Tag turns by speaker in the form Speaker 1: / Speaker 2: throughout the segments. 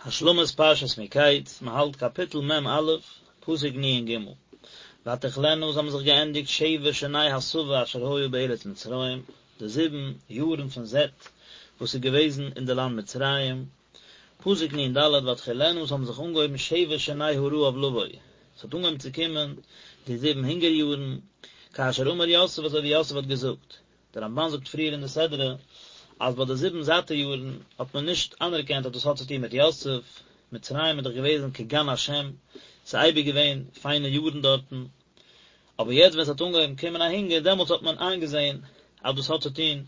Speaker 1: השלמת פרשת מקץ, מען האלט קאפיטל מ א, פסוק נ ג, ותכלינה עס האבן זיך געענדיגט שבע שני השבע אשר היה בארץ מצרים, די זיבן יארן פון זעט וואס איז געוועזן אין די לאנד מצרים, פסוק נ ד, ותחילנה עס האבן זיך אנגעהויבן שבע שני הרעב לבוא, עס האט אנגעהויבן צו קומען די זיבן הונגער יארן, כאשר אמר יוסף אזוי ווי יוסף האט געזאגט, דער רמבן זאגט פריער אין די סדרה אז ביי די זיבן זאטע יארן האט מען נישט אנערקענט אז דאס האט צו טון מיט יוסף, מצרים איז דאך געוועזן כגן השם, ס'איז אייביג געווען פיינע יארן דארטן, אבער יעצט ווען ס'האט אנגעהויבן קומען א הונגער דעמאלטס האט מען איינגעזען אז דאס האט צו טון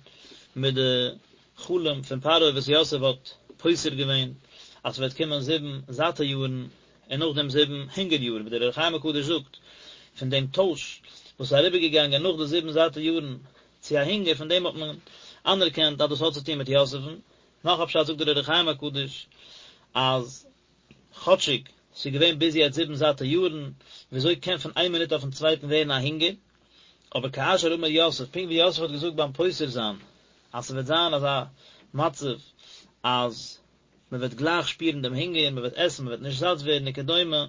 Speaker 1: מיט די חלום פון פרעה וואס יוסף האט פותר געווען אז ס'וועט קומען זיבן זאטע יארן און נאכדעם זיבן הונגער יארן, ווי דער אור החיים הקדוש זאגט, פון דעם טויש וואס איז אריבערגעגאנגען נאך די זיבן זאטע יארן צו א הונגער, פון דעם האט מען אנערקענט אז דאס האט צו טון מיט יוסף'ן. נאך א פשט זאגט דער אור החיים הקדוש, אז כאטשיג ס'איז געווען ביז יעצט זיבן זאטע יארן, וויאזוי קען פון איין מינוט אויפן צווייטן ווערן א הונגער? אבער כאשר אמר יוסף, פונקט ווי יוסף האט געזאגט ביים פותר זיין, אז ס'וועט זיין אזא מצב אז מען וועט גלייך שפירן דעם הונגער, מען וועט עסן, מען וועט נישט זאט ווערן וכדומה,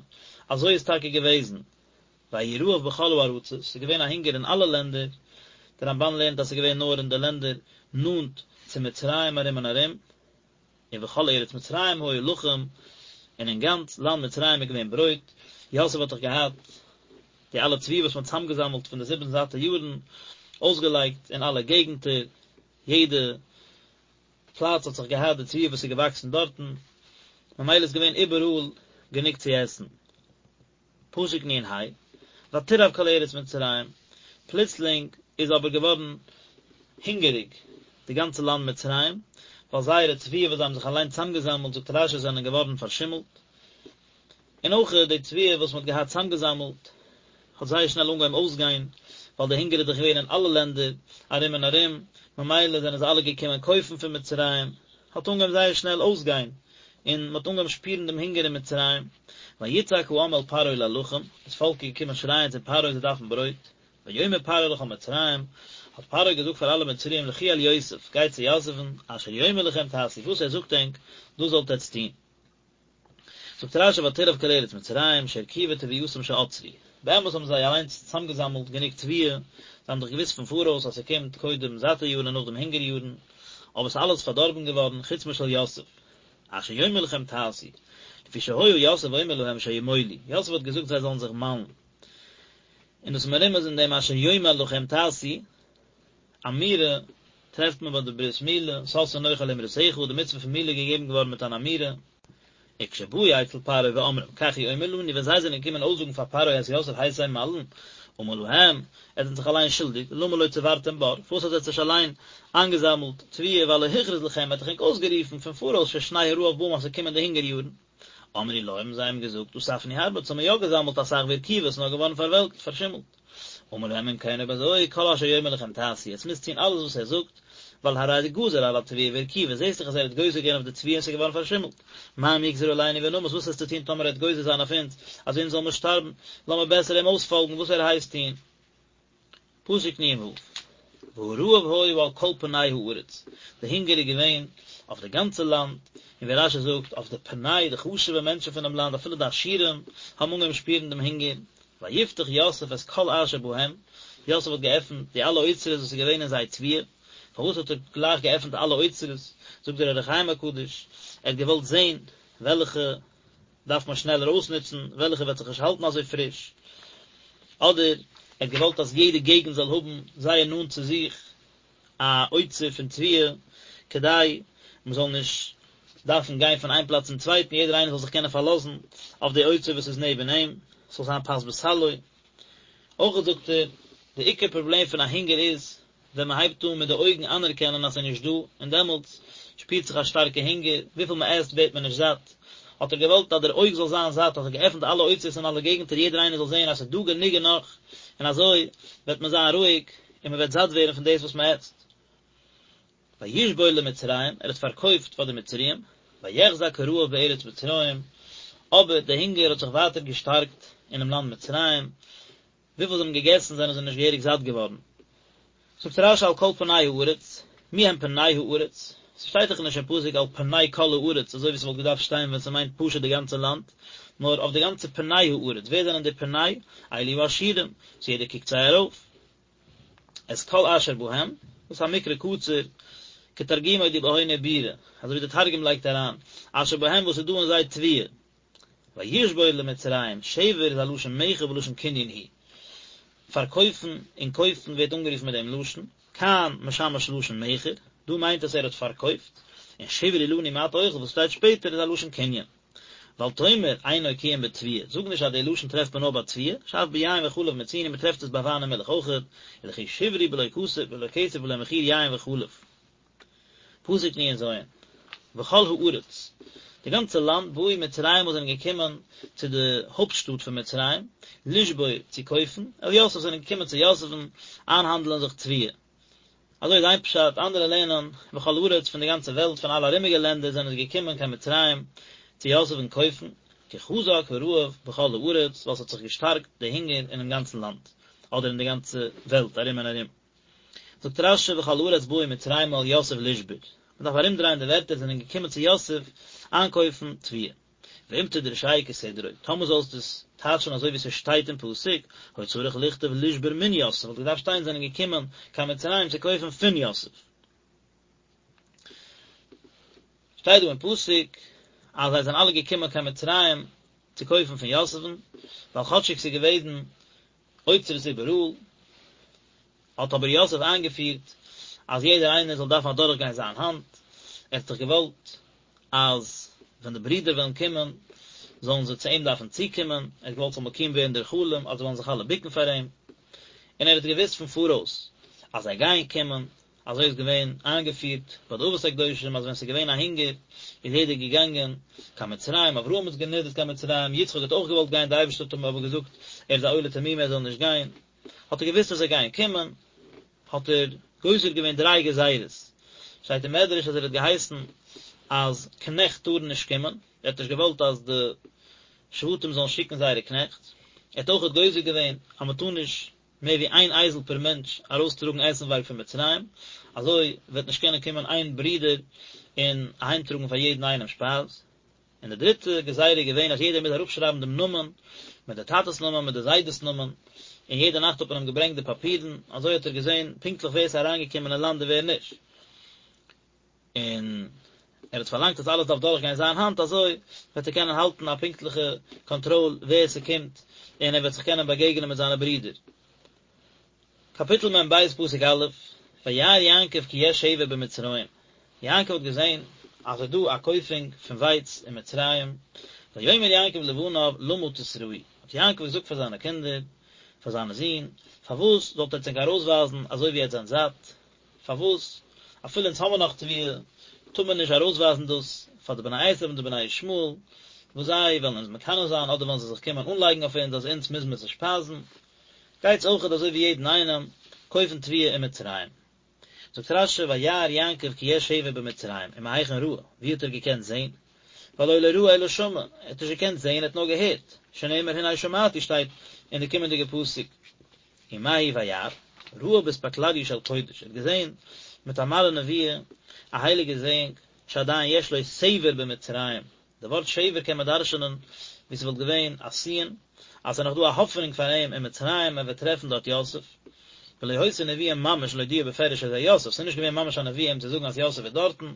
Speaker 1: אזוי איז טאקע געוועזן, ויהי רעב בכל הארצות, ס'איז געווען א הונגער אין אלע לענדער, דער רמבן לערנט אז ס'איז געווען נאר אין די לענדער נאנט צו מצרים ארום און ארום, ובכל ארץ מצרים היה לחם, און אין גאנץ לאנד מצרים איז געווען ברויט, יוסף האט דאך געהאט די אלע תבואה וואס מען האט צוזאמגעזאמלט פון די זיבן זאטע יארן, אויסגעלייגט אין אלע געגנטער, יעדע פלאץ האט זיך געהאט די תבואה וואס איז געוואקסן דארטן, ממילא איז געווען איבעראל גענוג צו עסן. פסוק נ ה, ותרעב כל ארץ מצרים, פלוצלינג איז אבער געווארן הונגעריג די גאנצע לאנד מצרים, ווייל זייערע תבואה וואס זיי האבן זיך אליין צוזאמגעזאמלט, זאגט רשי, זענען געווארן פארשימלט, און אויך די תבואה וואס מען האט געהאט צוזאמגעזאמלט האט זייער שנעל אנגעהויבן אויסגיין, ווייל די הונגער איז דאך געווען אין אלע לענדער ארום און ארום, ממילא זענען זיי אלע געקומען קויפן פון מצרים, האט אנגעהויבן זייער שנעל אויסגיין, און מען האט אנגעהויבן שפירן דעם הונגער אין מצרים. ויצעק העם אל פרעה ללחם, דאס פאלק איז געקומען שרייען צו פרעה זיי דארפן ברויט. ויאמר פרעה לכל מצרים, האט פרעה געזאגט פאר אלע מצריים לכו אל יוסף, גייט צו יוסף'ן, אשר יאמר לכם תעשו, וואס ער זאגט ענק, דאס זאלט עטץ טון. זאגט רשי ותרעב כל ארץ מצרים שהרקיבה תבואתם שאצרו, באמת האבן זיי אליינס צוזאמגעזאמלט גענוג תבואה, זיי האבן דאך געוואוסט פון פאראויס אז ס'קומט קודם זאטע יארן און נאכדעם הונגער יארן, אבער ס'איז אלעס פארדארבן געווארן חוץ משל יוסף. אשר יאמר לכם תעשו, לפי שהיה יוסף אומר להם שימולו, יוסף האט געזאגט זיי זאלן זיך מאלן, און דאס מרומז אין דעם אשר יאמר לכם תעשו, אמירה טרעפט מען ביי די ברית מילה, שש אנכי על אמרתך, די מצוה פון מילה איז געגעבן געווארן מיט אן אמירה. וכשבאו אצל פרעה ואומרים כך הוא אומר לנו, ווען זיי זענען געקומען אויסזאגן פאר פרעה אז יוסף הייסט זיי מל'ן, אמר להם, עטס זענט זיך אליין שולדיג, למה לא צברתם בר, פארוואס האט עטס נישט אליין איינגעזאמלט תבואה והלא הכריז לכם, ער האט דאך ענק אויסגערופן פון פאראויס ששני הרעב באים אז ס'קומען די הונגער יארן. אמרו לו, האבן זיי אים געזאגט, אספנו הרבה, אונז האבן מיר יא געזאמלט אסאך והרקיבה, ס'איז נאר געווארן פארוועלקט, פארשימלט. אמר להם אם כן אויב אזוי, כל אשר יאמר לכם תעשו, עטס מוזט טון אלעס וואס ער זאגט, ווייל הרי גזר על התבואה והרקיבה, זעסט דאך אז ער האט גוזר געווען אויף די תבואה און ס'איז געווארן פארשימלט. מה אם יגזור עלינו ונמות, וואס וועסטו טון טאמער ער וועט גוזר זיין אויף אונז, אז אונז זאל מיר שטארבן, לאמיר בעסער אים אויספאלגן וואס ער הייסט טון. פסוק נ ו, והרעב היה על כל פני הארץ, די הונגער איז געווען אויף די גאנצע לאנד, און ווי רשי זאגט, אויף די פני, די חשוב'ע מענטשן פונעם לאנד, אפילו די עשירים, האבן אנגעהויבן שפירן דעם הונגער, ויפתח יוסף את כל אשר בהם, יוסף האט געעפנט די אלע אוצרות וואס איז געווען אין זיי תבואה, פארוואס האט ער גלייך געעפנט אלע אוצרות, זאגט דער אור החיים הקדוש, ער האט געוואלט זען וועלכע דארף מען שנעלער אויסנוצן, וועלכע וועט זיך נישט האלטן אזוי פריש, אדער ער האט געוואלט אז יעדע געגנט זאל האבן זייער נאנט צו זיך א אוצר פון תבואה, כדי מען זאל נישט דארפן גיין פון איין פלאץ צום צווייטן, יעדער איינער זאל זיך קענען פארלאזן אויף די אוצר וואס איז נעבן אים, ס'זאל זיין פת בסלו. אויך זאגט ער, די עיקר פראבלעם פון א הונגער איז ווען מען הייבט אן מיט די אויגן אנערקענען אז ס'איז נישט דא, און דעמאלטס שפירט זיך א שטארקע הונגער, וויפיל מען עסט ווערט מען נישט זאט. האט ער געוואלט אז דער אויג זאל זיין זאט, האט ער געעפנט אלע אוצרות אין אלע געגנטער יעדער איינער זאל זען אז ס'איז דא גענוג און נאך, און אזוי וועט מען זיין רואיג און מען וועט זאט ווערן פון דאס וואס מען עסט. וישבור למצרים, ער האט פארקויפט פאר די מצריים, ויחזק הרעב בארץ מצרים, אבער די הונגער האט זיך ווייטער געשטארקט אינעם לאנד מצרים, וויפיל זיי האבן געגעסן זענען זיי נישט געהעריג זאט געווארן. זאגט רשי על כל פני הארץ, מי הם פני הארץ? ס'שטייט דאך נישט אין פסוק על פני כל הארץ אזוי ווי ס'וואלט געדארפט שטיין ווען ס'מיינט פשוט די גאנצע לאנד, נאר אויף די גאנצע פני הארץ, ווער זענען די פני? אלו העשירים, וואס יעדער קוקט זיי ארויף. את כל אשר בהם, דאס איז א מקרא קצר, כתרגומו די בהון עיבורא, אזוי ווי די תרגום לייגט אריין, אשר בהם וואס איז דא אין זיי תבואה. וישבור למצרים, שבר איז א לשון מכר ולשון קנין הוא. פארקויפן און קויפן ווערט אנגערופן מיט דעם לשון, כאן משמש לשון מכר, דא מיינט עס ער האט פארקויפט, און שברו לנו מעט אוכל וואס שטייט שפעטער איז א לשון קנין. ואל תאמר אינו כי אם בתבואה, זאג נישט אז די לשון טרעפט מען נאר ביי תבואה, שאף ביין וחלב מצינו מען טרעפט עס ביי וויין און מילך אויכעט, ולכי שברו בלא כסף בלא כסף ולא מחיר יין וחלב. פסוק נ"ז, וכל הארץ, די גאנצע לאנד, באו מצרימה זענען געקומען צו די הויפט שטאט פון מצרים, לשבור, צו קויפן, אל יוסף זענען געקומען צו יוסף'ן איינהאנדלען זיך תבואה. אזוי איז איין פשט, אנדערע לערנען, וכל הארץ, פון די גאנצע וועלט, פון אלע ארומיגע לענדער זענען זיי געקומען קיין מצרים צו יוסף'ן קויפן, כי חזק הרעב בכל הארץ, ווייל ס'האט זיך געשטארקט די הונגער אינעם גאנצן לאנד, אדער אין די גאנצע וועלט ארום און ארום. זאגט רש"י וכל הארץ באו מצרימה אל יוסף לשבור, מען דארף ארומדרייען די ווערטער זענען געקומען צו יוסף איינקויפן תבואה. ואם תדרשהו כסדרו, טאמער זאלסטו עס טייטשן אזוי ווי ס'שטייט אין פסוק, היה צריך לכתוב לשבור מן יוסף, וואלט געדארפט שטיין זענען געקומען קיין מצרים צו קויפן פון יוסף. שטייט דא אין פסוק אז זיי זענען אלע געקומען קיין מצרים צו קויפן פון יוסף'ן, ווייל כאטשיג ס'איז געוועזן אוצרות איבעראל, האט אבער יוסף איינגעפירט אז יעדער איינער זאל דארפן אדורכגיין זיין האנט, ער האט דאך געוואלט אז ווען די ברידער וועלן קומען זאלן זיי צו אים דארפן צוקומען, ער האט געוואלט ס'זאל מקוים ווערן דער חלום אז זיי וועלן זיך אלע בוקן פאר אים, און ער האט געוואוסט פון פאראויס אז זיי גייען קומען, אזוי איז געווען איינגעפירט ביי די אבות הקדושים אז ווען ס'איז געווען א הונגער איז יעדער געגאנגען קיין מצרים, אברהם איז גענידערט קיין מצרים, יצחק האט אויך געוואלט גיין, די אייבערשטער האט אים אבער געזאגט ער איז א עולה תמימה ער זאל נישט גיין, האט ער געוואוסט אז זיי גייען קומען, האט ער גוזר געווען דריי גזירות, שטייט אין מדרש אז ער האט געהייסן אז קנעכט טארן נישט קומען, ער האט נישט געוואלט אז די שבטים זאלן שיקן זייערע קנעכט, ער האט אויכעט גוזר געווען אז מען טאר נישט מער ווי איין אייזל פער מענטש ארויסטראגן עסנווארג פון מצרים, אזוי וועט נישט קענען קומען איין ברודער און אהיימטראגן פאר יעדן איינעם שפייז. און די דריטע גזירה איז געווען אז יעדער מוז אראפשרייבן דעם נאמען, מיט די טאטע'ס נאמען, מיט די זיידע'ס נאמען, און יעדע נאכט האט מען אים געברענגט די פאפירן, אזוי האט ער געזען פונקטליך ווער עס איז אריינגעקומען אין לאנד און ווער נישט. און ער האט פארלאנגט אז אלעס דארף דורכגיין זיין האנט, אזוי וועט ער קענען האלטן א פונקטליכע קאנטראל ווער ס'קומט, און ער וועט זיך קענען באגעגענען מיט זיינע ברידער. קאפיטל מ"ב פסוק א', וירא יעקב כי יש שבר במצרים, יעקב האט געזען אז עס איז דא א קויפונג פון ווייץ אין מצרים, ויאמר יעקב לבניו למה תתראו, האט יעקב געזאגט פאר זיינע קינדער, פאר זיינע זין, פארוואס זאלט עטץ ענק ארויסווייזן אזוי ווי עטץ זענט זאט, פארוואס אפילו אונז האמיר נאך תבואה, טאר מען נישט ארויסווייזן דאס פאר די בני עשו און די בני ישמעאל, וואס זיי וועלן אונז מקנא זיין, אדער וועלן זיי זיך קומען אנלייגן אויף אונז אז אונז מוז מען זיי שפייזן. גייטס אויכעט אזוי ווי יעדן איינעם, קויפן תבואה אין מצרים. זאגט רש"י וירא יעקב כי יש שבר במצרים, ומהיכן ראה, ווי האט ער געקענט זען? והלא לא ראה אלא שמע, ער האט נישט געקענט זען, ער האט נאר געהערט, שנאמר הנה שמעתי שטייט אין די קומענדיגע פסוק. ומהו וירא, ראה באספקלריא של קודש, ער האט געזען מיט א מראה נבואה, א הייליגע זעאונג, שעדיין יש לו שבר במצרים, די ווארט שבר קען מען דרש'נען ווי ס'וואלט געווען א סין, אז ס'איז נאך דא א האפענונג פאר אים אין מצרים, ער וועט טרעפן דארט יוסף. ולא היתה נבואה ממש להודיעו בפירוש שזה יוסף, ס'איז נישט געווען ממש א נבואה אים צו זאגן אז יוסף איז דארטן,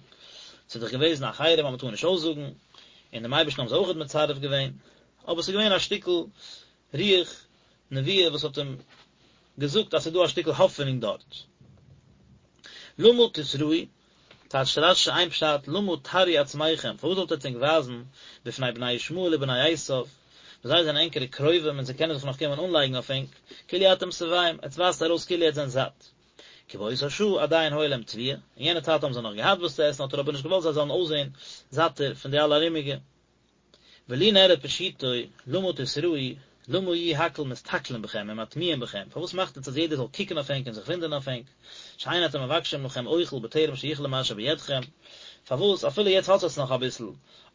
Speaker 1: ס'איז דאך געוועזן א חרם אז מ'טאר נישט אויסזאגן, און דעם אייבערשטן האבן זיי אויכעט מצרף געווען, אבער ס'איז געווען א שטיקל רוח נבואה וואס האט אים געזאגט אז ס'איז דא א שטיקל האפענונג דארט. למה תתראו, טייטשט רש"י איין פשט, למה תראו עצמכם, פארוואס זאלט עטץ ענק ווייזן, בפני בני ישמעאל ובני עשיו, וואס זיי זענען ענקערע קרובים און זיי קענען זיך נאך קומען אנלייגן אויף ענק, כאילו אתם שבעים, עטץ ווייזט ארויס כאילו עטץ זענט זאט. כי באותה שעה עדיין היה להם תבואה, אין יענע צייט האבן זיי נאך געהאט וואס צו עסן האט ער אבער נישט געוואלט זיי זאלן אויסזען זאטער פון די אלע ארומיגע. ולי נראה פשוטו, למה תתראו, למה יהיו הכל מסתכלים בכם ומתמיהים בכם, פארוואס מאכט עטס אז יעדער זאל קוקן אויף ענק און זיך וואונדערן אויף ענק, שאין אתם מבקשים לכם אוכל בטרם שיכלה מה שבידכם, פארוואס אפילו יעצט האט עטס נאך אביסל,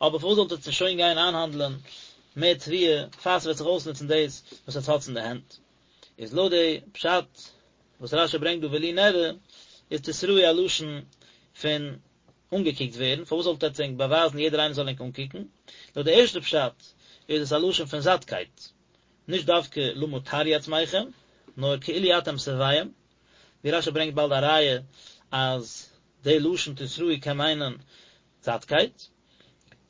Speaker 1: אבער פארוואס זאלט עטס נישט שוין גיין איינהאנדלען מער תבואה, פאר ס'וועט זיך אויסנוצן דאס וואס עטס האטס אין די הענט. איז לויט די פשט וואס רש"י ברענגט דא ולי נראה, איז תתראו א לשון פון. אנגעקוקט ווערן, פארוואס זאלט עטץ ענק באווייזן יעדער איינער זאל ענק אנקוקן? לויט די ערשטע פשט איז עס א לשון פון זאטקייט, נישט דווקא למה תראו עצמכם, נאר כאילו אתם שבעים, ווי רשי ברענגט באלד א ראיה אז די לשון תתראו קען מיינען זאטקייט.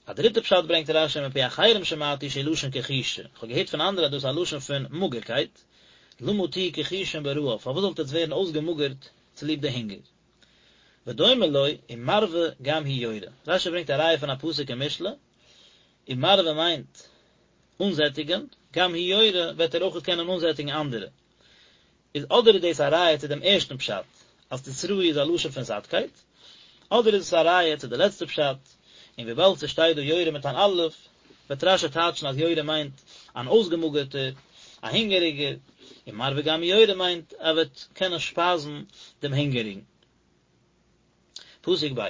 Speaker 1: א דריטע פשט ברענגט רשי מפי אחרים שמעתי שהוא לשון כחישה, איך האב געהערט פון אנדערע אז דאס איז א לשון פון מאגערקייט, למה תהיו כחושים ברעב, פארוואס זאלט עטץ ווערן אויסגעמאגערט צוליב די הונגער? ודומה לו, ומרווה גם הוא יורה. רשי ברענגט א ראיה פון א פסוק אין משלי, ומרווה מיינט אנזעטיגען, גם הוא יורה וועט ער אויכעט קענען אנזעטיגן אנדערע. איז אדער איז דאס א ראיה צו דעם ערשטן פשט, אז תתראו איז א לשון פון זאטקייט, אדער איז עס א ראיה צו די לעצטע פשט, און וויבאלד ס'שטייט דא יורה מיט אן אלף, וועט רשי טייטשן אז יורה מיינט אן אויסגעמאגערטער, א הונגעריגער, ומרווה גם הוא יורה מיינט ער וועט קענען שפייזן דעם הונגעריגן. פסוק ב'.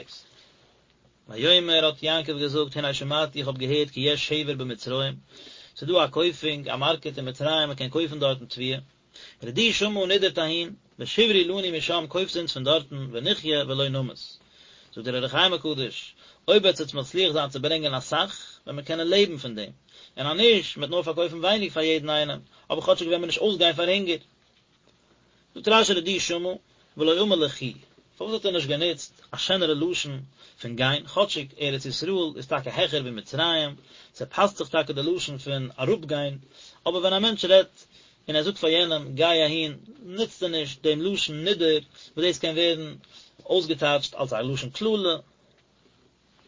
Speaker 1: ויאמר האט יעקב געזאגט הנה שמעתי איך האב געהערט כי יש שבר במצרים, ס'איז דא א קויפונג, א מארקעט אין מצרים, מען קען קויפן דארטן תבואה, רדו שמה נידערט אהין, ושברו לנו משם קויפטס אונז פון דארטן, ונחיה ולא נמות. זאגט דער אור החיים הקדוש, אויב וועט עטס מצליח זיין צו ברענגען אסאך, וועט מען קענען לעבן פון דעם, און אז נישט, מען וועט נאר פארקויפן ווייניג פאר יעדן איינעם, אבער כאטשיג וועט מען נישט אויסגיין פאר הונגער. זאגט רשי רדו שמה, ולא אמר לכו, פארוואס האט ער נישט גענוצט א שענערע לשון פון גיין, כאטשיג ארץ ישראל איז טאקע העכער ווי מצרים, ס'פאסט זיך טאקע די לשון פון אראפגיין, אבער ווען א מענטש רעדט און ער זאגט פאר יענעם גיי אהין, נוצט ער נישט דעם לשון נידער, וואס דאס קען ווערן אויסגעטייטשט אלס א לשון קללה.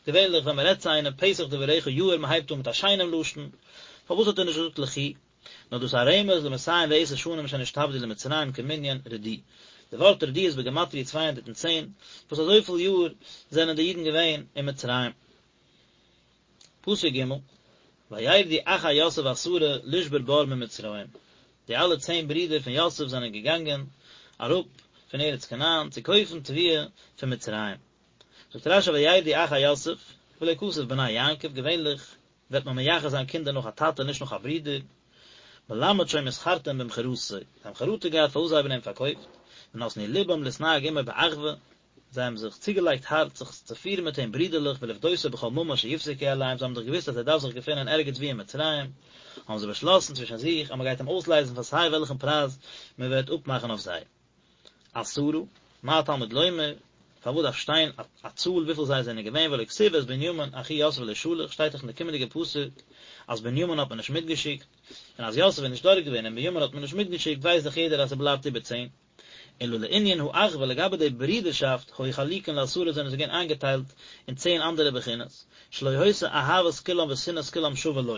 Speaker 1: געווענליך ווען מ'רעדט צו איינעם פתח דבריך יאיר, מ'הייבט אן מיט א שיינעם לשון, פארוואס האט ער נישט געזאגט לכו? נאר דאס א רמז למאתים ועשר שנים שנשתעבדו למצרים כמנין רדו. די ווארט רדו איז בגימטריא 210, וואס אזויפיל יאר זענען די אידן געווען אין מצרים. פסוק ג', וירדו אחי יוסף עשרה לשבור בר ממצרים, די אלע צען ברידער פון יוסף זענען געגאנגען אראפ פון ארץ כנען צו קויפן תבואה פון מצרים. זאגט רשי וירדו אחי יוסף, ולא כתב בני יעקב, געווענליך וועט מען מייחס זיין קינדער נאך א טאטע נישט נאך א ברודער, מלמד שהיו מתחרטין במכירתו, זיי האבן חרטה געהאט פארוואס זיי האבן אים פארקויפט, ונתנו לבם להתנהג עמו באחווה, זיי האבן זיך צוגעלייגט הארץ זיך צו פירן מיט אים ברידערליך ולפדותו בכל ממון שיפסקו עליהם, זיי האבן דאך געוואוסט אז ער דארף זיך געפינען ערגעץ וואו אין מצרים, האבן זיי באשלאסן צווישן זיך אז מען גייט אים אויסלייזן פאר סיי וועלכן פרייז מען וועט אפמאכן אויף זיי. עשרה, מה תלמוד לומר, פארוואס דארף שטיין א צאל וויפיל זיי זענען געווען והלא כתיב ואת בנימין אחי יוסף לא שלח, שטייט דאך אין די קומענדיגע פסוק אז בנימין האט מען נישט מיטגעשיקט, און אז יוסף איז נישט דארט געווען און בנימין האט מען נישט מיטגעשיקט ווייסט דאך יעדער אז ס'בלייבט איבער צען. אלא לענין האחווה לגבי די ברידערשאפט היו חלוקין לעשרה זענען זיי געווען איינגעטיילט אין צען אנדערע בחינות, שלא היתה אהבת כולם ושנאת כולם שווה לו,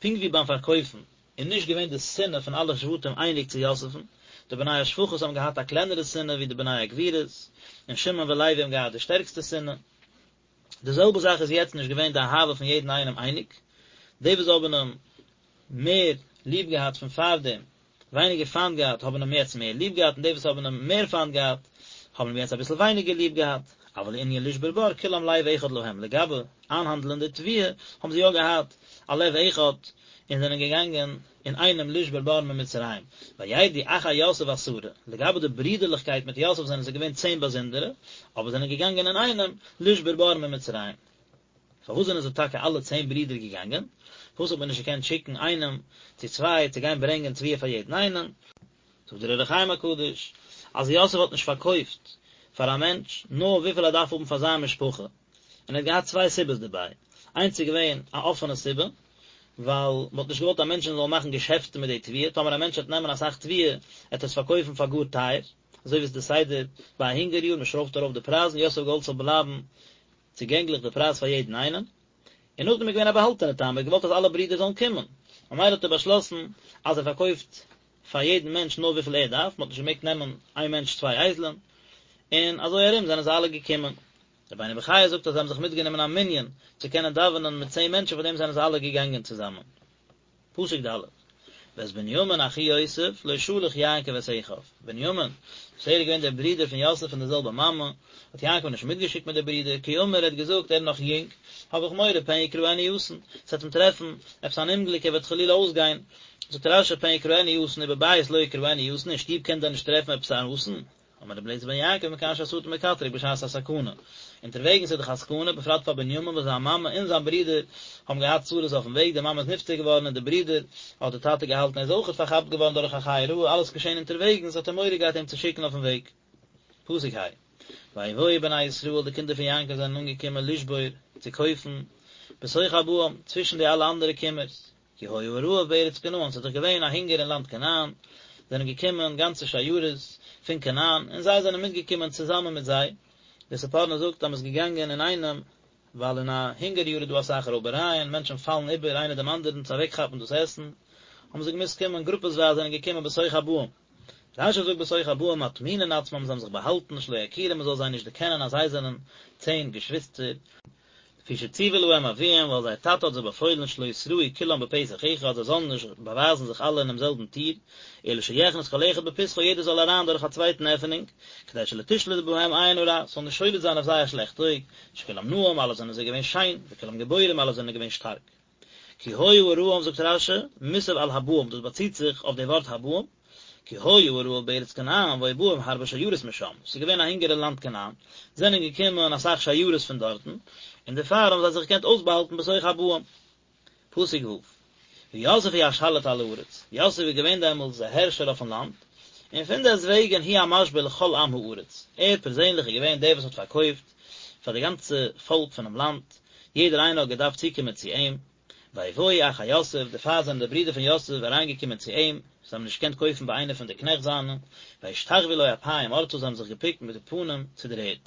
Speaker 1: פונקט ווי ביים פארקויפן איז נישט געווען די שנאה פון אלע שבטים אייניג צו יוסף'ן, די בני השפחות האבן געהאט א קלענערע שנאה ווי די בני הגבירות, און שמעון ולוי האבן געהאט די שטערקסטע שנאה. די זעלבע זאך איז יעצט נישט געווען די אהבה פון יעדן איינעם אייניג, די וואס האבן אים מער ליב געהאט פון פארדעם, ווייניגער פיינט געהאט, האבן אים יעצט מער ליב געהאט, און די וואס האבן אים מער פיינט געהאט, האבן אים יעצט אביסל ווייניגער ליב געהאט, אבל לענין לשבור בר כולם לב אחד להם, לגבי איינהאנדלען די תבואה, האבן זיי יא געהאט א לב אחד, און זענען געגאנגען אינאיינעם לשבור בר ממצרים, וירדו אחי יוסף עשרה, לגבי די ברידערליכקייט מיט יוסף זענען זיי געווען צען באזונדערע, אבער זענען געגאנגען אינאיינעם לשבור בר ממצרים. פארוואס זענען זיי טאקע אלע צען ברידער געגאנגען? פארוואס האט מען נישט געקענט שיקן איינעם צו צוויי צו גיין ברענגען תבואה פאר יעדן איינעם? זאגט דער אור החיים הקדוש, אז יוסף האט נישט פארקויפט פאר א מענטש נאר וויפיל ער דארף האבן פאר זיין משפחה, און ער האט געהאט צוויי סיבות דערביי, איינס איז געווען א אפענע סיבה, ווייל מען האט נישט געוואלט אז מענטשן זאלן מאכן געשעפטן מיט די תבואה, טאמער א מענטש וועט נעמען אסאך תבואה, וועט ער עס פארקויפן פאר גאר טייער, אזוי ווי עס איז די סדר ביי א הונגער יאר, מען שרויפט ארויף די פרייזן, יוסף האט געוואלט ס'זאל בלייבן צוגענגליך די פרייז פאר יעדן איינעם, און נאכדעם איז געווען א באהאלטענע טעם, ער האט געוואלט אז אלע ברידער זאלן קומען, ממילא האט ער באשלאסן אז ער פארקויפט פאר יעדן מענטש נאר וויפיל ער דארף, מען האט נישט געמעגט נעמען איין מענטש צוויי אייזלען, און אזוי ארום זענען זיי אלע געקומען. רבינו בחיי זאגט אז זיי האבן זיך מיטגענומען א מנין צו קענען דאווענען מיט צען מענטשן פאר דעם זענען זיי אלע געגאנגען צוזאמען. פסוק ד' ואת בנימין אחי יוסף לא שלח יעקב את אחיו, בנימין, וואס ער איז געווען דער ברודער פון יוסף פון דער זעלבער מאמע, האט יעקב נישט מיטגעשיקט מיט די ברידער, כי אמר ער האט געזאגט ער איז נאך יונג, האב איך מורא פן יקראנו אסון, עס וועט אים טרעפן עפעס אן אומגליק ער וועט חלילה אויסגיין, זאגט רש"י פן יקראנו אסון ובבית לא יקראנו אסון, אין שטוב קען דען נישט טרעפן עפעס אן אסון? אמר רבי אליעזר בן יעקב מכאן שהשטן מקטרג בשעת הסכנה, אונטערוועגנס איז דאך א סכנה, בפרט פאר בנימין וואס זיין מאמע און זיין ברודער האבן געהאט צרות אויפן וועג, די מאמע איז נפטר געווארן און די ברודער האט די טאטע געהאלטן ער איז אויכעט פארכאפט געווארן דורך א חיה רעה, אלעס געשען אונטערוועגנס האט ער מורא געהאט אים צו שיקן אויפן וועג. פסוק ה'. ויבואו בני ישראל, די קינדער פון יעקב זענען אנגעקומען לשבור, צו קויפן, בתוך הבאים, צווישן די אלע אנדערע קומערס. כי היה הרעב בארץ כנען, ס'איז דאך געווען א הונגער אין לאנד כנען, זענען געקומען גאנצע שיירות פון כנען, און זיי זענען מיטגעקומען צוזאמען מיט זיי, דער ספורנו זאגט אז מ'איז געגאנגען אינאיינעם, ווייל אין א הונגער יאר איז דא אסאך רויבערייען, מענטשן פאלן איבער איינער דעם אנדערן צו אוועקכאפן דאס עסן, האבן זיי געמוזט קומען גרופעסווייז זענען געקומען בתוך הבאים. רש"י זאגט בתוך הבאים מטמינין עצמם זיי האבן זיך באהאלטן שלא יכירום מ'זאל זיי נישט דערקענען אז זיי זענען צען געשוויסטער, לפי שציוה להם אביהם ווייל זייער טאטע האט זיי באפוילן שלא יתראו כולם בפתח אחד זיי זאלן נישט באווייזן זיך אלע אינעם זעלבן טיר, אלא שיכנס כל אחד בפתחו יעדער זאל אריין דורך א צווייטן עפענונג, כדי שלא תשלוט בהם עין הרע, ס'זאל נישט שולט זיין אויף זיי א שלעכט אויג, שכולם נאים אלע זענען זיי געווען שיין, וכולם גיבורים אלע זענען געווען שטארק. כי היה הרעב זאגט רש"י, מוסב על הבאים דאס באציט זיך אויף די ווארט הבאים, כי היה הרעב בארץ כנען והיו באים הרבה שיירות משם, ס'איז געווען א הונגער אין לאנד כנען, זענען געקומען אסאך שיירות פון דארטן, און דערפאר האבן זיי זיך געקענט אויסבאהאלטן בתוך הבאים. פסוק ו', ויוסף הוא השליט על הארץ, יוסף איז געווען דעמאלטס דער הערשער אויפן לאנד, און פונדעסטוועגן הוא המשביר לכל עם הארץ, ער פערזענליך איז געווען דער וואס האט פארקויפט פאר די גאנצע פאלק פונעם לאנד, יעדער איינער האט געדארפט צוקומען צו אים, ויבואו אחי יוסף, דערפאר זענען די ברידער פון יוסף אריינגעקומען צו אים, זיי האבן נישט געקענט קויפן ביי איינער פון די קנעכט זיינע, וישתחוו לו אפים ארצה, זיי האבן זיך געבוקט מיט די פנים צו דער ערד.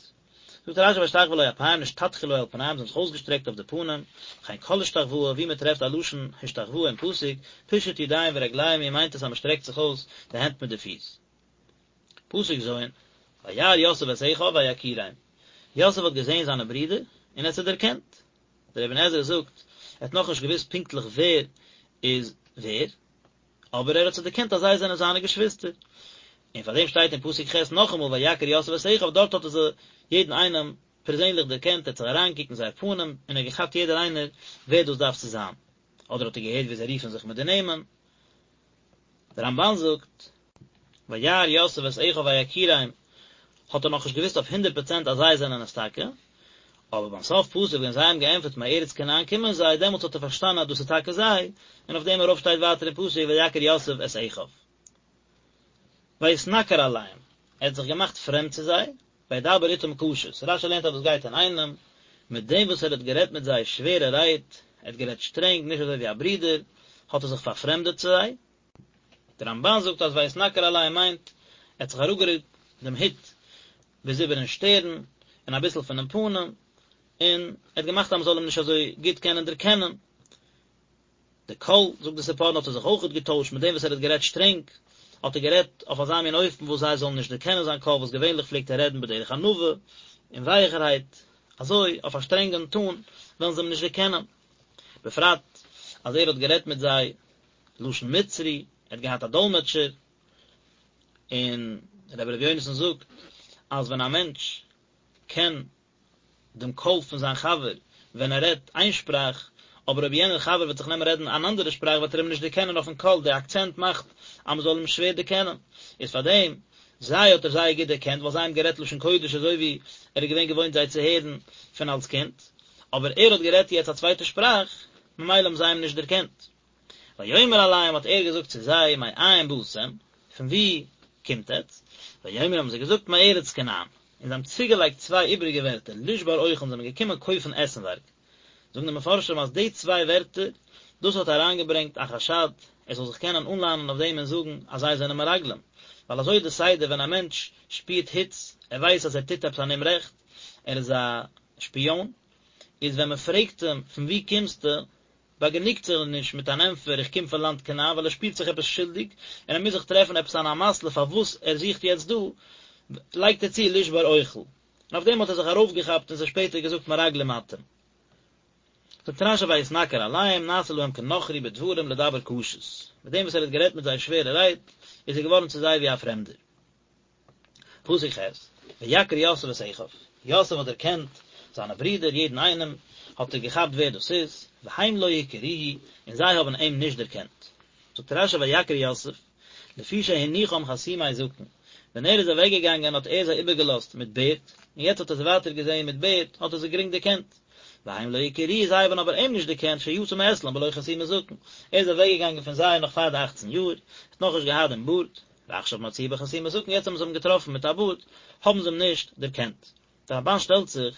Speaker 1: זאגט רש"י וישתחוו לו אפים נשתטחו לו על פניהם, זיי האבן זיך אויסגעשטרעקט אויף די פנים, וכן כל השתחוואה, ווי מען טרעפט א לשון השתחוואה אין פסוק, פישוט ידיים ורגליים היא מיינט עס אז מען שטרעקט זיך אויס די הענט מיט די פיס. פסוק ז', וירא יוסף את אחיו ויכירם, יוסף האט געזען זיינע ברידער און ער האט זיי דערקענט. דער אבן עזרא זאגט, ער האט נאכנישט געוואוסט פונקטליך ווער איז ווער, אבער ער האט זיי דערקענט אז זיי זענען זיינע געשוויסטער. און פאר דעם שטייט אין פסוק ח' נאכאמאל ויכר יוסף את אחיו, דארט האט ער זיי יעדן איינעם פערזענליך דערקענט, ער האט זיך אריינגעקוקט אין זייער פנים און ער האט געכאפט יעדער איינער ווער דאס דארף צו זיין. אדער האט ער געהערט ווי זיי רופן זיך מיט די נעמען. דער רמב"ן זאגט, וירא יוסף את אחיו ויכירם, האט ער נאכנישט געוואוסט אויף הונדערט פראצענט אז זיי זענען עס טאקע, אבער ביים סוף פסוק ווען זיי האבן געענטפערט מארץ כנען קומען זיי, דעמאלטס האט ער פארשטאנען אז דאס איז טאקע זיי, און אויף דעם ארויף שטייט ווייטער אין פסוק ויכר יוסף את אחיו. ויתנכר אליהם, ער האט זיך געמאכט פרעמד צו זיי, וידבר איתם קשות, רש"י לערנט אז דאס גייט אינאיינעם מיט דעם וואס ער האט גערעדט מיט זיי שווערע רייד, ער האט גערעדט שטרענג, נישט אזוי ווי א ברודער, האט ער זיך פארפרעמדעט צו זיי. דער רמב"ן זאגט אז ויתנכר אליהם מיינט, ער האט זיך אראפגערוקט דעם הוט ביז איבערן שטערן, און אביסל פונעם פנים, און ער האט געמאכט אז מען זאל אים נישט אזוי גוט קענען דערקענען. די קול, זאגט די ספורנו, האט ער זיך אויכעט געטוישט, מיט דעם וואס ער האט גערעדט שטרענג, האט ער גערעדט אויף אזא מין אופן וואס זיי זאלן נישט דערקענען זיין קול, וואס געווענליך פלעגט ער רעדן בדרך ענווה און ווייעכערהייט, אזוי, אויף א שטרענגן טאן, וועלן זיי אים נישט דערקענען. בפרט אז ער האט גערעדט מיט זיי לשון מצרי, ער האט געהאט א דאלמעטשער, און רבי ר' יונתן זאגט אז ווען א מענטש קען דעם קול פון זיין חבר ווען ער רעדט איין שפראך, אבער אויב יענער חבר וועט זיך נעמען רעדן אן אנדערע שפראך וועט ער אים נישט דערקענען אויפן קול, די אקצענט מאכט אז מען זאל אים שווער דערקענען, איז פאר דעם זיי האט ער זייער גוט דערקענט ווייל זיי האבן גערעדט לשון קודש אזוי ווי ער איז געווען געוואוינט זיי צו הערן פון אלס קינד, אבער ער האט גערעדט יעצט א צווייטע שפראך, ממילא האבן זיי אים נישט דערקענט. ויאמר אליהם האט ער געזאגט צו זיי מאין באתם, פון וואו קומט עטץ? ויאמרו האבן זיי געזאגט מארץ כנען, און זיי האבן צוגעלייגט צוויי איבעריגע ווערטער לשבר אוכל, זיי זענען געקומען קויפן עסנווארג. זאגן די מפרשים אז די צוויי ווערטער, דאס האט אריינגעברענגט א חשד ער זאל זיך קענען אנלאנען אויף דעם און זאגן אז זיי זענען מרגלים, ווייל אזוי איז די סדר ווען א מענטש שפירט היץ, ער ווייסט אז ער טוט עפעס אן אומרעכט, ער איז א שפיאן, איז ווען מען פרעגט אים פון וואו קומסטו, באגענוגט זיך נישט מיט אן ענטפער איך קום פון לאנד כנען ווייל ער שפירט זיך עפעס שולדיג און ער מוז זיך טרעפן עפעס אן אמתלא פארוואס ער זוכט יעצט דא, לייגט ער צו לשבר אוכל. און אויף דעם האט ער זיך ארויפגעכאפט און זיי שפעטער געזאגט מרגלים אתם. זאגט רש"י ויתנכר אליהם נעשה להם כנכרי בדברים לדבר קשות. מיט דעם וואס ער האט גערעדט מיט זיי שווערע רייד איז ער געווארן צו זיי ווי א פרעמדער. פסוק ח', ויכר יוסף את אחיו, יוסף האט דערקענט זיינע ברידער, יעדן איינעם האט ער געכאפט ווער דאס איז, והם לא הכירוהו, און זיי האבן אים נישט דערקענט. זאגט רש"י ויכר יוסף, לפי שהניחם חתומי זקן, ווען ער איז אוועק געגאנגען האט ער זיי איבערגעלאזט מיט בערד, און יעצט האט ער זיי ווייטער געזען מיט בערד, האט ער זיי גרינג דערקענט. והם לא הכירוהו, זיי האבן אבער אים נישט דערקענט שיצא מאצלם בלא חתימת זקן, ער איז אוועק געגאנגען פון זיי נאך פאר די אכצן יאר, האט נאכנישט געהאט דעם בארד, ועכשיו מצאוהו בחתימת זקן, יעצט האבן זיי אים געטראפן מיט א בארד, האבן זיי אים נישט דערקענט. דער רמבן שטעלט זיך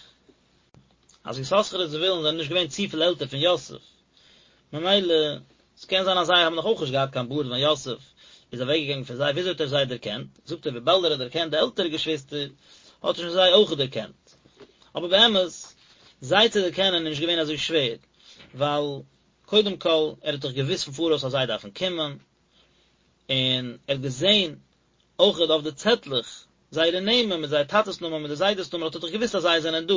Speaker 1: אז יששכר און זבולון זענען נישט געווען צופיל עלטער פון יוסף, ממילא ס'קען זיין אז זיי האבן נאך אויך נישט געהאט קיין בארד ווען יוסף איז אוועקגעגאנגען פון זיי, וויאזוי האט ער זיי דערקענט? זאגט ער וויבאלד ער האט דערקענט די עלטערע געשוויסטער האט ער שוין זיי אויך דערקענט. אבער באמת, זיי צו דערקענען איז נישט געווען אזוי שווער, ווייל קודם כל ער האט דאך געוואוסט פון פאראויס אז זיי דארפן קומען, און ער האט געזען אויכעט אויף די צעטלעך זייערע נעמען מיט זייער טאטעס נאמען מיט די זיידעס נאמען האט ער דאך געוואוסט אז זיי זענען דא,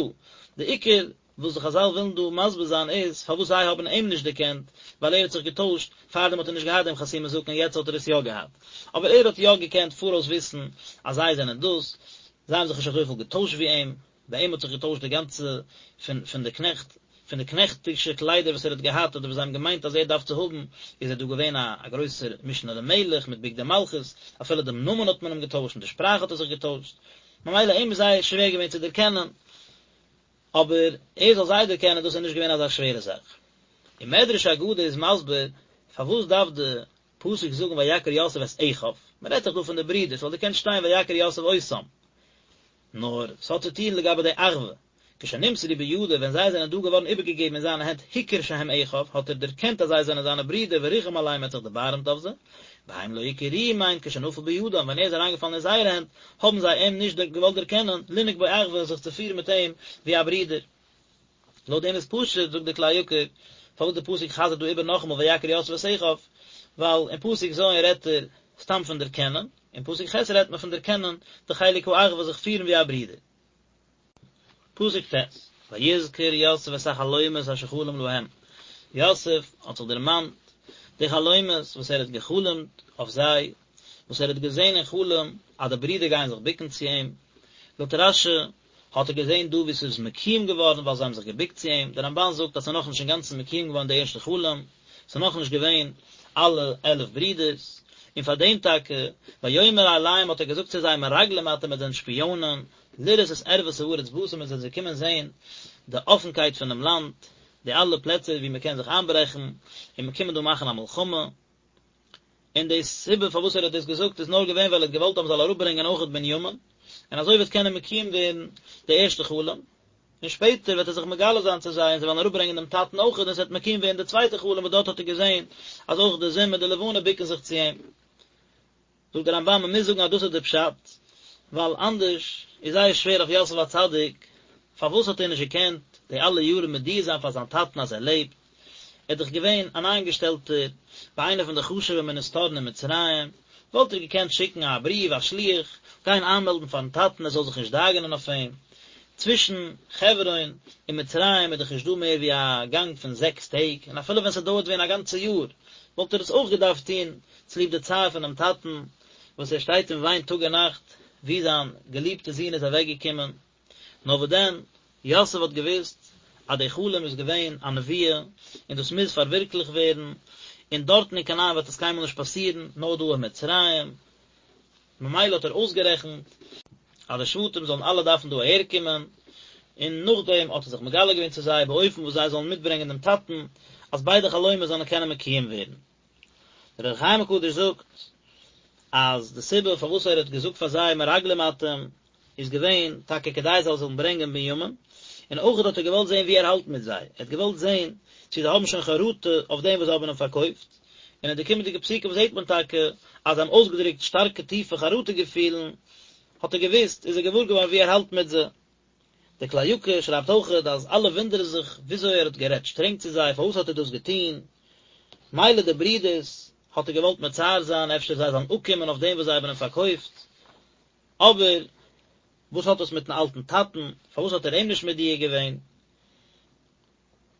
Speaker 1: די עיקר וואס די חזל ווילן דא מסביר זיין איז פארוואס זיי האבן אים נישט דערקענט, ווייל ער האט זיך געטוישט, פארדעם האט ער נישט געהאט דעם חתימת זקן יעצט האט ער עס יא געהאט, אבער ער האט יא געקענט פאראויס וויסן אז זיי זענען דאס, זיי האבן זיך נישט אזויפיל געטוישט ווי אים. ביי אים האט זיך געטוישט די גאנצע פון פון די קנעכט, פון די קנעכטישע קליידער וואס ער האט געהאט אדער וואס זיי האבן געמיינט אז ער דארף צו האבן, איז ער דא געווען א א גרויסער משנה למלך מיט בגדי מלכות, אפילו דעם נאמען האט מען אים געטוישט און די שפראך האט ער זיך געטוישט, ממילא אים איז זייער שווער געווען צו דערקענען, אבער ער זאל זיי דערקענען דאס איז נישט געווען אזא שווערע זאך. און מדרש אגדה איז מסביר פארוואס דארף די פסוק זאגן ויכר יוסף את אחיו, מען רעדט דאך דא פון די ברידער, ס'וואלט געקענט שטיין ויכר יוסף אותם. נאר ס'האט צו טון לגבי די אחווה, כשנמסרו בידו ווען זיי זענען דא געווארן איבערגעגעבן אין זיינע הענט הכיר שהם אחיו האט ער דערקענט אז זיי זענען זיינע ברידער וריחם עליהם ער האט זיך דערבארעמט אויף זיי, והם לא הכירוהו מיינט כשנפל בידם ווען ער איז אריינגעפאלן אין זייערע הענט האבן זיי אים נישט געוואלט דערקענען, לנהוג בו אחווה זיך צו פירן מיט אים ווי א ברודער. לויט דעם איז פשוט, זאגט דער כלי יקר, פארוואס דער פסוק חזר'ט דא איבער נאכאמאל ויכר יוסף את אחיו, ווייל אין פסוק ז' רעדט ער סתם פון דערקענען, אין פסוק ח' רעדט מען פון דערקענען די חלק האחווה זיך פירן ווי א ברודער. פסוק ט', ויזכר יוסף את החלומות אשר חלם להם, יוסף האט זיך דערמאנט די חלומות וואס ער האט געחלומט אויף זיי, וואס ער האט געזען אין חלום אז די ברידער גייען זיך בוקן צו אים, לויט רש"י האט ער געזען דא ווי ס'איז מקוים געווארן ווייל זיי האבן זיך געבוקט צו אים, דער רמב"ן זאגט אז ס'איז נאכנישט אינגאנצן מקוים געווארן די ערשטע חלום, ס'איז נאכנישט געווען אלע 11 ברידערס, און פאר דעם טאקע, ויאמר אליהם האט ער געזאגט צו זיי מרגלים אתם עטס זענט שפיאנען, לראות את ערות הארץ באתם עטס זענט געקומען זען די אפנקייט פונעם לאנד, די אלע פלעצער וואו מ'קען זיך איינברעכן, און מ'קומען דא מאכן א מלחמה. און די סיבה פארוואס ער האט דאס געזאגט איז נאר געווען ווייל ער האט געוואלט אז מען זאל אראפברענגען אויכעט בנימין, און אזוי וועט קענען מקוים ווערן די ערשטע חלום, און שפעטער וועט ער זיך מגלה זיין צו זיי און זיי וועלן אראפברענגען דעם טאטן אויכעט און עס וועט מקוים ווערן די צווייטע חלום וואס דארט האט ער געזען אז אויך די זון מיט די לבנה בוקן זיך צו אים. זאגט דער רמב"ן מען מוז זאגן אז דאס איז דער פשט, ווייל אנדערש איז זייער שווער אויף יוסף הצדיק, פארוואס האט ער נישט געקענט די אלע יארן מודיע זיין פאר זיין טאטן אז ער לעבט, ער איז דאך געווען אן איינגעשטעלטער ביי איינע פון די חשוב'ע מיניסטארן אין מצרים, וואלט ער געקענט שיקן א בריוו, א שליח, גיין איינמעלדן פארן טאטן ער זאל זיך נישט דאגה'נען אויף אים. צווישן חברון און מצרים איז דאך נישט דא מער ווי א גאנג פון זעקס טעג, און אפילו ווען ס'דויערט ווען א גאנצע יאר, וואלט ער עס אויך געדארפט טון צוליב די צער פונעם טאטן, וואס ער שטייט און וויינט טאג און נאכט ווי זיין געליבטע זון איז אוועקגעקומען. נאר וואס דען, יוסף האט געוואוסט אז די חלום איז געווען א נבואה, און דאס מוז פארווירקליכט ווערן, און דארטן אין כנען וועט עס קיינמאל נישט פאסירן, נאר דא אין מצרים. ממילא האט ער אויסגערעכנט אז די שבטים זאלן אלע דארפן דא אהערקומען, און נאכדעם האט ער זיך מגלה געווען צו זיי באופן וואס זיי זאלן מיטברענגען דעם טאטן, אז ביידע חלומות זאלן קענען מקוים ווערן. דער אור החיים הקדוש זאגט אז די סיבה פארוואס ער האט געזאגט פאר זיי מרגלים אתם איז געווען טאקע כדי זיי זאלן ברענגען בנימין, און אויך האט ער געוואלט זען ווי ער האלט מיט זיי, ער האט געוואלט זען צו זיי האבן שוין חרטה אויף דעם וואס זיי האבן אים פארקויפט, און אין די קומענדיגע פסוקים זעט מען טאקע אז זיי האבן אויסגעדרוקט שטארקע טיפע חרטה געפילן, האט ער געוואוסט, איז ער געוואר געווארן ווי ער האלט מיט זיי. דער כלי יקר שרייבט אויכעט אז אלע וואונדערן זיך וויאזוי ער האט גערעדט שטרענג צו זיי, פארוואס האט ער דאס געטון, מילא די ברידערס האט ער געוואלט מצער זיין אפשר זיי זאלן אפקומען אויף דעם וואס זיי האבן אים פארקויפט, אבער וואס האט דאס מיטן אלטן טאטן, פארוואס האט ער אים נישט מודיע געווען?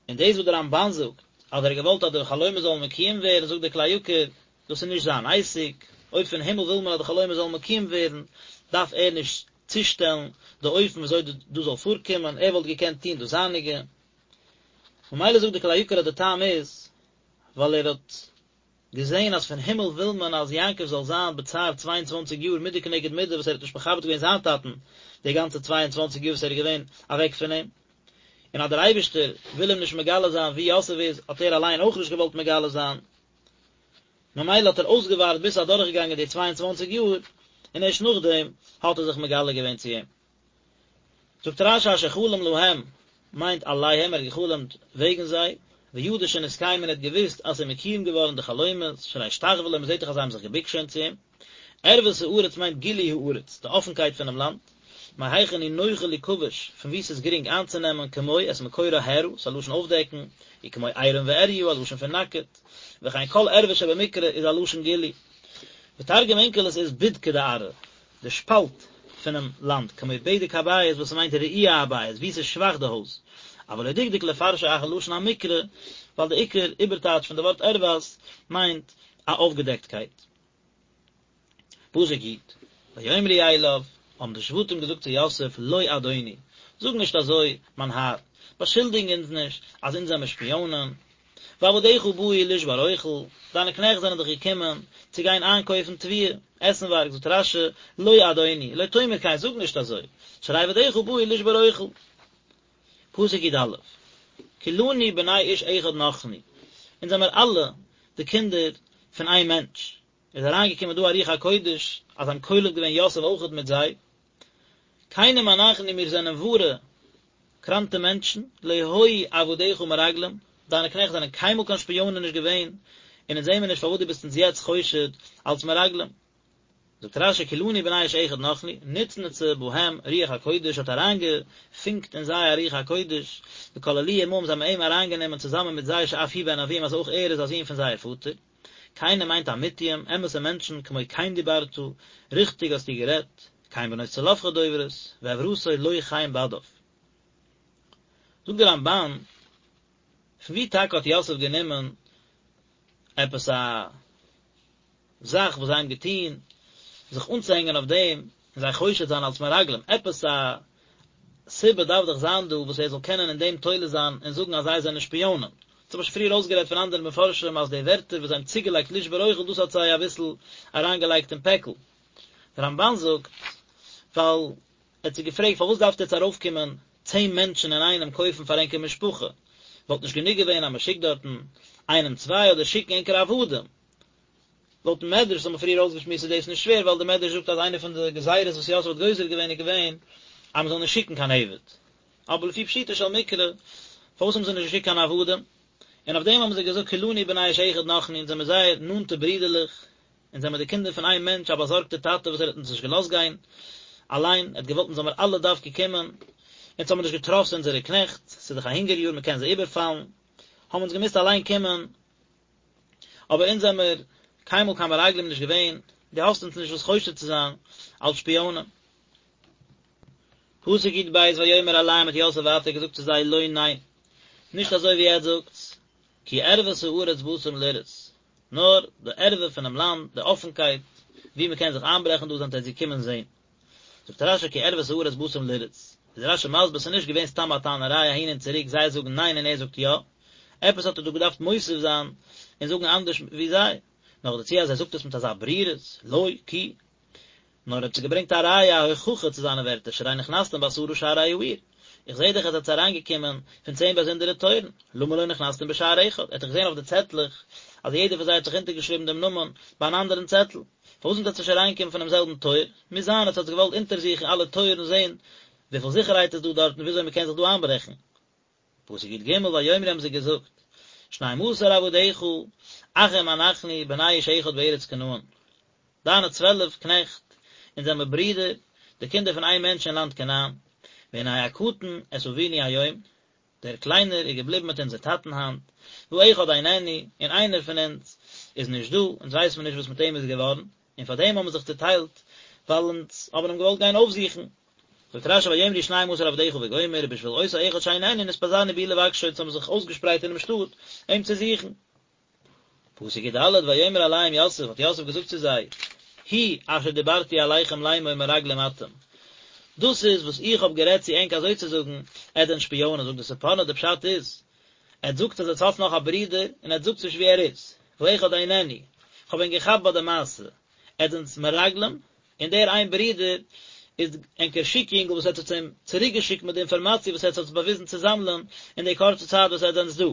Speaker 1: און דאס וואס דער רמב"ן זאגט אז ער האט געוואלט אז די חלומות זאלן מקוים ווערן, זאגט דער כלי יקר, דאס איז נישט זיין עסק, אויב פון הימל וויל מען אז די חלומות זאלן מקוים ווערן, דארף ער נישט צושטעלן די אופן ווי אזוי דאס זאל פארקומען, ער וואלט געקענט טון דאס זייניגע. ממילא זאגט דער כלי יקר אז די טעם איז ווייל ער האט. געזען אז פון הימל וויל מען אז יעקב זאל זיין בצער 22 יאר מידה כנגד מידה וואס ער האט נישט מכבד געווען זיין טאטן די גאנצע 22 יאר וואס ער איז געווען אוועק פון אים, און אז דער אייבערשטער וויל אים נישט מגלה זיין וואו יוסף איז האט ער אליין אויך נישט געוואלט מגלה זיין, ממילא האט ער אויסגעווארט ביז ס'איז אדורכגעגאנגען די 22 יאר, און ערשט נאכדעם האט ער זיך מגלה געווען צו אים. זאגט רש"י אשר חלם להם מיינט עליהם, ער האט געחלומט וועגן זיי, וידע שנתקיימו און ער האט געוואוסט אז ס'איז מקוים געווארן די חלומות, שהרי השתחוו לו, מ'זעט דאך אז זיי האבן זיך געבוקט שוין צו אים. ערות הארץ מיינט גילוי הארץ, די אפנקייט פונעם לאנד, מהיכן היא נוחה ליכבש, פון וואו ס'איז גרינג איינצונעמען, כמו את מקורה הערה, ס'איז א לשון אויפדעקן, וכמו עירום ועריה, א לשון פון נאקעט, וכן כל ערווה שבמקרא איז א לשון גילוי. ותרגום אונקלוס איז בדקא דארעא, די שפאלט פונעם לאנד, כמו בדק הבית וואס ס'מיינט רעוע הבית, וואו ס'איז שוואך די הויז. אבל לא דקדק לפרשו אחר לשון המקרא, ווייל די עיקר איבערטייטש פון די ווארט ערות מיינט א אויפגעדעקטקייט. פסוק י', ויאמרו אליו, האבן די שבטים געזאגט צו יוסף, לא אדוני, זאג נישט אזוי, מיין האר, באשולדיג אונז נישט אז אונז זעמיר שפיאנען, ועבדיך באו לשבר אוכל, דיינע קנעכט זענען דאך געקומען צו גיין איינקויפן תבואה, עסנווארג, זאגט רש"י, לא אדוני, לא תאמר כן, זאג נישט אזוי, שהרי עבדיך באו לשבר אוכל. פסוק י"א, כולנו בני איש אחד נחנו, אונז זעמיר אלע די קינדער פון איין מענטש, איז אריינגעקומען דא א רוח הקודש אז זיי האבן כולל געווען יוסף אויכעט מיט זיי, כנים אנחנו מיר זענען ווארע קראנטע מענטשן, לא היו עבדיך מרגלים, דיינע קנעכט זענען קיינמאל קיין שפיאנען נישט געווען, און אונז זעמיר נישט פארוואס דו ביסט אונז יעצט חושד אלס מרגלים. זאגט רש"י כולנו בני איש אחד נחנו, נצנצה בהם רוח הקודש האט אריינגעפונקט אין זיי א רוח הקודש, וכללוהו עמהם זיי האבן אים אריינגענומען צוזאמען מיט זיי שאף הוא בן אביהם אז אויך ער איז א זון פון זייער פאטער. כנים מיינט אמיתיים, אמת'ע מענטשן, כמו כן דיברת, ריכטיג האסטו גערעדט, כן בנות צלפחד דוברות, ועברתו לא כן בדיו. זאגט דער רמב"ן, פון וואו טאקע האט יוסף גענומען עפעס א זאך וואס זיי האבן געטון, זיך אנצוהענגען אויף דעם און זיי חושד זיין אלס מרגלים, עפעס א סיבה דארף דאך זיין דא וואס ער זאל קענען אין דעם תולה זיין און זאגן אז זיי זענען שפיאנען. דאס האב איך שוין פריער אויסגערעדט פון אנדערע מפרשים אז די ווערטער וואס זיי האבן צוגעלייגט לשבור אוכל דאס האט זיי אביסל אריינגעלייגט אין פעקל. דער רמב"ן זאגט ווייל ער האט זיי געפרעגט פארוואס דארפט עטץ ארויפקומען צען מענטשן אינאיינעם קויפן פאר ענקער משפחה, וואלט נישט גענוג געווען אז מען שיקט דארטן איינעם צוויי אדער שיקן ענקער עבדים? לויטן מדרש וואס האבן מיר פריער אויסגעשמועסט איז דאס נישט שווער ווייל דער מדרש זאגט אז איינע פון די גזירות וואס יוסף האט גוזר געווען איז געווען אז מען זאל נישט שיקן קיין עבד. אבער לפי פשוטו של מקרא פארוואס האבן זיי נישט געשיקט קיין עבדים? און אויף דעם האבן זיי געזאגט כולנו בני איש אחד נחנו אונז זעמיר זייער נאנטע ברידערלעך, אונז זעמיר די קינדער פון איין מענטש א באזארגטער טאטע וואס ער האט אונז נישט געלאזט גיין אליין, ער האט געוואלט אונז זאל מיר אלע דווקא קומען, אונז האבן מיר נישט געטראסט אונזערע קנעכט, ס'איז דאך א הונגער יאר מען קען זיי איבערפאלן, האבן אונז געמוזט אליין קומען, אבער אונז זעמיר קיינמאל קיין מרגלים נישט געווען, דו האסט אונז נישט וואס חושד צו זיין אלס שפיאנען. פסוק י"ב ויאמר אליהם האט יוסף ווייטער געזאגט צו זיי לא ניין, נישט אזוי ווי עטץ זאגטס, כי ערות הארץ באתם לראות, נאר די ערווה פונעם לאנד, די אפנקייט, וואו מען קען זיך איינברעכן דא זענט עטץ געקומען זען. זאגט רש"י כי ערות הארץ באתם לראות, איז רש"י מסביר ס'איז נישט געווען סתם א טענה'ריי אהין און צוריק זיי זאגן ניין און ער זאגט יא, עפעס האט ער דא געדארפט מוסיף זיין און זאגן אנדערש ווי זיי, נאכדערצו אז ער זאגט עס מיט אזא ברירות, לא, כי. נאר ער האט זיי געברענגט א ראיה א הוכחה צו זיינע ווערטער שהרי נכנסתם בעשרה שערי העיר, איך זעה דאך אז עטס אריינגעקומען פון צען באזונדערע טויערן, למה לא נכנסתם בשער אחד, ער האט דאך געזען אויף די צעטלעך אז יעדער פון זיי האט זיך אונטערגעשריבן דעם נאמען ביי אן אנדערן צעטל, פארוואס זענט עטס נישט אריינגעקומען פונעם זעלבן טויער? מוז זיין עטס האטס געוואלט אונטערזוכן אלע טויערן זען וויפיל זיכערהייט איז דא דארט און וויאזוי מ'קען זיך דא איינברעכן. פסוק י"ג ויאמרו האבן זיי געזאגט, שנים עשר עבדיך, אחים אנחנו, בני איש אחד בארץ כנען. דיינע 12 קנעכט, אונז זעמער ברידער, די קינדער פון איין מענטש אין לאנד כנען. והנה הקטן את אבינו היום, דער קליינער איז געבליבן מיט אונזער טאטן היינט, והאחד איננו, און איינער פון אונז איז נישט דא, אונז ווייסן מיר נישט וואס מיט אים איז געווארן, און פאר דעם האבן מיר זיך צוטיילט, ווייל אונז האבן אים געוואלט גיין אויפזוכן. זאגט רש"י ויאמרו שנים עשר עבדיך וגומר, ובשביל אותו האחד שאיננו נתפזרנו בעיר לבקשו, אונז האבן זיך אויסגעשפרייט אינעם שטאט אים צו זוכן. פסוק י"ד, ויאמר אליהם יוסף, האט יוסף געזאגט צו זיי, הוא אשר דיברתי אליכם לאמור מרגלים אתם, דאס איז וואס איך האב גערעדט צו ענק אזוי צו זאגן, עטס זענט שפיאנען, זאגט די ספורנו, די פשט איז, עטס זאגט אז עטס האטס נאך א ברודער, און עטס זאגטס נישט וואו ער איז. והאחד איננו, כ'האב ענק געכאפט ביי די מעשה, עטס זענטס מרגלים, און דער איין ברודער איז ענקער שיק יונגל וואס עטס האטס אים צוריק געשיקט מיט די אינפארמאציע וואס עטס האטס באוויזן צו זאמלען אין די קורצע צייט וואס עטס זענטס דא.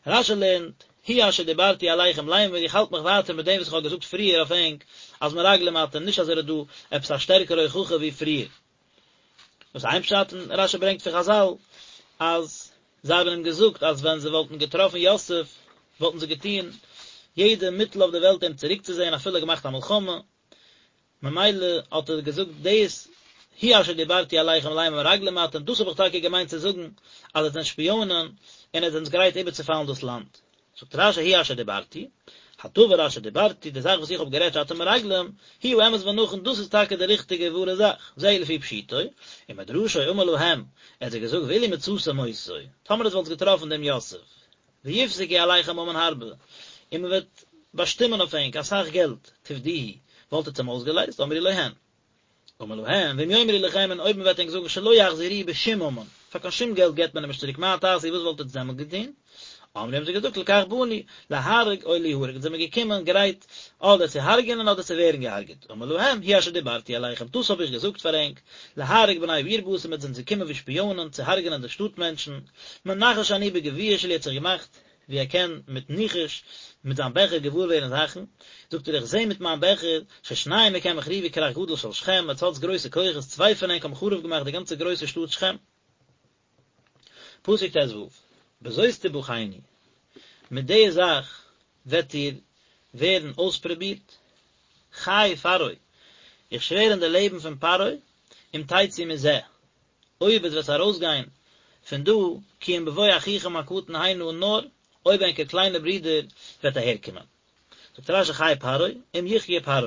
Speaker 1: רשי לערנט, הוא אשר דיברתי אליכם לאמר, איך האלט מיך ווייטער מיט דעם וואס איך האב געזאגט פריער אויף ענק, אז מרגלים אתם, נישט אז ער האט דא עפעס א שטערקערע הוכחה ווי פריער. דאס איז איין פשט, און רשי ברענגט פון חזל אז זיי האבן אים געזאגט אז ווען זיי וואלטן געטראפן יוסף וואלטן זיי געטון יעדע מיטל אויף די וועלט אים צוריקצוזען אפילו געמאכט א מלחמה, ממילא האט ער געזאגט דאס הוא אשר דיברתי אליכם לאמר מרגלים אתם, דאס האב איך טאקע געמיינט צו זאגן אז עטס זענט שפיאנען און עטס זענטס גרייט איבערצופאלן דאס לאנד. זאגט רשי הוא אשר דיברתי, הדבר אשר דיברתי, די זאך וואס איך האב גערעדט שאתם מרגלים, הוא האמת ונכון, דאס איז טאקע די ריכטיגע ווארע זאך, זהו לפי פשוטו, ומדרשו אמר להם, ער האט זיי געזאגט ואילו מצאתם אותו, טאמער עטס וואלטס געטראפן דעם יוסף, ויפסקו עליכם ממון הרבה, און מען וועט באשטימען אויף ענק אסאך געלט, תפדוהו, וואלט עטס אים אויסגעלייזט, אמרו לו הן. אמר להם, ואם יאמרו לכם, און אויב מען וועט ענק זאגן שלא יחזירוהו בשום ממון, פאר קיין שום געלט געבט מען אים נישט צוריק, מה תעשו, וואס וואלט עטס דעמאלט געטון? אמרו האבן זיי געזאגט לכך באנו, להרוג או ליהרג, אונז זעמיר געקומען גרייט אדער צו הרג'ענען אדער צו ווערן געהרג'עט, אמר להם, הוא אשר דיברתי אליכם, דאס האב איך געזאגט פאר ענק, להרוג בני העיר באתם, עטס זענטס געקומען ווי שפיאנען צו הרג'ענען די שטאט מענטשן, מנחש אני בגביע שלי האט זיך געמאכט ווי ער קען מיט ניחוש מיט זיין בעכער געוואר ווערן זאכן, זאגט ער איך זע מיט מיין בעכער, ששניים מכם החריבו כרך גדול של שכם, עטס האטס גרויסע כוחות, צוויי פון ענק האבן חרוב געמאכט די גאנצע גרויסע שטאט שכם. פסוק ט"ו, בזאת תבחנו, מיט די זאך וועט איר ווערן אויספרובירט, חי פרעה, איך שווער אין די לעבן פון פרעה, אם תצאו מזה, אויב עטס וועט ארויסגיין פון דא, כי אם בבוא אחיכם הקטן הנה, נאר אויב ענקער קליינער ברודער וועט אהערקומען. זאגט רש"י חי פרעה, אם יחיה פרעה.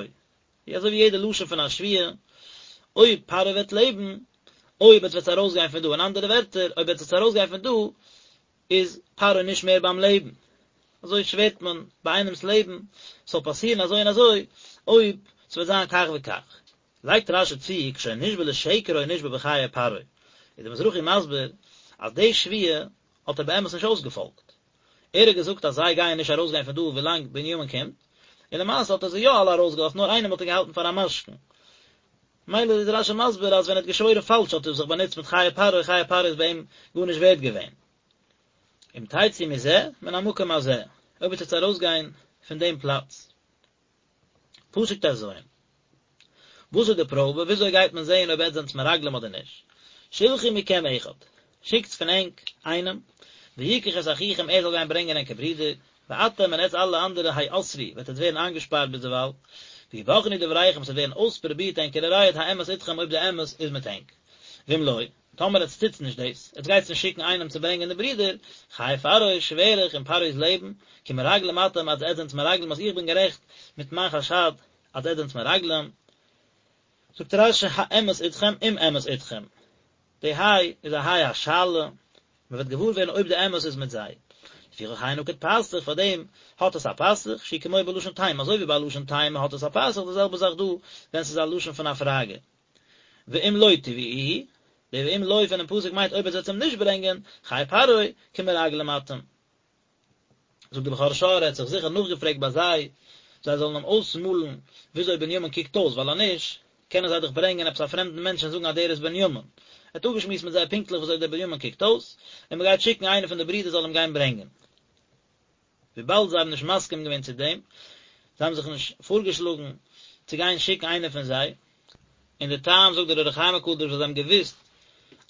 Speaker 1: ווי אזוי ווי יעדע לשון פון א שבועה, אויב פרעה וועט לעבן, אויב עטס וועט ארויסגיין פון דא, אין אנדערע ווערטער, אויב עטס וועט ארויסגיין פון דא, איז פרעה נישט מער ביים לעבן. אזוי שווערט מען ביי איינעמ'ס לעבן, ס'זאל פאסירן אזוי און אזוי, אויב ס'וועט זיין כך וכך. לייגט רש"י צו, כשהיה נשבע לשקר היה נשבע בחיי פרעה, איז דער מזרחי מסביר אז די שבועה האט ער באמת נישט אויסגעפאלגט, ער האט געזאגט אז זיי גייען נישט ארויסגיין פון דא ווילאנג בנימין קומט, און למעשה האט ער זיי יא אלע ארויסגעלאזט נאר איינעם האט ער געהאלטן פאר א משכון. מילא איז רש"י מסביר אז ווען ער האט געשוואוירן פאלש האט ער זיך באנוצט מיט חיי פרעה, חיי פרעה איז ביי אים גארנישט ווערד געווען. אם תצאו מזה, מן המקום הזה, אויב וועט עטס ארויסגיין פון דעם פלאץ. פסוק ט"ז. וואס איז די פראבע? וויאזוי גייט מען זעהן אויב עטס זענטס מרגלים אדער נישט? שלחו מכם אחד, שיקטס פון ענק איינעם, ויקח את אחיכם ער זאל גיין ברענגען ענקער ברודער, ואתם און עטס אלע אנדערע האסרו, וועט עטס ווערן איינגעשפארט ביזדערווייל, ויבחנו דבריכם עס וועט ווערן אויספרובירט ענקערע רייד האמת אתכם אויב די אמת איז מיט ענק. ואם לא, טאמער עטס טוטס נישט דאס, עטס גייטס נישט שיקן איינעם צו ברענגען די ברודער, חי פרעה, שווער איך אין פרעה'ס לעבן, כי מרגלים אתם אז עטס זענטס מרגלים אז איך בין גערעכט מיט מיין חשד אז עטס זענטס מרגלים. זאגט רש"י האמת אתכם אם אמת אתכם, די היי איז א היי השאלה, מען וועט געוואר ווערן אויב די אמת איז מיט זיי. לפיכך היי נקוד פתח, פאר דעם האט עס א פתח, שהוא כמו בלשון תימה, אזוי ווי ביי לשון תימה האט עס א פתח, די זעלבע זאך דא ווען ס'איז א לשון פון א פראגע. ואם לא תביאוהו, די ואם לא פונעם פסוק מיינט אויב עטס וועט אים נישט ברענגען, חי פרעה, כי מרגלים אתם. זאגט די בכור שור ער האט זיך זיכער נאכגעפרעגט ביי זיי, זיי זאלן אים אויסמאלן וויאזוי בנימין קוקט אויס, ווייל אז נישט, קענען זיי דאך ברענגען עפעס א פרעמדן מענטש און זאגן אז דער איז בנימין. ער האט אפגעשמועסט מיט זיי פונקטליך וויאזוי דער בנימין קוקט אויס, און מען גייט שיקן איינער פון די ברידער זאל אים גיין ברענגען. וויבאלד זיי האבן נישט מסכים געווען צו דעם, זיי האבן זיך נישט פארגעשלאגן צו גיין שיקן איינער פון זיי, און די טעם זאגט דער אור החיים הקדוש ווייל זיי האבן געוואוסט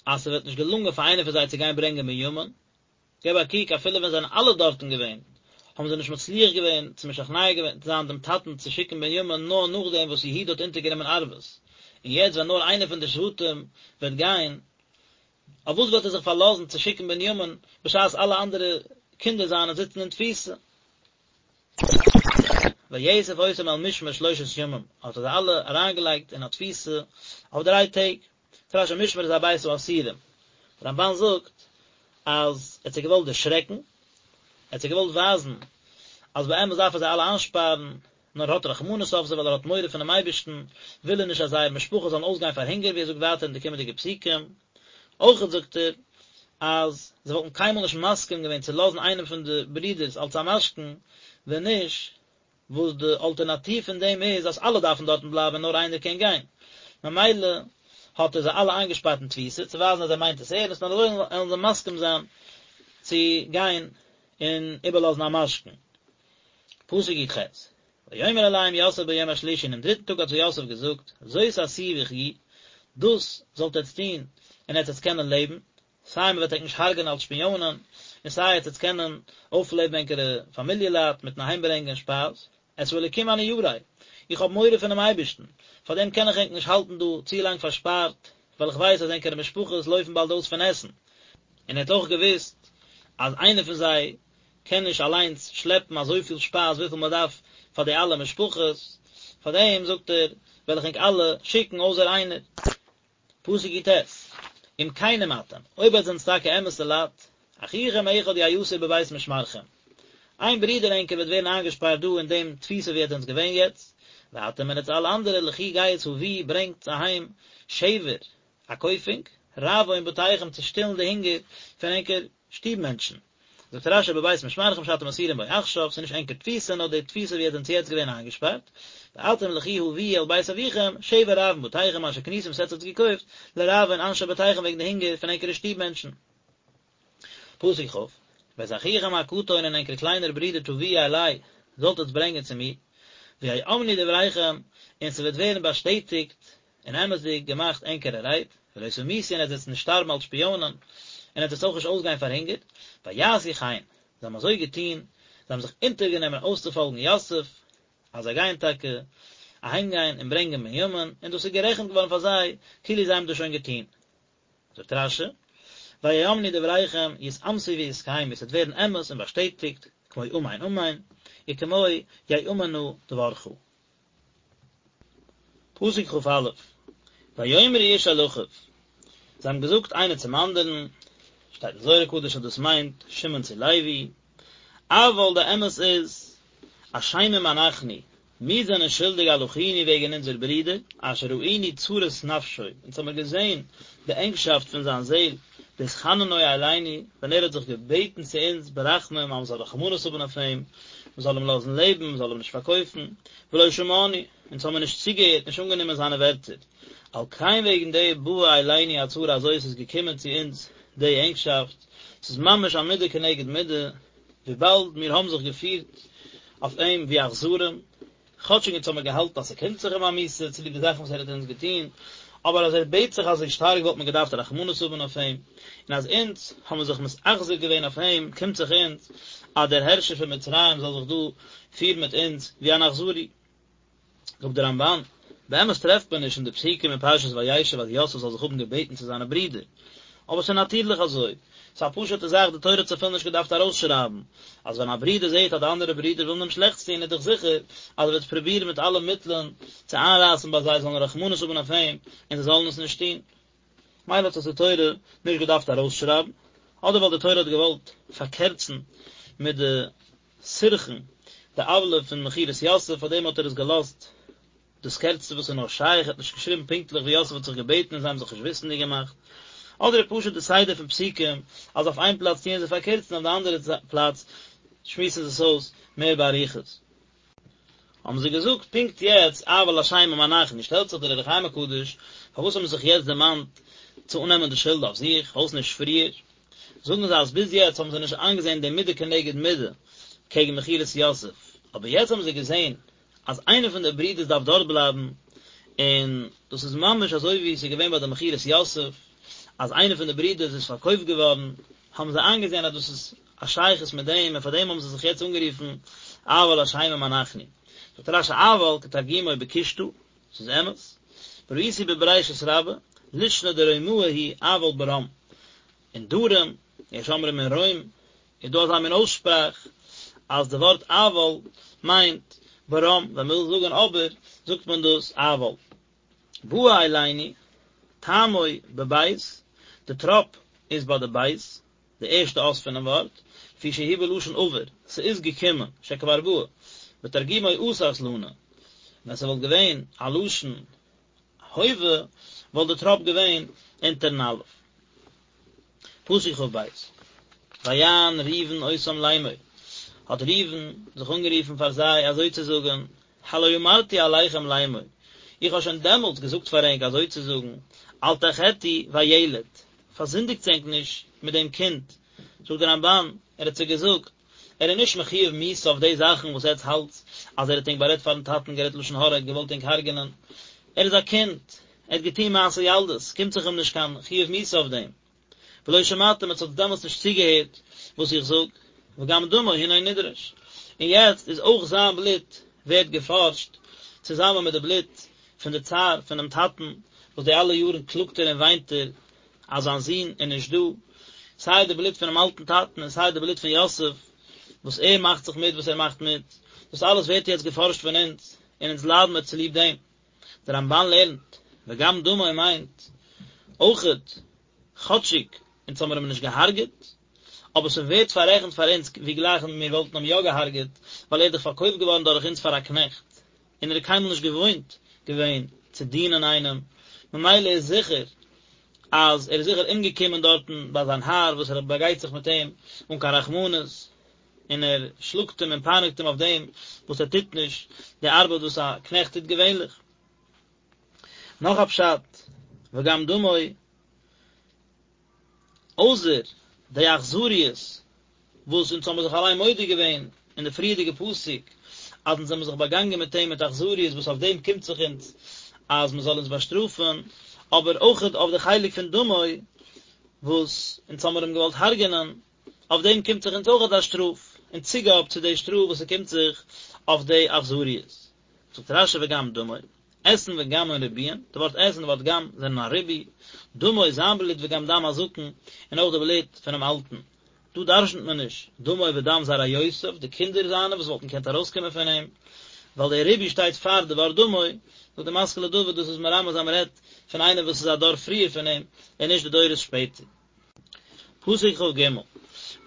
Speaker 1: אז ס'וועט נישט געלונגען פאר איינער פון זיי צו גיין ברענגען בנימין, געב א קוק אפילו ווען זיי זענען אלע דארטן געווען, האבן זיי נישט מצליח געווען צו משכנע געווען זיין דעם טאטן צו שיקן בנימין נאר נאכדעם וואס יהודה האט אונטערגענומען ערבות, און יעצט ווען נאר איינער פון די שבטים וועט גיין, אויף וואס וועט ער זיך פארלאזן צו שיקן בנימין בשעת אלע אנדערע קינדער זיינע זיצן אין תפיסה? ויאסף אותם אל משמר שלושת ימים, האט ער זיי אלע אריינגעלייגט אין א תפיסה אויף דריי טעג. זאגט רש"י משמר איז א בית האסירים. דער רמב"ן זאגט אז ער האט זיי געוואלט דערשרעקן, ער האט זיי געוואלט ווייזן אז באמת דארף ער זיי אלע איינשפארן, נאר ער האט רחמנות אויף זיי ווייל ער האט מורא פונעם אייבערשטן, וויל ער נישט אז זייער משפחה זאלן אויסגיין פאר הונגער ווי ער זאגט ווייטער אין די קומענדיגע פסוקים. אויכעט זאגט ער. אז זיי וואלטן קיינמאל נישט מסכים געווען צו לאזן איינעם פון די ברידערס אלס א משכון, ווען נישט וואס די אלטערנאטיוו פון דעם איז אז אלע דארפן דארטן בלייבן און נאר איינער קען גיין. ממילא האט ער זיי אלע איינגעשפארט אין תפיסה צו ווייזן אז ער מיינט עס ערנסט און אזוי וועלן זיי מסכים זיין צו גיין און איבערלאזן א משכון. פסוק י"ח, ויאמר אליהם יוסף ביום השלישי אינעם דריטן טאג האט זיי יוסף געזאגט, זאת עשו וחיו, דאס זאלט עטץ טון און עטץ וועטס קענען לעבן, סיי מען וועט ענק נישט הרג'ענען אלס שפיאנען, און סיי עטץ וועטס קענען אויפלעבן ענקערע פאמיליע לייט מיטן אהיימברענגען שפייז, את האלוקים אני ירא, איך האב מורא פונעם אייבערשטן, פארדעם קען איך ענק נישט האלטן דא צו לאנג פארשפארט, ווייל איך ווייס אז ענקערע משפחות לויפן באלד אויס פון עסן. און ער האט אויך געוואוסט אז איינער פון זיי קען נישט אליינס שלעפן אזויפיל שפייז וויפיל מען דארף פאר די אלע משפחות, פארדעם זאגט ער, וועל איך ענק אלע שיקן אויסער איינער. פסוק י"ט, אם כנים אתם, אויב עטס זענטס טאקע אמת'ע לייט, אחיכם אחד יאסר בבית משמרכם, איין ברודער ענקער וועט ווערן איינגעשפארט דא אין דעם תפיסה ווי עטס זענטס געווען יעצט, ואתם און עטס אלע אנדערע לכו גייטס הביאו ברענגטס אהיים שבר, א קויפונג, רעבון בתיכם צו שטילן די הונגער פון ענקער שטוב מענטשן. זאגט רש"י בבית משמרכם שאתם אסורים בו עכשיו, ס'איז נישט ענקער תפיסה נאר די תפיסה ווי עטס זענטס יעצט געווען איינגעשפארט, ואתם לכו הביאו אל בית אביכם, שבר רעבון בתיכם אשר קניתם וואס עטס האטס געקויפט, לרעבון אנשי בתיכם וועגן די הונגער פון ענקערע שטוב מענטשן. פסוק כ', ואת אחיכם הקטן און ענקער קליינער ברודער תביאו אלי, זאלט עטס ברענגען צו מיר, ויאמנו דבריכם, און ס'וועט ווערן באשטעטיגט און אמת'דיג געמאכט ענקערע רייד, ולא תמותו און עטס וועטס נישט שטארבן אלס שפיאנען, און עטס וועטס אויך נישט אויסגיין פאר הונגער, ויעשו כן, זיי האבן אזוי געטון, זיי האבן זיך אונטערגענומען אויסצופאלגן יוסף, אז זיי גייען טאקע אהיימגיין און ברענגען בנימין, און דאס איז גערעכנט געווארן פאר זיי כאילו זיי האבן דאס שוין געטון. זאגט רש"י, ויאמנו דבריכם יתאמתו ויתקיימו, עס וועט ווערן אמת און באשטעטיגט, כמו אמן אמן, וכמו יאמן נא דברך. פסוק כ"א, ויאמרו איש אל אחיו, זיי האבן געזאגט איינער צום אנדערן, שטייט אין זוהר הקדוש אז דאס מיינט שמעון צו לוי, אבל די אמת איז, אשמים אנחנו, מיר זענען שולדיג על אחינו וועגן אונזער ברודער, אשר ראינו צרת נפשו, אונז האמיר געזען די ענגשאפט פון זיין זעל, בהתחננו אלינו, ווען ער האט זיך געבעטן צו אונז ברחמים אז מען זאל רחמנות האבן אויף אים, מען זאל אים לאזן לעבן, מען זאל אים נישט פארקויפן, ולא שמענו, אונז האמיר נישט צוגעהערט, נישט אנגענומען זיינע ווערטער. על כן וועגן דעם באה אלינו הצרה הזאת איז געקומען צו אונז די ענגשאפט, ס'איז ממש א מידה כנגד מידה, וויבאלד מיר האבן זיך געפירט אויף אים ווי אכזרים, כאטשיג אונז האמיר געהאלטן אז ס'קומט זיך אים א מיתה צוליב די זאכן וואס ער האט אונז געטון, אבער אז ער בעט זיך אזוי שטארק וואלט מען געדארפט רחמנות האבן אויף אים, און אז אונז האבן זיך מתאכזר געווען אויף אים, קומט זיך אונז אז דער הערשער פון מצרים זאל זיך דא פירן מיט אונז ווי אן אכזרי. זאגט דער רמב"ן, באמת טרעפט מען נישט אין די פסוקים אין פרשת וישב אז יוסף זאל זיך האבן געבעטן צו זיינע ברידער, אבער ס'איז נאטירליך אזוי, ס'איז א פשוט'ע זאך, די תורה האט עס אפילו נישט געדארפט ארויסשרייבן, אז ווען א ברודער זעט אז די אנדערע ברידער ווילן אים שלעכטס טון איז דאך זיכער אז ער וועט פרובירן מיט אלע מיטלען צו איינרייסן ביי זיי זאלן רחמנות האבן אויף אים און זיי זאלן עס נישט טון. מילא האט עס די תורה נישט געדארפט ארויסשרייבן, אדער ווייל די תורה האט געוואלט פארקערצן מיט די סירחון, די עוולה פון מכירת יוסף, פארדעם האט ער עס געלאזט דאס קערצטע וואס איז נאר שייך, ער האט נישט געשריבן פונקטליך ווי יוסף האט זיך געבעטן און זיי האבן זיך נישט וויסנדיג געמאכט, אדער איז פשוט די סדר פון פסוקים אז אויף איין פלאץ טוען זיי פארקערצן אויף די אנדערע פלאץ שמועסן זיי עס אויס מער באריכות. האבן זיי געזאגט פונקט יעצט אבל אשמים אנחנו, שטעלט זיך דער אור החיים הקדוש, פארוואס האבן זיי זיך יעצט דערמאנט צו אננעמען די שולד אויף זיך, פארוואס נישט פריער? זאגן זיי אז ביז יעצט האבן זיי נישט איינגעזען די מידה כנגד מידה קעגן מכירת יוסף, אבער יעצט האבן זיי געזען אז איינער פון די ברידערס דארף דארט בלייבן, און דאס איז ממש אזוי ווי עס איז געווען ביי די מכירת יוסף, אז איינער פון די ברידערס איז פארקויפט געווארן, האבן זיי איינגעזען אז דאס איז א שייכות מיט דעם, און פאר דעם האבן זיי זיך יעצט אנגערופן אבל אשמים אנחנו. זאגט רש"י אבל כתרגומו בקושטא, ס'איז אמת, וראיתי בבראשית רבה, לישנא דרומאי הוא אבל ברם, אין דרום, יש אומרים אין רוים, איז דא אזא מין אויסשפראך אז די ווארט אבל מיינט ברם, ווען מ'וויל זאגן אבער זאגט מען דאס אבל. באה אלינו, טעמו בבית, די טראפ איז ביי די בית, די ערשטע אות פונעם ווארט, לפי שהוא בלשון עבר, ס'איז געקומען, שכבר באה, ותרגומו אתת לנא, ווען ס'וואלט געווען א לשון הווה וואלט די טראפ געווען אונטערן אלף. פסוק כב, ויען ראובן אותם לאמור, האט ראובן זיך אנגערופן פאר זיי אזוי צו זאגן, הלא אמרתי אליכם לאמור, איך האב שוין דעמאלטס געזאגט פאר ענק אזוי צו זאגן, אל תחטאו בילד, פארזינדיגטס ענק נישט מיט דעם קינד, זאגט דער רמבן, ער האט זיי געזאגט, ער איז נישט מחויב מיתה אויף די זאכן וואס עטץ האלטס אז ער האט ענק בארעדט פארן טאטן, גערעדט לשון הרע, געוואלט ענק הרג'נען, ער איז א קינד, ער האט געטון מעשה ילדות, קומט זיך אים נישט קיין חיוב מיתה אויף דעם. ולא שמעתם, עטס האטס דעמאלטס נישט צוגעהערט וואס איך זאג, וגם דמו הנה נדרש, און יעצט איז אויך זיין בלוט ווערט געפארשט, צוזאמען מיט די בלוט פון די צער פונעם טאטן, וואס די אלע יארן קלאגט ער און וויינט ער אז זיין זון איז נישט דא, סיי די בלוט פונעם אלטן טאטן און סיי די בלוט פון יוסף, וואס ער מאכט זיך מיט וואס ער מאכט מיט, דאס אלעס ווערט יעצט געפארשט פון אונז, און אונז ליידן מיר צוליב דעם. דער רמבן לערנט, וגם דמו מיינט אויכעט, כאטשיג אונז האמיר אים נישט געהארגעט, אבער ס'ווערט פאררעכנט פאר אונז ווי גלייך מיר וואלטן אים יא געהארגעט, ווייל ער איז דאך פארקויפט געווארן דורך אונז פאר א קנעכט, און ער איז קיינמאל נישט געוואוינט געווען צו דינען איינעם, ממילא איז זיכער אז ער איז זיכער אומגעקומען דארטן ביי זיין האר וואס ער באגייט זיך מיט אים אן קיין רחמנות, און ער שלאגט אים און פייניגט אים אויף דעם וואס ער טוט נישט די ארבעט וואס א קנעכט טוט געווענליך. נאך א פשט, וגם דמו, אויסער די אכזריות וואס אונז האבן זיך אליין מודה געווען אין די פריערדיגע פסוק אז אונז זעמיר זיך באגאנגען מיט אים מיט אכזריות וואס אויף דעם קומט זיך אונז אז מען זאל אונז באשטראפן, אבער אויכעט אויף די חלק פון דמו וואס אונז האמיר אים געוואלט הרג'ענען, אויף דעם קומט זיך אונז אויכעט א שטראף, אין צוגאב צו די שטראף וואס ס'קומט זיך אויף די אכזריות. זאגט רשי וגם דמו, אתין וגמין ריבויין, די ווארט את און די ווארט גם זענען א ריבוי, דמו זיין בלוט וגם דם הזקן, און אויך די בלוט פונעם אלטן. דא דרשנ'ט מען נישט דמו ודם זרעיותיו, די קינדער זיינע וואס וואלטן געקענט ארויסקומען פון אים, ווייל דער ריבוי שטייט פאר די ווארט דמו, זאגט די משכיל לדוד דאס איז מרמז אז מ'רעדט פון איינער וואס איז א דור פריער פון אים, און נישט די דורות שפעטער. פסוק כג,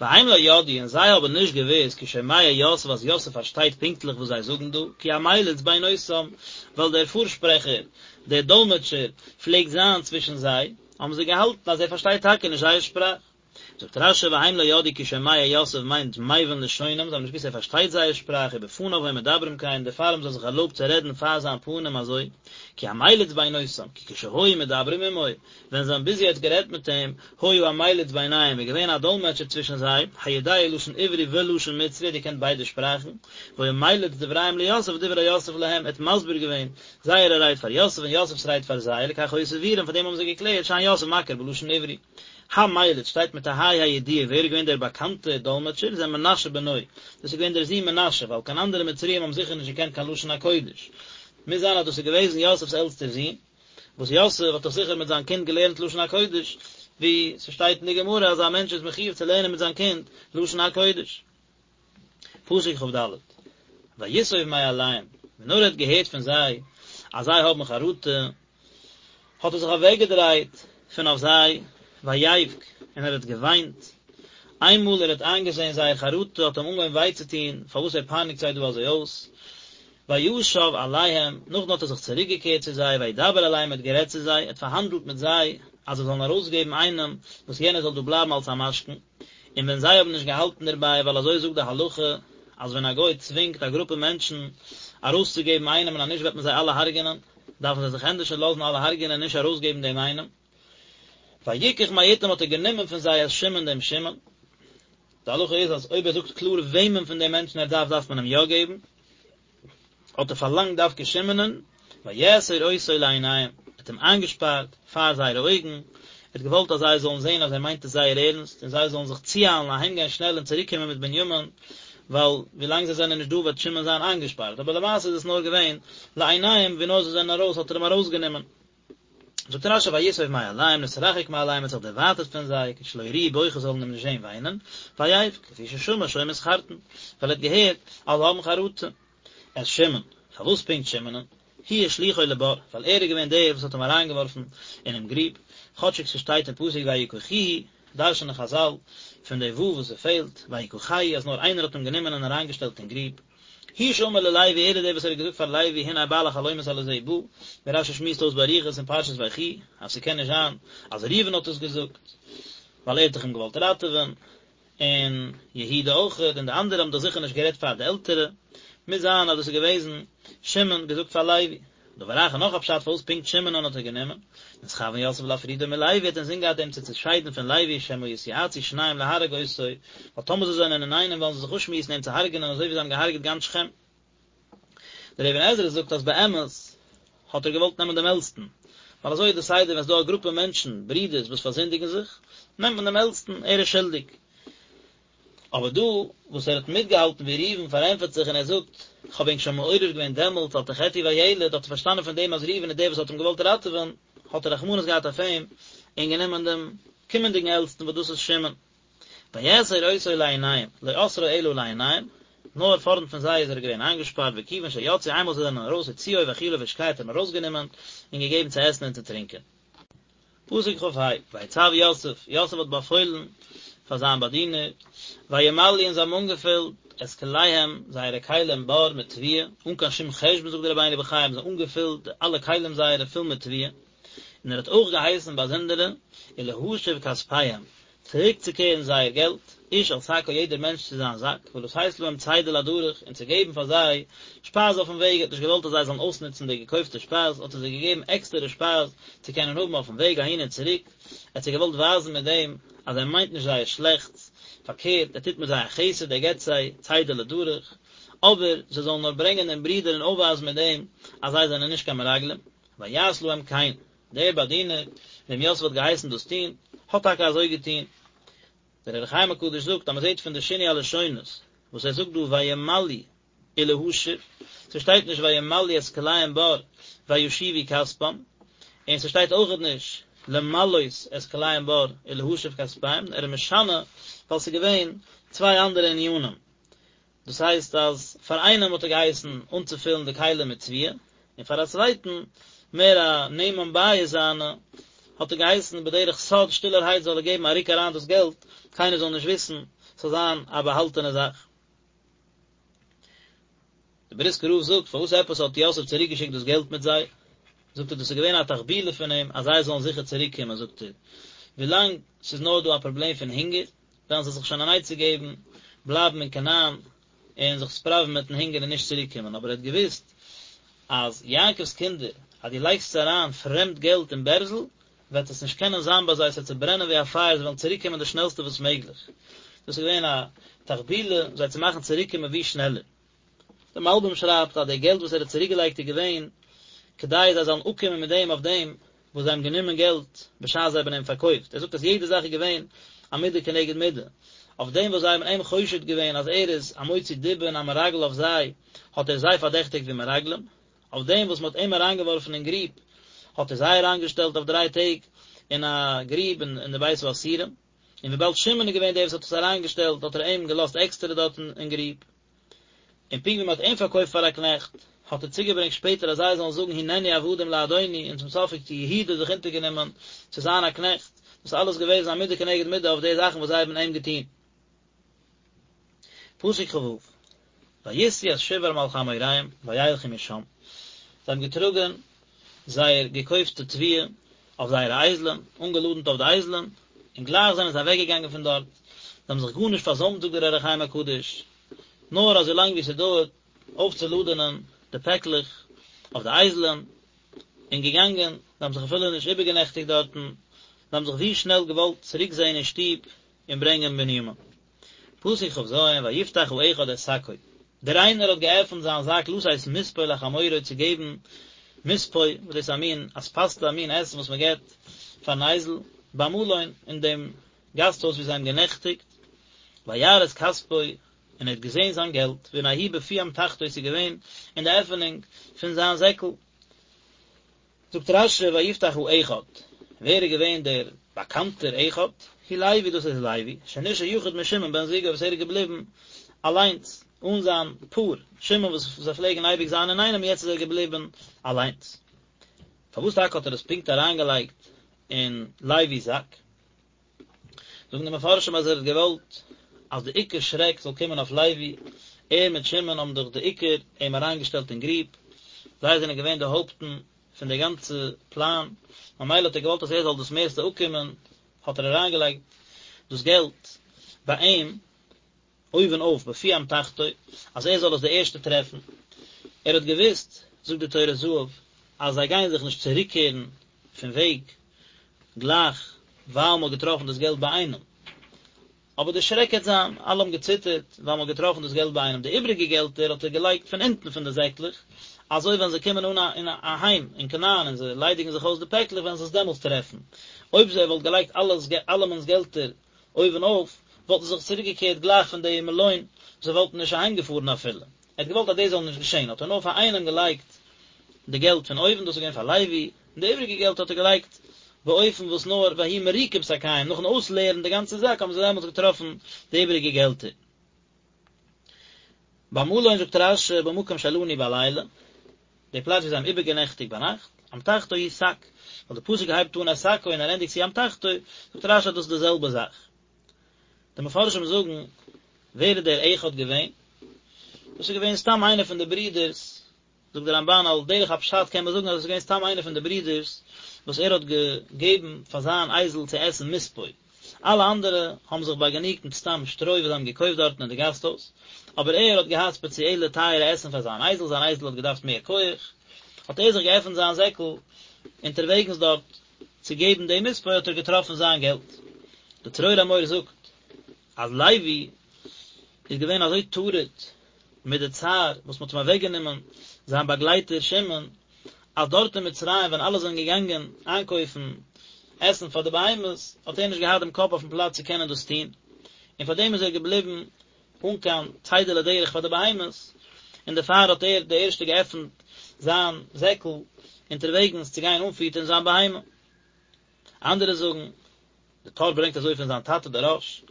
Speaker 1: והם לא ידעו און זיי האבן נישט געוואוסט כי שומע יוסף אז יוסף פארשטייט פונקטליך וואס זיי זאגן דא, כי המליץ בינותם, ווייל דער פארשפרעכער, דער דאלמעטשער, פלעגט זיין צווישן זיי, האבן זיי געהאלטן אז ער פארשטייט טאקע נישט זייער שפראך. זאגט רשי והם לא ידעו כי שומע יוסף מיינט מבין לשונם, זיי האבן נישט געוואוסט ער פארשטייט זייער שפראך, ובפניו היו מדברים כן, דערפאר האבן זיי זיך ערלויבט צו רעדן פאר זיין פנים אזוי, כי המליץ בינותם, כי כשהיו מדברים עמו, ווען זיי האבן ביז יעצט גערעדט מיט אים, היה המליץ ביניהם, איז געווען א דאלמעטשער צווישן זיי, היודע לשון עברי ולשון מצרי, ער האט געקענט ביידע שפראכן, והיה מליץ דבריהם ליוסף ודברי יוסף להם, ער האט מסביר געווען זייערע רייד פאר יוסף און יוסף'ס רייד פאר זיי, לכך היו סבורים, פאר דעם האבן זיי געקלערט שאין יוסף מכיר בלשון עברי. המליץ שטייט מיט א ה' הידיעה, ווער איז געווען דער באקאנטער דאלמעטשער, זה מנשה בנו, דאס איז געווען דער זון מנשה, ווייל קיין אנדערע מצריים האבן זיכער נישט געקענט קיין לשון הקודש. מוז זיין אז דאס איז געוועזן יוסף'ס עלטסטער זון. וואס יוסף האט דאך זיכער מיט זיין קינד געלערנט לשון הקודש, ווי ס'שטייט אין די גמרא אז א מענטש איז מחיוב צו לערנען מיט זיין קינד לשון הקודש. פסוק כד, ויסוב מעליהם, ווען נאר ער האט געהערט פון זיי אז זיי האבן חרטה, האט ער זיך אוועקגעדרייט פון אויף זיי, ויבך, און ער האט געוויינט, איינמאל ער האט איינגעזען זייער חרטה האט אים אנגעהויבן וויי צו טון פארוואס ער פייניגט זיי דא אזוי אויס, וישב אליהם, נאכדעם האט ער זיך צוריק געקערט צו זיי, וידבר אליהם, ער האט גערעדט צו זיי, ער האט פארהאנדלט מיט זיי, אז זיי זאלן ארויסגעבן איינעם, וואס יענער זאל דא בלייבן אלס א משכון, און ווען זיי האבן נישט געהאלטן דערביי, ווייל אזוי זאגט די הלכה, אז ווען א גוי צווינגט א גרופע מענטשן ארויסצוגעבן איינעם און אז נישט וועט מען זיי אלע הרג'ענען, דארפן זיי זיך ענדערש לאזן אלע הרג'ענען און נישט ארויסגעבן דעם איינעם. ויקח מאתם האט ער גענומען פון זיי את שמעון דעם שמעון. די הלכה איז אז אויב ער זאגט קלאר וועמען פון די מענטשן ער דארף דארף מען אים יא געבן. האט ער פארלאנגט דווקא שמעונ'ען, ויאסר אותו לעיניהם, ער האט אים איינגעשפארט פאר זייערע אויגן, ער האט געוואלט אז זיי זאלן זען אז ער מיינט עס זייער ערנסט, און זיי זאלן זיך צואיילן אהיימגיין שנעל און צוריקקומען מיט בנימין, ווייל ווילאנג זיי זענען נישט דא וועט שמעון זיין איינגעשפארט, אבער למעשה איז עס נאר געווען לעיניהם, ווי נאר זיי זענען ארויס האט ער אים ארויסגענומען. זאגט רשי ויסוב מעליהם נתרחק מעליהם האט זיך דערווייטערט פון זיי כדי שלא יראוהו בוכה זאלן אים נישט זען וויינען, ויבך לפי ששמע שהיו מתחרטין, ווייל ער האט געהערט אז זיי האבן חרטה. את שמעון, פארוואס פונקט שמעונ'ן? הוא השליכו לבור, ווייל ער איז געווען דער וואס האט אים אריינגעווארפן אינעם גריב, כאטשיג ס'שטייט אין פסוק ויקחוהו, דרש'נען חזל פון די ו' וואס ס'פעלט, ויקחהו, אז נאר איינער האט אים גענומען און אריינגעשטעלט אין גריב. הוא שאמר ללוי ער איז דער וואס ער האט געזאגט פאר לוי הנה בעל החלומות הלזה בא, ווי רשי שמועסט אויס באריכות אין פרשת ויחי אז ס'קען נישט זיין אז ראובן האט עס געזאגט. ווייל ער האט דאך אים געוואלט ראטעווען, און יהודה אויכעט, און די אנדערע האבן דאך זיכער נישט גערעדט פאר די עלטערע, מוז זיין אז דאס איז געוועזן שמעון געזאגט פאר לוי. דבר אחר נאך א פשט פארוואס פונקט שמעונ'ען האט ער גענומען, נתכוון יוסף להפרידו מלוי האט אינזין געהאט אים צו צעשיידן פון לוי שמא יתייעצו שניהם להרוג אותו, ווייל טאמער זיי זענען אינאיינעם וועלן זיי זיך אפשמועסן אים צו הרג'נען אזוי ווי זיי האבן געהארגעט גאנץ שכם. דער אבן עזרא זאגט אז באמת האט ער געוואלט נעמען דעם עלטסטן, ווייל אזוי איז די סדר ווען ס'איז דא א גרופע מענטשן, ברידערס, וואס פארזינדיגן זיך, נעמט מען דעם עלטסטן, ער איז שולדיג. אבער דא וואס ער האט מיטגעהאלטן ווי ראובן פארענטפערט זיך און ער זאגט, כ'האב ענק שוין מעורר געווען דעמאלטס אל תחטאו בילד, האט ער פארשטאנען פון דעם אז ראובן איז דער וואס האט אים געוואלט ראטעווען, האט ער רחמנות געהאט אויף אים און גענומען דעם קומענדיגן עלטסטן וואס דאס איז שמעון. ויאסר אותו לעיניהם, לא אסרו אלא לעיניהם, נאר פארנט פון זיי איז ער געווען איינגעשפארט, וכיוון שיצאו איינמאל זיי זענען ארויס הוציאו והאכילו והשקהו האט ער אים ארויסגענומען און געגעבן צו עסן און צו טרינקען. פסוק כ"ה, ויצו יוסף, יוסף האט באפוילן פאר זיין באדינער, וימלאו און זיי האבן אנגעפילט את כליהם, זייערע כלים בר מיט תבואה, אן קיין שום חשבון זאגט דער רבינו בחיי האבן זיי אנגעפילט אלע כלים זייערע פול מיט תבואה, און ער האט אויך געהייסן באזונדערע, ולהשיב כספיהם, צוריקצוקערן זייער געלט, איש אל שקו יעדער מענטש צו זיין זאק, ולתת להם צידה לדרך, און צו געבן פאר זיי שפייז אויפן וועג, ער האט נישט געוואלט אז זיי זאלן אויסנוצן די געקויפטע שפייז, האט ער זיי געגעבן עקסטערע שפייז צו קענען האבן אויפן וועג אהין און צוריק, ער האט זיי געוואלט ווייזן מיט דעם אז ער מיינט נישט זייער שלעכטס, פארקערט, ער טוט מיט זיי א חסד, ער געבט זיי צידה לדרך, אבער זיי זאלן נאר ברענגען דעם ברודער און אויפווייזן מיט דעם אז זיי זענען נישט קיין מרגלים, ויעש להם כן. דער באדינער, וועם יוסף האט געהייסן דאס טון, האט טאקע אזוי געטון. דער אור החיים הקדוש זאגט אז מען זעט פון די שינוי הלשונות וואס ער זאגט דא וימלאו ולהשיב, ס'שטייט נישט וימלאו את כליהם בר וישיבו כספם, און ס'שטייט אויכעט נישט למלאות את כליהם בר ולהשיב כספיהם, ער איז משנה ווייל ס'איז געווען צוויי אנדערע ענינים. דאס הייסט אז פאר איינעם האט ער געהייסן אנצופילן די כלים מיט תבואה, און פאר א צווייטן, מער א נאמן בית זיינע, האט ער געהייסן בדרך סוד שטילערהייט זאל ער געבן א רוק אריין דאס געלט, קיינער זאל נישט וויסן, ס'זאל זיין א באהאלטענע זאך. דער בריסקער רב זאגט, פארוואס עפעס האט יוסף צוריקגעשיקט דאס געלט מיט זיי? זאגט ער, דאס איז געווען א תחבולה פון אים אז זיי זאלן זיכער צוריקקומען, זאגט ער, ווילאנג ס'איז נאר דא א פראבלעם פון הונגער, וועלן זיי זיך שוין אן עצה געבן, בלייבן אין כנען און זיך ספראווען מיטן הונגער און נישט צוריק קומען, אבער ער האט געוואוסט אז יעקב'ס קינדער, אז דו לייגסט זיי אריין פרעמד געלט אין בערזל, וועט עס נישט קענען זיין ביי זיי, עס וועט צוברענען ווי א פייער, זיי וועלן צוריק קומען די שנעלסטע וואס מעגליך. דאס איז געווען א תחבולה זיי צו מאכן צוריק קומען ווי שנעלער. דער מלבים שרייבט אז די געלט וואס ער האט צוריק געלייגט איז געווען כדי זיי זאלן אפקומען מיט דעם אויף דעם וואס זיי האבן גענומען געלט בשעת זיי האבן אים פארקויפט, ער זאגט אז יעדע זאך איז געווען א מידה כנגד מידה, אויף דעם וואס זיי האבן אים חושד געווען אז ער איז א מוציא דיבה און א מרגל אויף זיי, האט ער זיי פארדעכטיגט ווי מרגלים, אויף דעם וואס מען האט אים אריינגעווארפן אין גריב, האט ער זיי אריינגעשטעלט אויף דריי טעג אין א גריב אין די בית האסירים, און וויבאלד שמעון איז געווען דער וואס האט עס אריינגעשטעלט האט ער אים געלאזט עקסטערע דארטן אין גריב. און פונקט ווי מען האט אים פארקויפט פאר א קנעכט, האט ער צוגעברענגט שפעטער אז זיי זאלן זאגן הננו עבדים לאדוני, און צום סוף האט יהודה זיך אונטערגענומען צו זיין א קנעכט, דאס איז אלעס געוועזן א מידה כנגד מידה אויף די זאכן וואס זיי האבן אים געטון. פסוק כ"ו, וישאו את שברם על חמוריהם וילכו משם, זיי האבן געטראגען זייער געקויפטע תבואה אויף זייערע אייזלען, אנגעלאדנט אויף די אייזלען, און גלייך זענען זיי אוועקגעגאנגען פון דארט, זיי האבן זיך גארנישט פארזוימט זאגט דער אור החיים הקדוש, נאר אזוי לאנג ווי ס'דויערט אויפצולאדענען די פעקלעך אויף די אייזלען, און געגאנגען, זיי האבן זיך אפילו נישט איבערגענעכטיגט דארטן, זיי האבן זיך ווי שנעל געוואלט צוריק זען אין שטוב און ברענגען בנימין. פסוק כ"ז, ויפתח האחד את שקו, דער איינער האט געעפנט זיין זאק לתת מספוא לחמורו צו געבן מספוא, וואס דאס איז א מין אספסתא, א מין עסן וואס מען געבט פארן אייזל, במלון, אין דעם גאסט הויז וואו זיי האבן גענעכטיגט, וירא את כספו, און ער האט געזען זיין געלט, והנה הוא בפי אמתחתו, עס איז געווען אין די עפענונג פון זיין זעקל. זאגט רש"י ויפתח האחד, ווער איז געווען דער באקאנטער אחד? הוא לוי, דאס איז לוי, שנשאר יחיד משמעון בן זוגו וואס ער איז געבליבן אליינס, אן זיין פאר, שמעון וואס זיי פלעגן אייביג זיין אינאיינעם, יעצט איז ער געבליבן אליינס. פארוואס טאקע האט ער עס פונקט אריינגעלייגט אין לוי'ס זאק? זאגן די מפרשים אז ער האט געוואלט אז די עיקר שרעק זאל קומען אויף לוי, ער מיט שמעון האבן דאך די עיקר אים אריינגעשטעלט אין גריב, זיי זענען געווען די הויפטן פון די גאנצע פלאן, ממילא האט ער געוואלט אז ער זאל דאס מערסטע אפקומען, האט ער אריינגעלייגט. דאס געלט ביי אים אויבן אויף בפי אמתחתו, אז ער זאל עס די ערשטע טרעפן. ער האט געוואוסט, זאגט די טורי זהב, אז זיי גייען זיך נישט צוריקקערן פון וועג גלייך ווייל מען האט געטראפן דאס געלט ביי איינעם. אבער די שרעק העט זיין, אלע האבן געציטערט ווייל מען האט געטראפן דאס געלט ביי איינעם, די איבריגע געלטער האט ער געלייגט פון אונטן פון די זעקלעך, אזוי ווען זיי קומען אן אין אהיים אין כנען און זיי ליידיגן זיך אויס די פעקלעך וועלן זיי עס דעמאלטס טרעפן. אויב ער וואלט געלייגט אלעס אלעמענס געלטער אויבן אויף, וואלטן זיי זיך צוריק געקערט גלייך פון די מלון, זיי וואלטן נישט אהיים געפארן אפילו. ער האט געוואלט אז דאס זאל נישט געשען, האט ער נאר פאר איינעם געלייגט די געלט פון אויבן, דאס איז געווען פאר לוי, און די איבריגע געלט האט ער געלייגט באופן וואס נאר ויהי מריקים שקיהם, נאכן אויסלערן די גאנצע זאק האבן זיי דעמאלטס געטראפן די איבריגע געלטער. במלון זאגט רש"י במקום שלנו בלילה, די פלאץ ווי זיי האבן איבערגענעכטיגט ביינאכט, אמתחתו הוא שק, ווייל די פסוק הייבט אן את שקו און ער ענדיגט צו אמתחתו, זאגט רש"י אז דאס איז די זעלבע זאך. די מפרשים זאגן, ווער איז דער אחד געווען? דאס איז געווען סתם איינער פון די ברידערס זאגט דער רמב"ן על דרך הפשט קען מען זאגן אז עס איז געווען סתם איינער פון די ברידערס וואס ער האט געגעבן פאר זיין אייזל צו עסן מספוא, אלע אנדערע האבן זיך באגענוגט מיט סתם שטרוי וואס זיי האבן געקויפט דארטן אין די גאסטהויז, אבער ער האט געהאט ספעציעלע טייערע עסן פאר זיין אייזל, זיין אייזל האט געדארפט מער כח, האט ער זיך געעפנט זיין זעקל אונטערוועגנס דארט צו געבן די מספוא האט ער געטראפן זיין געלט. די צרור המור זאגט אז לוי איז געווען אזוי טרוד מיט די צער וואס מ'האט אים אוועקגענומען זיין באגלייטער שמעון, אז דארט אין מצרים ווען אלע זענען געגאנגען איינקויפן עסן פאר די בהמות, האט ער נישט געהאט דעם קאפ אויפן פלאץ צו קענען דאס טון, און פאר דעם איז ער געבליבן אן קיין צידה לדרך פאר די בהמות, און דערפאר האט ער די ערשטע געעפנט זיין זעקל אונטערוועגנס צו גיין אנפיטערן זיין בהמה. אנדערע זאגן, די טור ברענגט אזוי פון זיין טאטע דער רא"ש,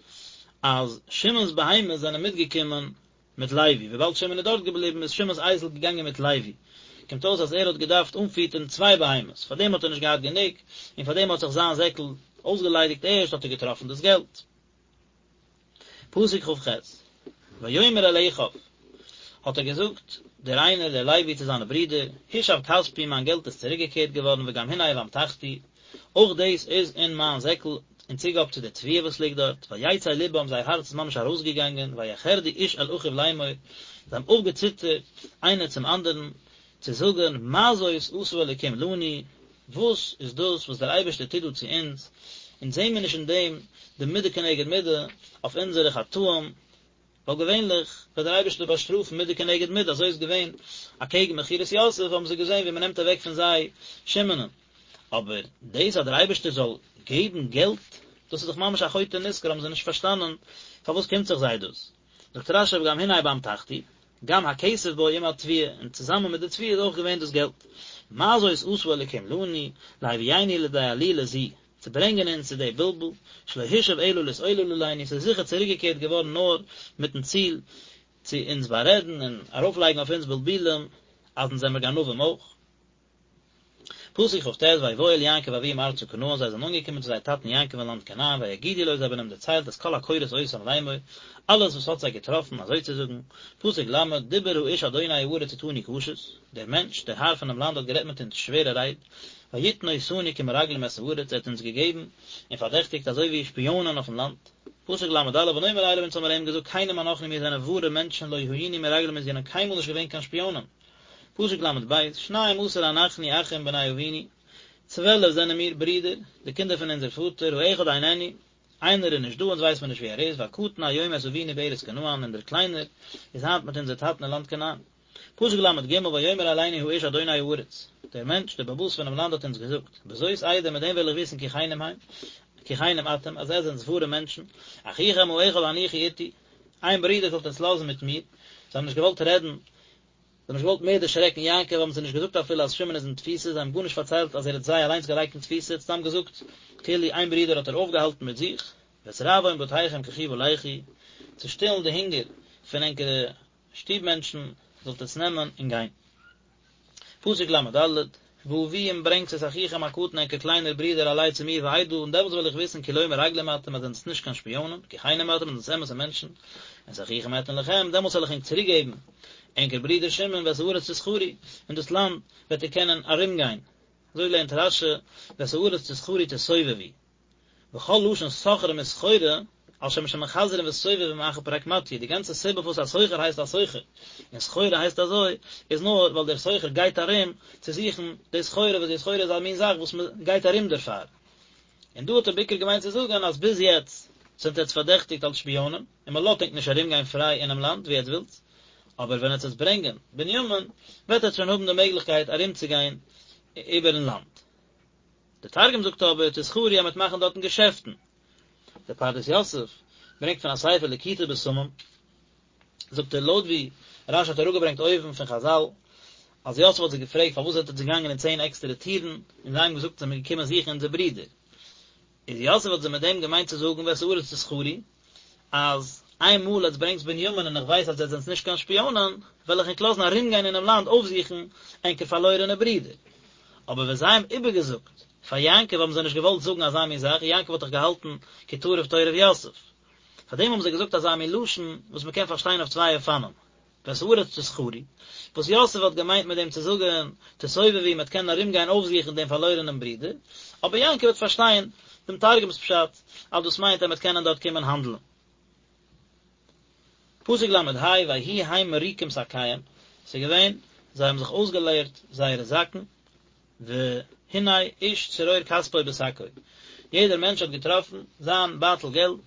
Speaker 1: אז שמעון'ס בהמות זענען מיטגעקומען מיט לוי, וויבאלד שמעון איז דארט געבליבן איז שמעון'ס אייזל געגאנגען מיט לוי, קומט אויס אז ער האט געדארפט אנפיטערן צוויי בהמות, פארדעם האט ער נישט געהאט גענוג, און פארדעם האט זיך זיין זעקל אויסגעליידיגט ערשט האט ער געטראפן דאס געלט. פסוק כ"ח, ויאמר אל אחיו, האט ער געזאגט, דער איינער, דער לוי, צו זיינע ברידער, הושב כספי, מיין געלט איז צוריקגעקערט געווארן, וגם הנה באמתחתי, אויך דאס איז אין מיין זעקל, אין צוגאב צו די תבואה וואס ליגט דארט, ויצא לבם, זייער הארץ איז ממש ארויסגעגאנגען, ויחרדו איש אל אחיו לאמור, זיי האבן אויפגעציטערט איינער צום אנדערן, צו זאגן, מה זאת עשה אלוקים לנו, וואס איז דאס וואס דער אייבערשטער טוט דא צו אונז, אונז זעען מיר נישט אין דעם די מידה כנגד מידה אויף אונזערע חטאים, ווייל געווענליך וועט דער אייבערשטער באשטראפן מידה כנגד מידה, אזוי איז געווען אקעגן מכירת יוסף האבן זיי געזען ווי מען נעמט אוועק פון זיי שמעונ'ען, אבער דאס אז דער אייבערשטער זאל געבן געלט, דאס איז דאך ממש א חוטא נשכר, האבן זיי נישט פארשטאנען פארוואס קומט זיך זיי דאס. זאגט רש"י וגם הנה באמתחתי, גם הכסף בו עם התבואה, און צוזאמען מיט די תבואה איז אויך געווען דאס געלט. מה זאת עשה אלוקים לנו, להביאנו לידי עלילה זו, צו ברענגען אונז צו די בלבול, שלא הושב אלא להתעולל עלינו, ס'איז זיכער צוריקגעקערט געווארן נאר מיטן ציל צו אונז בארעדן און ארויפלייגן אויף אונז בלבולים אז אונז זעמיר גנבים אויך. פסוק כ"ט, ויבואו אל יעקב אביהם ארצה כנען, זיי זענען אנגעקומען צו זייער טאטן יעקב אין לאנד כנען, ויגידו לו, זיי האבן אים דערציילט את כל הקורות אותם לאמור, אלעס וואס האט זיי געטראפן, אזוי צו זאגן, פסוק ל', דיבר האיש אדוני הארץ אתנו קשות, דער מענטש, דער האר פונעם לאנד האט גערעדט מיט אונז שווערע רייד, ויתן אותנו כמרגלים את הארץ, ער האט אונז געגעבן און פארדעכטיגט אזוי ווי שפיאנען אויפן לאנד. פסוק ל"א, ונאמר אליו, אונז האבן מיר אים געזאגט, כנים אנחנו מיר זענען ווארע מענטשן, לא היינו מרגלים אונז זענען קיינמאל נישט געווען קיין שפיאנען. פסוק ל"ב, שנים עשר אנחנו אחים בני אבינו, 12 זענען מיר ברידער, די קינדער פון אונזער פאטער, האחד איננו, איינער איז נישט דא, אונז ווייסט מען נישט וואו ער איז, והקטן היום את אבינו בארץ כנען, און דער קליינער איז היינט מיט אונזער טאטן אין לאנד כנען. פסוק ל"ג, ויאמר אלינו האיש אדוני הארץ, דער מענטש, דער בעל הבית פונעם לאנד האט אונז געזאגט, בזאת אדע, מיט דעם וועל איך וויסן כי כנים הם, כי כנים אתם, אז עטס זענטס ווארע מענטשן, אחיכם האחד הניחו אתי, איין ברודער זאלט עטס לאזן מיט מיר, זיי האבן נישט געוואלט רעדן, זיי האבן נישט געוואלט מער דערשרעקן יעקב, האבן זיי נישט געזאגט אפילו אז שמעון איז אין תפיסה, זיי האבן גארנישט פארציילט אז ער האט זיי אליינס געלייגט אין תפיסה, ער האט סתם געזאגט כאילו איין ברודער האט ער אויפגעהאלטן מיט זיך, ואת רעבון בתיכם קחו ולכו, צו שטילן די הונגער פון ענקערע שטוב מענטשן זאלט עטס נעמען און גיין. פסוק ל"ד, והביאו און ברענגטס את אחיכם הקטן ענקער קליינער ברודער אלי צו מיר ואדעה און דעמאלטס וועל איך וויסן כי לא מרגלים אתם אז זענטס נישט קיין שפיאנען, כי כנים אתם אז זענטס אמת'ע מענטשן, ואת אחיכם אתן לכם, דעמאלטס וועל איך ענק צוריק געבן ענקער ברודער שמעון ואת הארץ תסחרו, און דאס לאנד וועט איר קענען ארום גיין. אזוי לערנט רש"י, ואת הארץ תסחרו תסובבו. וכל לשון סוחרים וסחורה. על שם שמחזרין וסובבים אחר פרקמטיא, די גאנצע סיבה פארוואס א סוחר הייסט א סוחר, און סחורה הייסט אזוי, איז נאר ווייל דער סוחר גייט ארום צו זוכן די סחורה, וואס די סחורה איז א מין זאך וואס מען גייט ארום דערפאר. און דא האט ער בעיקר געמיינט צו זאגן אז ביז יעצט זענט עטץ פארדעכטיגט אלס שפיאנען, און מען לאזט ענק נישט ארום גיין פריי אינעם לאנד ווי עטץ ווילטס, אבער ווען עטץ וועטס ברענגען בנימין, וועט עטץ שוין האבן די מעגליכקייט ארום צו גיין איבערן לאנד. דער תרגום זאגט אבער תסחרו אז מ'וועט מאכן דארטן געשעפטן. דער פרדס יוסף ברענגט פון א ספר ליקוטי בשמים, זאגט ער לויט ווי רשי האט אראפגעברענגט אויבן פון חזל, אז יוסף האט זיי געפרעגט פארוואס זענט עטץ געגאנגען אין צען עקסטערע טירן, און זיי האבן געזאגט זעמיר געקומען זוכן אונזער ברודער. איז יוסף האט זיי מיט דעם געמיינט צו זאגן ואת הארץ תסחרו, אז איין מאל עטס ברענגטס בנימין און איך ווייס אז עטס זענטס נישט קיין שפיאנען, וועל איך ענק לאזן ארומגיין אינעם לאנד אויפזוכן ענקער פארלוירענע ברודער. אבער ווען זיי האבן איבערגעזאגט פאר יעקב האבן זיי נישט געוואלט זאגן אזא מין זאך, יעקב האט דאך געהאלטן כי טרוף טורף יוסף. פארדעם האבן זיי געזאגט אזא מין לשון וואס מען קען פארשטיין אויף צוויי אופנים. ואת הארץ תסחרו, וואס יוסף האט געמיינט מיט דעם צו זאגן, תסובבו, מ'וועט קענען ארומגיין אויפזוכן דעם פארלוירענעם ברודער, אבער יעקב וועט פארשטיין דעם תרגום'ס פשט, אז דאס מיינט אז מ'וועט קענען דארט קומען האנדלען. פסוק ל"ה, ויהי הם מריקים שקיהם, ס'איז געווען, זיי האבן זיך אויסגעלערט זייערע זאקן, והנה איש צרור כספו בשקו, יעדער מענטש האט געטראפן זיין בייטל געלט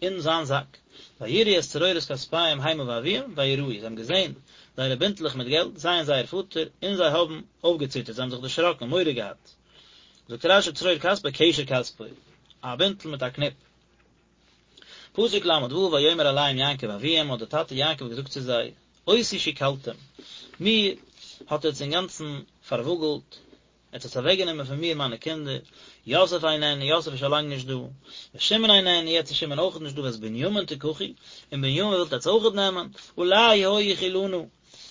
Speaker 1: אין זיין זאק, ויראו את צרורות כספיהם המה ואביהם וייראו, זיי האבן געזען זייערע בינטלעך מיט געלט, זיי און זייער פאטער, און זיי האבן אויפגעציטערט, זיי האבן זיך דערשראקן, מורא געהאט. זאגט רש"י צרור כספו קשר כספו, א בינטל מיט א קניפ. פסוק ל"ו ויאמר אליהם יעקב אביהם, האט דער טאטע יעקב געזאגט צו זיי, אותי שכלתם, מיר האט עטס אינגאנצן פארוואגלט, עטס האטס אוועקגענומען פון מיר מיינע קינדער, יוסף איננו, יוסף איז שוין לאנג נישט דא, ושמעון איננו, יעצט איז שמעון אויכעט נישט דא, ואת בנימין תקחו, און בנימין ווילט עטס אויכעט נעמען, עלי היו כלנה,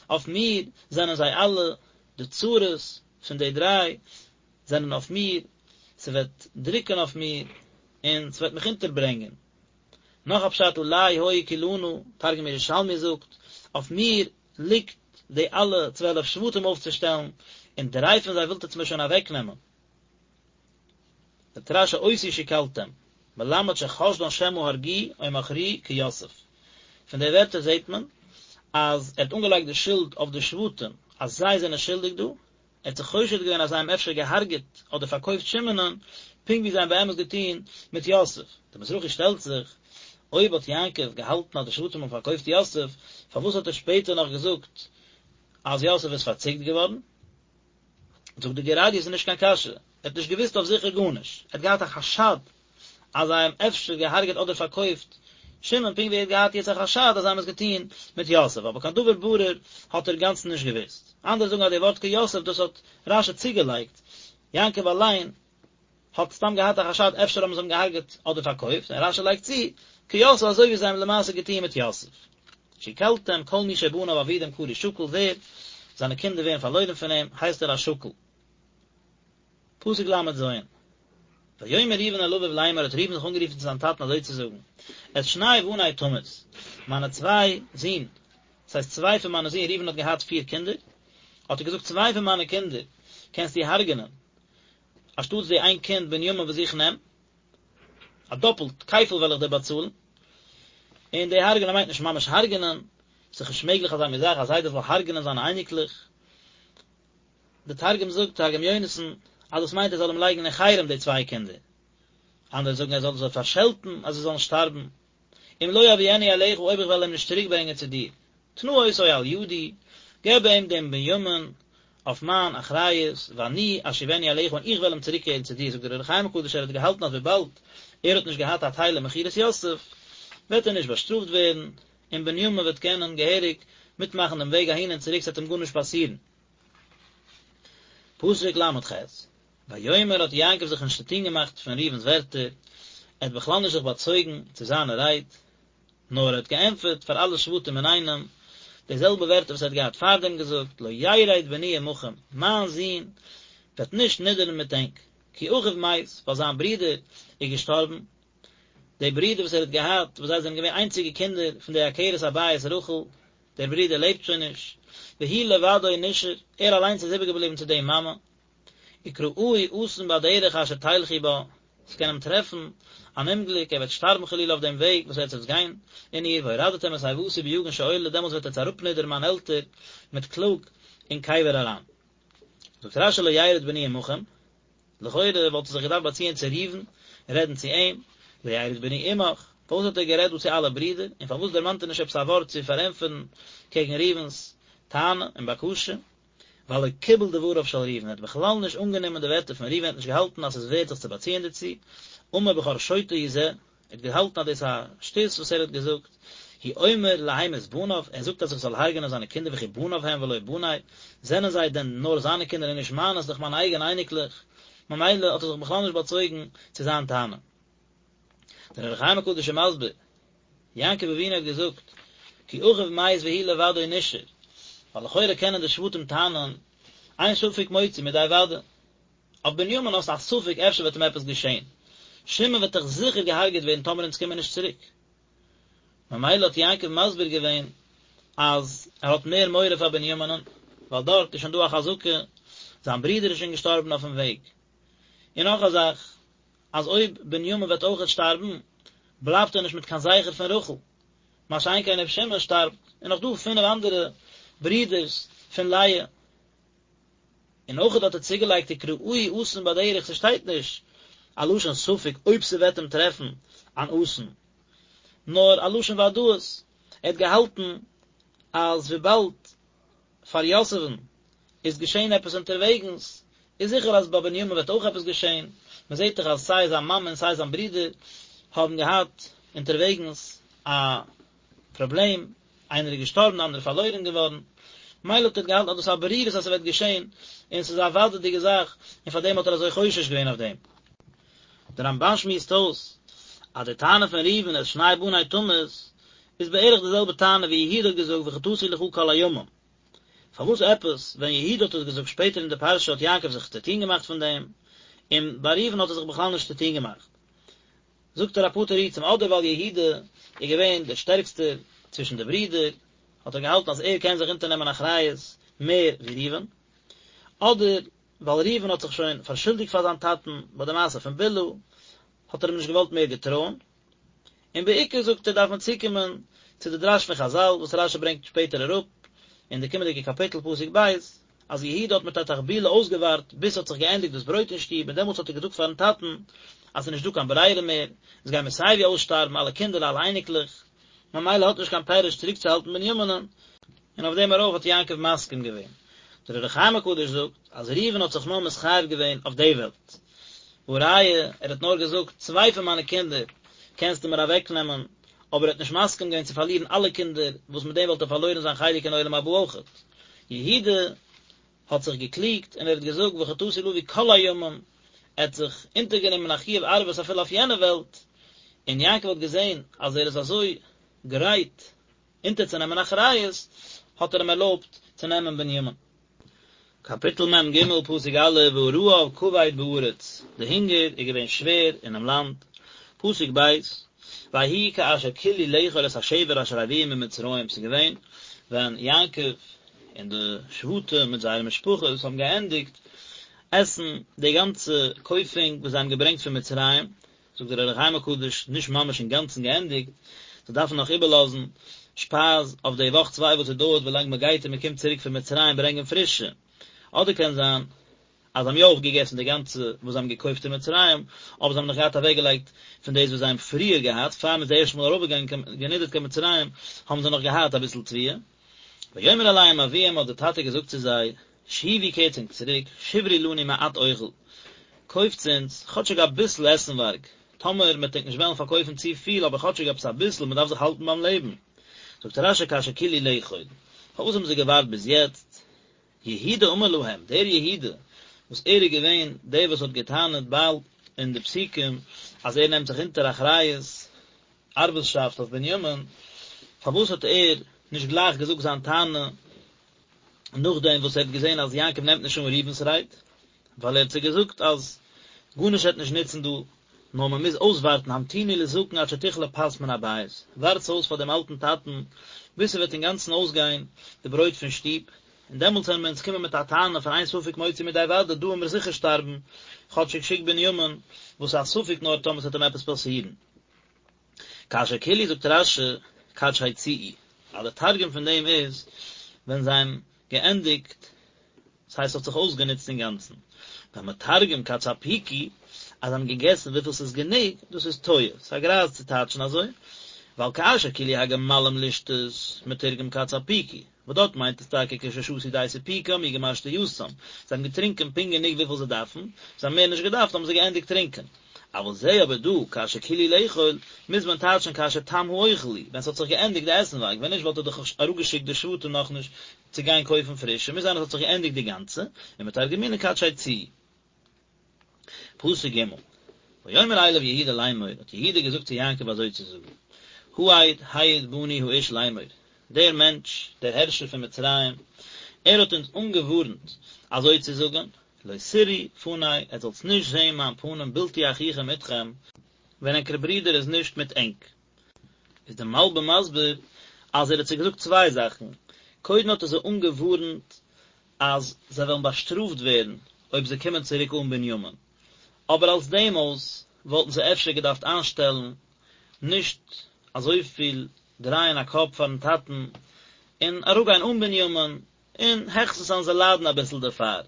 Speaker 1: אויף מיר זענען זיי אלע, די צרות פון די דריי זענען אויף מיר, ס'וועט דרוקן אויף מיר, און ס'וועט מיך אונטערברענגען. נאך א פשט עלי היו כלנה, תרגום ירושלמי זאגט, אויף מיר ליגט די אלע 12 שבטים אויפצושטעלן, און דריי פון זיי ווילט עטס מיר שוין אוועקנעמען. זאגט רש"י אותי שכלתם, מלמד שחשדן שמא הרגוהו או מכרוהו כיוסף. פון די ווערטער זעט מען אז ער האט אנגעלייגט די שולד אויף די שבטים אז זיי זענען שולדיג דא, ער האט זיך חושד געווען אז זיי האבן אפשר געהארגעט אדער פארקויפט שמעונ'ן, פונקט ווי זיי האבן באמת געטון מיט יוסף. דער מזרחי שטעלט זיך, אויב האט יעקב געהאלטן אז די שבטים האבן פארקויפט יוסף, פארוואס האט ער שפעטער נאך געזאגט אז יוסף איז פארציקט געווארן? זאגט די גור אריה, ס'איז נישט קיין קשיא, ער האט נישט געוואוסט אויף זיכער גארנישט, ער האט געהאט א חשד אז זיי האבן אפשר געהארגעט אדער פארקויפט שמעון פונקט ווי ער האט געהאט יעצט א חשד אז זיי האבן עס געטון מיט יוסף אבער קיין דבר ברור האט ער אינגאנצן נישט געוואוסט. אנדערע זאגן אז די ווארט כיוסף דאס האט רש"י צוגעלייגט, יעקב אליין האט סתם געהאט א חשד אפשר האבן זיי אים געהארגעט אדער פארקויפט און רש"י לייגט צו כיוסף אזוי ווי זיי האבן למעשה געטון מיט יוסף. שכלתם כל מי שבניו אבודים קרוי שכול ווער זיינע קינדער ווערן פארלוירן פון אים הייסט ער א שכול. פסוק ל"ז, ויאמר ראובן אל אביו לאמר האט ראובן זיך אנגערופן צו זיין טאטן אזוי צו זאגן, את שני בני תמית, מיינע צוויי זין, דאס הייסט צוויי פון מיינע זין, ראובן האט געהאט פיר קינדער, האט ער געזאגט צוויי פון מיינע קינדער קענסטו הרג'נען, אנשטאטס די איין קינד בנימין וואס איך נעם, א דאפלט, כפל וועל איך דיר באצאלן, און די הרג'נען מיינט נישט ממש הרג'נען, ס'איז נישט מעגליך אזא מין זאך, א זיידע זאל הרג'נען זיינע אייניקלעך, די תרגום זאגט, תרגום יונתן, אז דאס מיינט ער זאל אים לייגן אין חרם די צוויי קינדער. אנדערע זאגן ער זאל זיי פארשעלטן אז זיי זאלן שטארבן. אם לא אביאנו אליך אויב איך וועל אים נישט צוריק ברענגען צו דיר. תנה אותו על ידי, געב אים דעם בנימין אויף מיין אחריות, ואני אשיבנו אליך און איך וועל אים צוריקקערן צו דיר, זאגט דער אור החיים הקדוש ער האט געהאלטן אז וויבאלד ער האט נישט געהאט א טייל אין מכירת יוסף, וועט ער נישט באשטראפט ווערן, און בנימין וועט קענען געהעריג מיטמאכן דעם וועג אהין און צוריק ס'וועט אים גארנישט פאסירן. פסוק ל"ח, ויאמר האט יעקב זיך נישט צוטון געמאכט פון ראובן'ס ווערטער, ער האט בכלל נישט זיך באצויגן צו זיינע רייד, נאר ער האט געענטפערט פאר אלע שבטים אינאיינעם די זעלבע ווערטער וואס ער האט געהאט פארדעם געזאגט, לא ירד בני עמכם, מיין זון וועט נישט נידערן מיט ענק, כי אחיו מת, ווייל זיין ברודער איז געשטארבן, די ברודער וואס ער האט געהאט, וואס זיי זענען געווען איינציגע קינדער פון די עקרת הבית רחל, דער ברודער לעבט שוין נישט, והוא לבדו נשאר, ער אליינס איז איבערגעבליבן צו די מאמע, וקראהו אסון בדרך אשר תלכו בה, עס קען אים טרעפן. אן אומגליק, ער וועט שטארבן חלילה אויף דעם וועג וואס עטס וועטס גיין אין איר, והורדתם את שיבתי ביגון שאולה, דעמאלטס וועט עטס אראפנידערן מיין עלטער מיט קלאג אין קבר אריין. זאגט רשי לא ירד בני עמכם, לכאורה וואלט ער זיך געדארפט באציען צו ראובן און רעדן צו אים, לא ירד בני עמך, פארוואס האט ער גערעדט דא צו אלע ברידער, און פארוואס דערמאנט ער נישט עפעס א ווארט צו פארענטפערן קעגן ראובן'ס טענה און בקשה? ווייל לא קיבל דבריו של ראובן, ער האט בכלל נישט אנגענומען די ווערטער פון ראובן, ער האט נישט געהאלטן אז ס'איז ווערט זיך צו באציען דערצו, אמר בכור שוטה הוא זה, ער האט געהאלטן אז דאס איז א שטות וואס ער האט געזאגט, הוא אומר להמית בניו, ער זאגט אז איך זאל הרג'נען זיינע קינדער וכי בניו הם ולא בני, זענען זיי דען נאר זיינע קינדער און נישט מיינע, ס'איז דאך מיינע אייגענע אייניקלעך, ממילא האט ער זיך בכלל נישט באצויגן צו זיין טענה. דער אור החיים הקדוש איז מסביר, יעקב אבינו האט געזאגט, כי אחיו מת והוא לבדו נשאר, ווייל לכאורה קענען די שבטים טענה'ן, אין ספק מוציא מידי ודאי. אויף בנימין האסטו א ספק אפשר וועט אים עפעס געשען, שמעון וועט דאך זיכער געהארגעט ווערן טאמער אונז קומען נישט צוריק. ממילא האט יעקב מסביר געווען אז ער האט מער מורא פאר בנימינ'ן, ווייל דארט איז שוין דא א חזקה, זיין ברודער איז שוין געשטארבן אויפן וועג. און נאך א זאך, אז אויב בנימין וועט אויכעט שטארבן, בלייבט ער נישט מיט קיין זכר פון רחל, מה שאין כן אויב שמעון שטארבט, איז נאך דא פינף אנדערע ברידערס פון לאה. און אויכעט האט ער צוגעלייגט וקראהו אסון בדרך, ס'שטייט נישט א לשון ספק אויב ס'וועט אים טרעפן אן אסון, נאר א לשון וודאות, ער האט געהאלטן אז וויבאלד פאר יוסף'ן איז געשען עפעס אונטערוועגנס, איז זיכער אז ביי בנימין וועט אויך עפעס געשען, מען זעט דאך אז סיי זיין מאמע און סיי זיין ברודער האבן געהאט אונטערוועגנס א פראבלעם, איינער איז געשטארבן די אנדערע איז פארלוירן געווארן, מילא האט ער געהאלטן אז דאס איז א ברירות אז ס'וועט געשען, און ס'איז א וודאי'דיגע זאך, און פאר דעם האט ער אזוי חושש געווען אויף דעם. דער רמבן שמועסט אויס אז די טענה פון ראובן את שני בני תמית איז בערך די זעלבע טענה ווי יהודה האט געזאגט וחטאתי לך כל הימים. פארוואס עפעס ווען יהודה האט עס געזאגט שפעטער אין די פרשה האט יעקב זיך צוטון געמאכט פון דעם, און ביי ראובן האט ער זיך בכלל נישט צוטון געמאכט? זאגט ער אפאר תירוצים, אדער ווייל יהודה איז געווען דער שטערקסטער צווישן די ברידער, האט ער געהאלטן אז ער קען זיך אונטערנעמען אחריות מער ווי ראובן, אדער ווייל ראובן האט זיך שוין פארשולדיגט פאר זיין טאטן ביי די מעשה פון בלהה, האט ער אים נישט געוואלט מער געטרויען. און בעיקר זאגט ער דארף מען צוקומען צו די דרש פון חזל וואס רשי ברענגט שפעטער אראפ אין די קומענדיגע קאפיטל פסוק ב', אז יהודה האט מיט א תחבולה אויסגעווארט ביז ס'האט זיך געענדיגט דאס ברויט אין שטוב און דעמאלטס האט ער געזאגט פארן טאטן אז ס'איז נישט דא קיין ברירה מער, אונז גיימיר סייווי אויסשטארבן אלע קינדער אלע אייניקלעך, ממילא האט נישט קיין פירוש צוריקצוהאלטן בנימינ'ן, און אויף דעם ארויף האט יעקב מסכים געווען. דער אור החיים הקדוש זאגט אז ראובן האט זיך נאר מתחייב געווען אויף די וועלט. והא ראיה, ער האט נאר געזאגט, צוויי פון מיינע קינדער קענסטו מיר אוועקנעמען, אבער ער האט נישט מסכים געווען צו פארלירן אלע קינדער, וואס מיט דעם וואלט ער פארלוירן זיין חלק אין עולם הבא אויכעט. יהודה האט זיך געקליגט און ער האט געזאגט וחטאתי לאבי כל הימים, ער האט זיך אונטערגענומען א חיוב ערבות אפילו אויף יענע וועלט, און יעקב האט געזען אז ער איז אזוי גרייט אונטערצונעמען אחריות, האט ער אים ערלויבט צו נעמען בנימין. קאפיטל מ ג, פסוק א', והרעב כבד בארץ, די הונגער איז געווען שווער אינעם לאנד, פסוק ב', ויהי כאשר כלו לאכול את השבר אשר הביאו ממצרים, ס'איז געווען ווען יעקב און די שבטים מיט זייערע משפחות האבן געענדיגט עסן די גאנצע קויפונג וואס זיי האבן געברענגט פון מצרים, זאגט דער אור החיים הקדוש, נישט ממש אינגאנצן געענדיגט, זיי דארפן נאך איבערלאזן שפייז אויף די וואך צוויי וואס עס דויערט ווילאנג מען גייט און מען קומט צוריק פון מצרים ברענגען פרישע, אדער קען זיין אז זיי האבן יא אויפגעגעסן די גאנצע וואס זיי האבן געקויפט אין מצרים, אבער זיי האבן נאך געהאט אוועקגעלייגט פון דאס וואס זיי האבן פריער געהאט, פאר מען איז די ערשטע מאל ארויפגעגאנגען גענידערט קיין מצרים, האבן זיי נאך געהאט אביסל תבואה. ויאמר אליהם אביהם האט דער טאטע געזאגט צו זיי, שובו קערטס ענק צוריק, שברו לנו מעט אוכל, קויפטס אונז כאטשיג אביסל עסנווארג, טאמער מ'עט ענק נישט וועלן פארקויפן צו פיל אבער כאטשיג עפעס אביסל, מ'דארף זיך האלטן ביים לעבן. זאגט רשי כאשר כלו לאכול, פארוואס האבן זיי געווארט ביז יעצט? יהודה אמר להם, דער יהודה וואס ער איז געווען דער וואס האט גע'טענה'ט באלד אין די פסוקים אז ער נעמט זיך אונטער אחריות ערבות'שאפט אויף בנימין, פארוואס האט ער נישט גלייך געזאגט זיין טענה נאכדעם וואס ער האט געזען אז יעקב נעמט נישט אן ראובן'ס רייד, ווייל ער האט זיי געזאגט אז גארנישט וועט נישט נוצן דא, נאר מען מוז אויסווארטן המתינו לזקן עד שתכלה פת מן הבית, ווארטס אויס פאר דעם אלטן טאטן ביז ס'וועט אינגאנצן אויסגיין די ברויט פון שטוב. און דעמאלטס וועלן מיר אונז קומען מיט א טענה פון אין ספק מוציא מידי ודאי, דא וועלן מיר זיכער שטארבן, כאטשיג שיק בנימין, וואס איז א ספק נאר טאמער ס'וועט אים עפעס פאסירן. כאשר כלו זאגט רש"י כד שיציאו, אז די תרגום פון דעם איז ווען זיי האבן געענדיגט, דאס הייסט ס'האט זיך אויסגענוצט אינגאנצן, והמתרגם כד ספיקו, אז זיי האבן געגעסן וויפיל ס'איז גענוג, דאס איז טועה, ס'איז א גרייז צו טייטשן אזוי, ווייל כאשר כלו הגמלים לשתות, מתורגם כד ספיקו, וואס דארט מיינט עס טאקע כששתו די סיפוקם אי גמר שתייתם, זיי האבן געטרינקען פונקט גענוג וויפיל זיי דארפן, זיי האבן מער נישט געדארפט האבן זיי געענדיגט טרינקען. אבל זה אבער דא, כאשר כלו לאכול, מוז מען טייטשן כאשר תם האוכל הוא, ווען ס'האט זיך געענדיגט די עסנווארג, ווען נישט וואלט ער דאך אראפגעשיקט די שבטים נאכנישט צו גיין קויפן פרישע, מוז זיין אז ס'האט זיך געענדיגט די גאנצע, ומתרגמינן כד שיציאו. פסוק ג', ויאמר אליו יהודה לאמור, האט יהודה געזאגט צו יעקב אזוי צו זאגן, העד העיד בנו האיש לאמור, דער מענטש, דער הערשער פון מצרים, ער האט אונז אנגעווארנט אזוי צו זאגן, לא תראו פני, עטס זאלטס נישט זען מיין פנים בלתי אחיכם אתכם, ווען ענקער ברודער איז נישט מיט ענק. איז דער מלבים מסביר אז ער האט זיי געזאגט צוויי זאכן, קודם האט ער זיי אנגעווארנט אז זיי וועלן באשטראפט ווערן אויב זיי קומען צוריק אן בנימין, אבער אלס דעם אויס וואלטן זיי אפשר געדארפט איינשטעלן נישט אזויפיל דרייען א קאפ פארן טאטן און אראפגיין אן בנימין, און העכסטנס וועלן זיי ליידן אביסל דערפאר.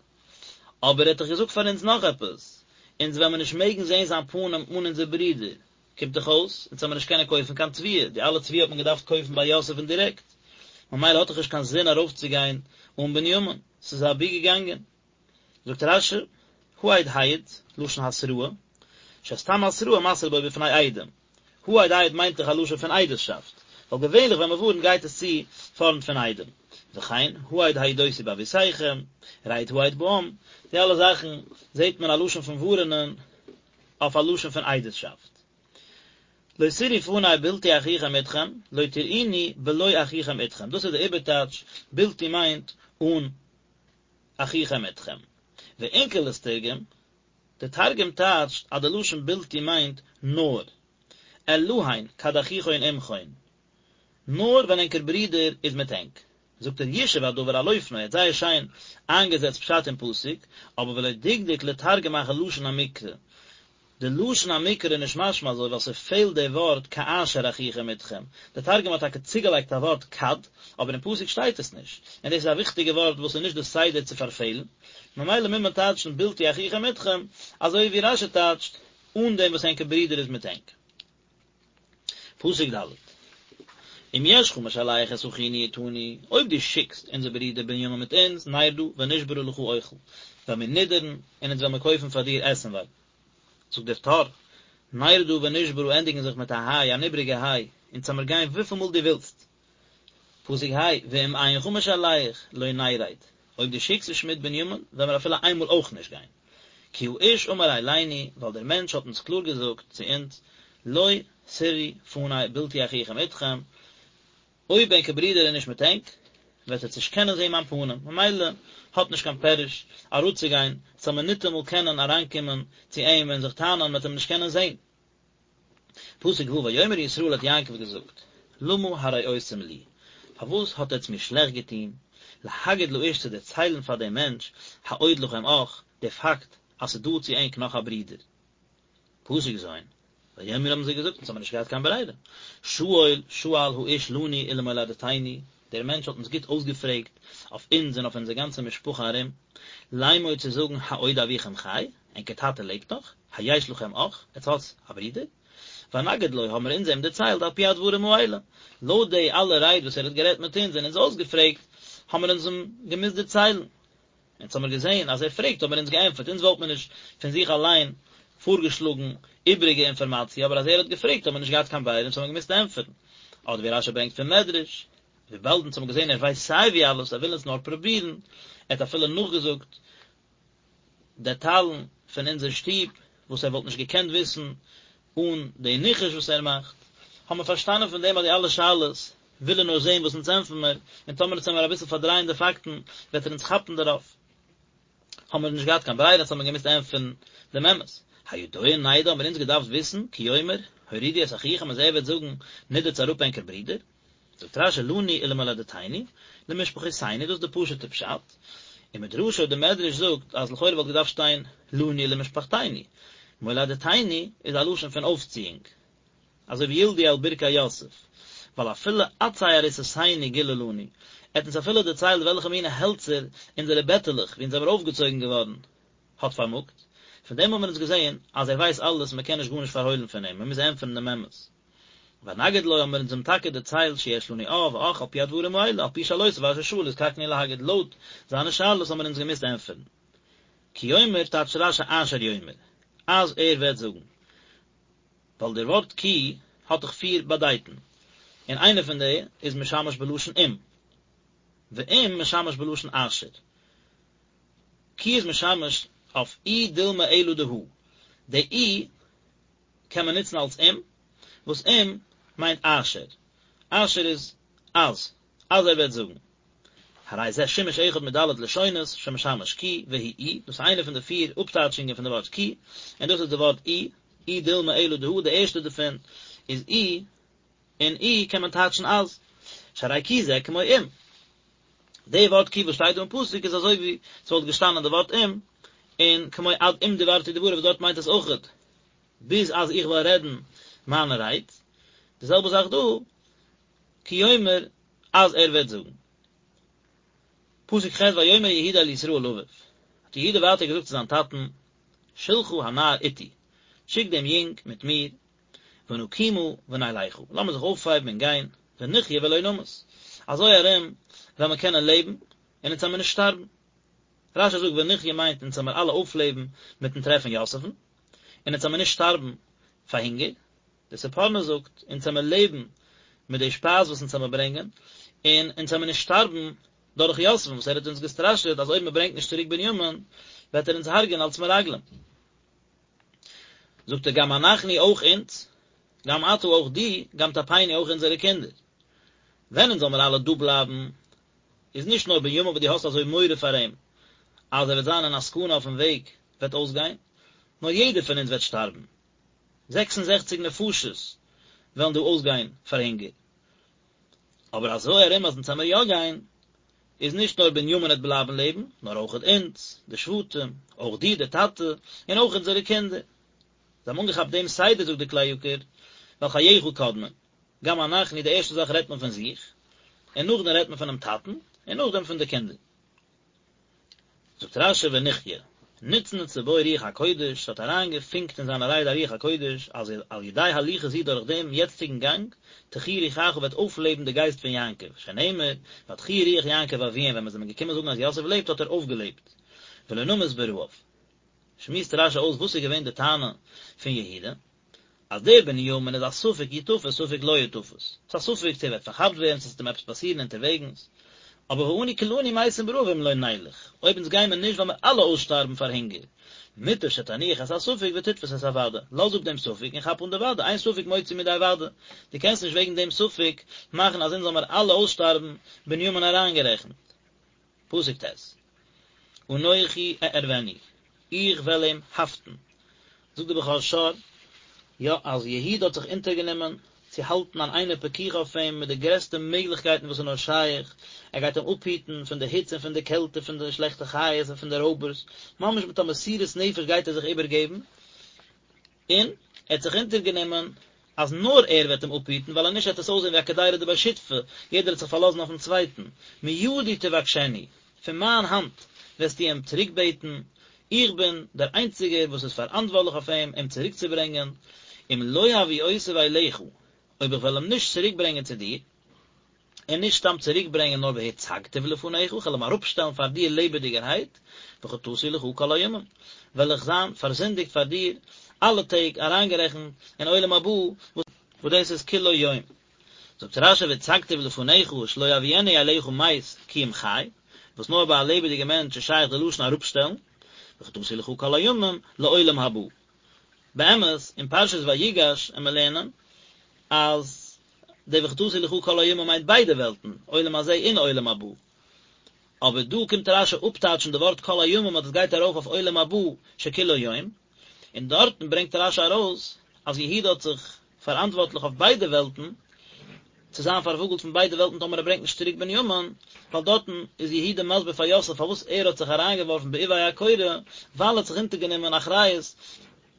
Speaker 1: אבער ער האט דאך געזאגט פאר אונז נאך עפעס, אונז וועלן מיר נישט מעגן זען זיין פנים אן אונזער ברודער, קומט דאך אויס, אונז וועלן מיר נישט קענען קויפן קיין תבואה, די אלע תבואה האט מען געדארפט קויפן ביי יוסף'ן דירעקט, ממילא האט דאך נישט קיין זין ארויפצוגיין אן בנימין, ס'איז אבי געגאנגען. זאגט רש"י, העד העיד, לשון התראה, שסתם התראה מתרה בו בפני עדים. העד העיד מיינט דאך א לשון פון עדות'שאפט, ווייל געווענליך ווען מ'ווארנט גייט עס צו פארנט פון עדים. וכן, העד העידותי באבותיכם, רד העד בעם, די אלע זאכן זעט מען א לשון פון ווארענען אויף א לשון פון עדות'שאפט. לא תראו פני בלתי אחיכם אתכם, לא תראוני בלא אחיכם אתכם, דאס איז די איבערטייטש, בלתי מיינט אן אחיכם אתכם. ואונקלוס תרגם, די תרגום טייטשט אז די לשון בלתי מיינט נאר, אלהין כד אחיכון עמכון, נאר ווען ענקער ברודער איז מיט ענק. זאגט ער יישב הדבר על אופנו, ער האט זייער שיין איינגעזעצט פשט אין פסוק, אבער ולא דקדק לתרגם אחר לשון המקרא, די לשון המקרא איז נישט משמע אזוי ווייל ס'פעלט די ווארט כאשר אחיכם אתכם, די תרגום האט טאקע צוגעלייגט א ווארט כד, אבער אין פסוק שטייט עס נישט, און דאס איז א וויכטיגע ווארט וואס איז נישט די סדר צו פארפעלן, ממילא מוז מען טייטשן בלתי אחיכם אתכם, אזוי ווי רש"י טייטשט, אן דעם וואס ענקער ברודער איז מיט ענק. פסוק ד' אם ישך משלח את אחינו אתנו, אויב דו שיקסט אונזער ברודער בנימין מיט אונז, נרדה ונשברה לך אוכל, וועלן מיר נידערן, און אונז וועלן מיר קויפן פאר דיר עסנווארג. זאגט דער טור, נרדה ונשברה ענדיגן זיך מיט א היי, אן איבריגע היי, אונז וועלן מיר גיין וויפיל מאל דו ווילסט. פסוק ה', ואם אינך משלח, לא נרד, אויב דו שיקסט נישט מיט בנימין, וועלן מיר אפילו איינמאל אויך נישט גיין. כי האיש אמר אלינו, ווייל דער מענטש האט אונז קלאר געזאגט צו אונז, לא תראו פני בלתי אחיכם אתכם, אויב ענקער ברודער איז נישט מיט ענק, וועט עטס נישט קענען זען מיין פנים, ממילא האט נישט קיין פירוש אראפצוגיין, ס'זאל מען ניטאמאל קענען אריינקומען צו אים און זיך טענה'ן, מ'וועט אים נישט קענען זען. פסוק ו' ויאמר ישראל האט יעקב געזאגט, למה הרעותם לי, פארוואס האט עטץ מיר שלעכט געטון, להגיד לאיש צו דערציילן פאר דעם מענטש, העוד לכם אח, די פאקט אז ס'איז דא צו ענק נאך א ברודער. פסוק ז', ויאמרו האבן זיי געזאגט, אונז האבן נישט געהאט קיין ברירה, שאול שאל האיש לנו ולמולדתנו, דער מענטש האט אונז גוט אויסגעפרעגט אויף אונז און אויף אונזער גאנצע משפחה ארום, לאמור צו זאגן העוד אביכם חי, ענקער טאטע לעבט נאך? היש לכם אח, עטס האטס א ברודער? ונגד לו האבן מיר אונז אים דערציילט על פי הדברים האלה, לויט די אלע רייד וואס ער האט גערעדט מיט אונז און אונז אויסגעפרעגט, האבן מיר אונז אים געמוזט דערציילן. אונז האמיר געזען אז ער פרעגט האבן מיר אונז געענטפערט, אונז וואלט מיר נישט פון זיך אליין פארגעשלאגן איבריגע אינפארמאציע, אבער אז ער האט געפרעגט האבן מיר נישט געהאט קיין ברירה אונז האבן געמוזט ענטפערן. אדער ווי רש"י ברענגט פון מדרש, וויבאלד אונז האבן געזען ער ווייסט סיי ווי אלעס, ער וויל אונז נאר פרובירן, ער האט אפילו נאכגעזאגט דעטאלן פון אונזער שטוב וואס ער וואלט נישט געקענט וויסן אן די ניחוש וואס ער מאכט, האבן מיר פארשטאנען פון דעם אז די אלע שאלות וויל ער נאר זען וואס אונז ענטפערן מיר, און טאמער אונז וועלן מיר אביסל פארדרייען די פאקטן וועט ער אונז כאפן דערויף. האבן מיר נישט געהאט קיין ברירה אונז האבן מיר געמוזט ענטפערן דעם אמת. הידוע נדע האבן מיר אונז געדארפט וויסן, כי יאמר, הורידו את אחיכם אז ער וועט זאגן, נידערטס אראפ ענקער ברודער. זאגט רשי לנו ולמולדתנו, למשפחותינו, דאס איז די פשוט'ע פשט, ומדרשו די מדרש זאגט אז לכאורה וואלט געדארפט שטיין לנו ולמשפחתינו, מולדתינו איז א לשון פון אויפציאונג, אזוי ווי ילדו על ברכי יוסף, ווייל אפילו עצי עריסותינו גילה לנו, ער האט אונז אפילו דערציילט וועלכע מינע העלצער אונזערע בעטעלעך וואו אונז זעמיר אויפגעצויגן געווארן האט פארמאגט, פון דעם האבן מיר אונז געזען אז ער ווייסט אלעס מען קען נישט גארנישט פארהוילן פון אים, מען מוז ענטפערן דעם אמת. ונגיד לו האבן מיר אונז אים טאקע דערציילט שיש לנו אב ואח על פי הדברים האלה, על פי שאלותיו אשר שאל נזקקנו להגיד, לויט זיינע שאלות האבן מיר אונז געמוזט ענטפערן. כי יאמר טייטשט רשי אשר יאמר, אז ער וועט זאגן. ווייל דער ווארט כי האט דאך פיר באדייטן, און איינע פון די איז משמש בלשון אם, ואם משמש בלשון אשר. כי איז משמש אויף אי דילמא אלא דהא, די אי קען מען נוצן אלס אם, וואס אם מיינט אשר, אשר איז אז, אז ער וועט זאגן. הרי זה שימוש אחד מד' לשונות שמשמש כי והוא אי, דאס איז איינע פון די פיר אפטייטשונגען פון די ווארט כי, און דאס איז די ווארט אי, אי דילמא אלא דהא, די ערשטע דערפון איז אי, און אי קען מען טייטשן אז, שהרי כי זה כמו אם. די ווארט כי וואס שטייט דא אין פסוק איז אזוי ווי ס'וואלט געשטאנען די ווארט אם, און כמו עד אם דברתי דברי וואס דארט מיינט עס אויכעט ביז אז איך וועל רעדן מיינע רייד, די זעלבע זאך דא, כי יאמר אז ער וועט זאגן. פסוק ח' ויאמר יהודה אל ישראל אביו, האט יהודה ווייטער געזאגט צו זיין טאטן, שלחה הנער אתי, שיק דעם יונג מיט מיר, ונקומה ונלכה, לאמיר זיך אויפהייבן און גיין, ונחיה ולא נמות, אזוי ארום וועלן מיר קענען לעבן, און אונז וועלן מיר נישט שטארבן. רשי זאגט ונחיה מיינט אונז וועלן מיר אלע אויפלעבן מיטן טרעפן יוסף'ן, און אונז וועלן מיר נישט שטארבן פאר הונגער. דער ספורנו זאגט, אונז וועלן מיר לעבן מיט די שפייז וואס אונז וועלן מיר ברענגען, און אונז וועלן מיר נישט שטארבן דורך יוסף'ן וואס ער האט אונז געסטראשעט אז אויב מען ברענגט נישט צוריק בנימין וועט ער אונז הרג'ען אלס מרגלים. זאגט ער גם אנחנו אויך אונז, גם אתה אויך דו, גם טפנו אויך אונזערע קינדער. ווען אונז זאל מיר אלע דא בלייבן, איז נישט נאר בנימין וואס דו האסט אזוי מורא פאר אים אז ער וועט זיין אין א סכנה אויפן וועג וועט אויסגיין, נאר יעדער פון אונז וועט שטארבן. 66 נפשות וועלן דא אויסגיין פאר הונגער. אבער אזוי ארום אז אונז עמיר יא גיין, איז נישט נאר בנימין וועט בלייבן לעבן, נאר אויכעט אונז, די שבטים, אויך דו דער טאטע, און אויך אונזערע קינדער. זיי האבן אנגעכאפט דעם סדר, זאגט דער כלי יקר, ווייל חייך קודמין. גם אנחנו, די ערשטע זאך רעדט מען פון זיך, און נאכדעם רעדט מען פונעם טאטן, און נאכדעם פון די קינדער. זאגט רשי ונחיה, נצנצה בו רוח הקודש, ס'האט אריינגעפונקט אין זיינע רייד א רוח הקודש, אז על ידי הליכה זו דורך דעם יעצטיגן גאנג, תחי רוחך וועט אויפלעבן די גייסט פון יעקב, שנאמר, ותחי רוח יעקב אביהם ווען מ'איז אים געקומען זאגן אז יוסף לעבט האט ער אויפגעלעבט, ולא נמות ברעב. שמועסט רשי אויס וואס איז געווען די טענה פון יהודה, אז דער בנימין איז א ספק יתפס ספק לא יתפס, ס'איז א ספק צו ער וועט פארכאפט ווערן צו ס'וועט אים עפעס פאסירן אונטערוועגנס, אבער ואנו כולנו מתים ברעב אם לא נלך, אויב אונז גיימער נישט וועלן מיר אלע אויסשטארבן פאר הונגער, מוטב שתניח את הספק ותתפוס את הוודאי, לאז אפ דעם ספק און כאפ אן די וודאי, אין ספק מוציא מידי וודאי, דו קענסט נישט וועגן דעם ספק מאכן אז אונז זאל מיר אלע אויסשטארבן, בנימין אריינגערעכנט. פסוק ט', אנכי אערבנו, איך וועל אים האפטן. זאגט דער בכור שור, יא, אז יהודה האט זיך אונטערגענומען צו האלטן אן עינא פקיחא אויף אים מיט די גרעסטע מעגליכקייטן וואס איז נאר שייך, ער גייט אים אפהיטן פון די היץ און פון די קעלט און פון די שלעכטע חיות און פון די רויבערס, ממש מיט א מסירות נפש גייט ער זיך איבערגעבן, און ער האט זיך אונטערגענומען אז נאר ער וועט אים אפהיטן, ווייל אז נישט וועט עס אויסזען ווי א קדירא דבי שותפי, יעדער וועט זיך פארלאזן אויפן צווייטן, מידי תבקשנו, פון מיין האנט וועסטו אים צוריקבעטן, איך בין דער איינציגער וואס איז פאראנטווארטליך אויף אים, אים צוריקצוברענגען, אם לא הביאותיו אליך, אויב איך וועל אים נישט צוריקברענגען צו דיר, און נישט סתם צוריקברענגען נאר והצגתיו לפניך, איך וועל אים אראפשטעלן פאר דיר לעבעדיגערהייט, וחטאתי לך כל הימים, וועל איך זיין פארזינדיגט פאר דיר אלע טעג, אריינגערעכנט אין עולם הבא, וואס דאס איז כולו יום. זאגט רשי והצגתיו לפניך שלא יביאנו אליך מת כי אם חי, וואס נאר ביי א לעבעדיגע מענטש איז שייך די לשון אראפשטעלן, וחטאתי לך כל הימים לעולם הבא. באמת, אין פרשת ויגש עמיר לערנען אז די וחטאתי לך כל הימים מיינט ביידע וועלטן, עולם הזה און עולם הבא. אבער דא קומט רשי אפטייטשן די ווארט כל הימים אז דאס גייט ארויף אויף עולם הבא שכולו יום, און דארטן ברענגט רשי ארויס אז יהודה האט זיך פאראנטווארטליך אויף ביידע וועלטן. צו זיין פארוואגלט פון ביידע וועלטן טאמער ער ברענגט נישט צוריק בנימין, ווייל דארטן איז יהודה מסביר פאר יוסף פארוואס ער האט זיך אריינגעווארפן בעובי הקורה, ווייל ער האט זיך אונטערגענומען אחריות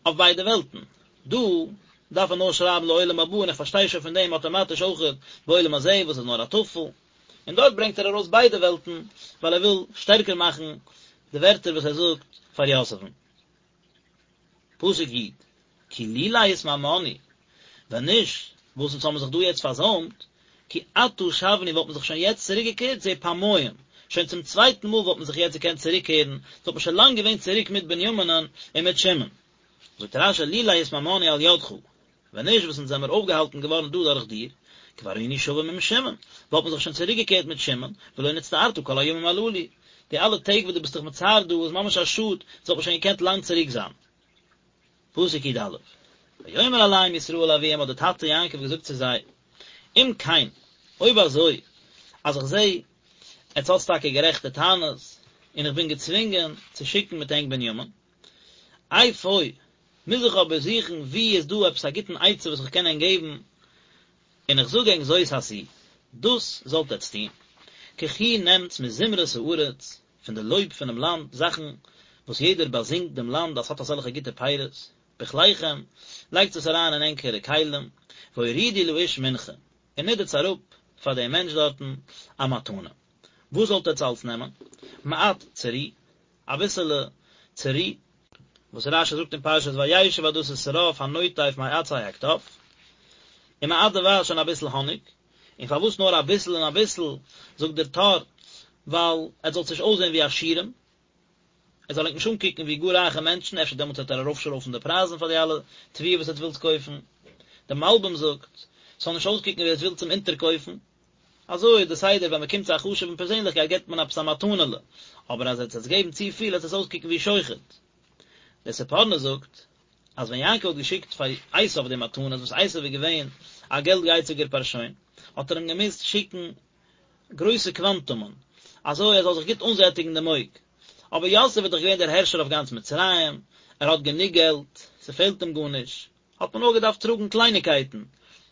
Speaker 1: אויף ביידע וועלטן. דא דארף ער נאר שרייבן לעולם הבא און איך פארשטיי שוין פון דעם אטאמאטיש אויכעט בעולם הזה וואס איז נאר א טפל, און דארט ברענגט ער ארויס ביידע וועלטן ווייל ער וויל שטערקער מאכן די ווערטער וואס ער זאגט פאר יוסף'ן. פסוק י', כי לולא התמהמהנו, ווען נישט וואס אונז האבן זיך דא יעצט פארזוימט, כי עתה שבנו וואלט מען זיך שוין יעצט צוריק געקערט זה פעמיים, שוין צום צווייטן מאל וואלט מען זיך יעצט געקענט צוריק קערן, וואלט מען שוין לאנג געווען צוריק מיט בנימינ'ן און מיט שמעון. זאגט רש"י לולא התמהמהנו על ידך, ווען נישט וואס אונז זעמיר אויפגעהאלטן געווארן דא דורך דיר, כבר היינו שבים עם שמעון, וואלט מען זיך שוין צוריק געקערט מיט שמעון, ולא נצטערת כל הימים הללו, די אלע טעג וואס דו ביסט דיך מצער דא איז ממש א שאד, עס וואלט מען שוין געקענט לאנג צוריק זיין. פסוק י"א, ויאמר אליהם ישראל אביהם האט דער טאטע יעקב געזאגט צו זיי, אם כן, אויב אזוי, אז איך זע עטס האטס טאקע גערעכטע טענות, און איך בין געצווינגען צו שיקן מיט ענק בנימין, אפוא, מוז איך אבער זוכן וואו איז דא עפעס א גוטן עצה וואס איך קען ענק געבן, און איך זאג ענק זאת עשו, דאס זאלט עטס טון, קחו נעמטס מזמרת הארץ, פון די לויב פונעם לאנד, זאכן וואס יעדער באזינגט דעם לאנד אז ס'האט אזעלכע גוטע פירות, בכליכם, לייגטס עס אריין אין ענקערע כלים, והורידו לאיש מנחה, און נידערטס אראפ פאר דעם מענטש דארטן א מתנה. וואס זאלט עטס אלץ נעמען? מעט צרי, אביסעלע צרי, וואס רש"י זאגט אין פרשת וישב אז דאס איז שרף הנוטף מעצי הקטף, ומעט דבש און אביסל האניג, און פארוואס נאר אביסל און אביסל, זאגט דער טור, ווייל עטס זאלטס נישט אויסזען ווי עשירים, ער זאל ענק נישט אנקוקן ווי גאר רייכע מענטשן, אפשר דעמאלטס וועט ער ארויפשרויפן די פרייזן פאר די אלע תבואה וואס עטס ווילטס קויפן. דער מלבי"ם זאגט, ס'זאל נישט אויסקוקן ווי עטס ווילטס אים אונטערקויפן. אזוי איז די סדר ווען מ'קומט צו א חשוב'ן פערזענליכקייט געבט מען עפעס א מתנה'לע, אבער אז עטס וועטס געבן צופיל וועט עס אויסקוקן ווי שוחד. דער ספורנו זאגט אז ווען יעקב האט געשיקט פאר עשיו די מתנות וואס עשיו איז געווען א געלט גייציגער פארשוין האט ער אים געמוזט שיקן גרויסע קוואנטומען אזוי ער זאל זיך גוט אנזעטיגן דעם אויג, אבער יוסף איז דאך געווען דער הערשער אויף גאנץ מצרים, ער האט גענוג געלט, ס'פעלט אים גארנישט. האט מען נאר געדארפט טראגן קלייניקייטן,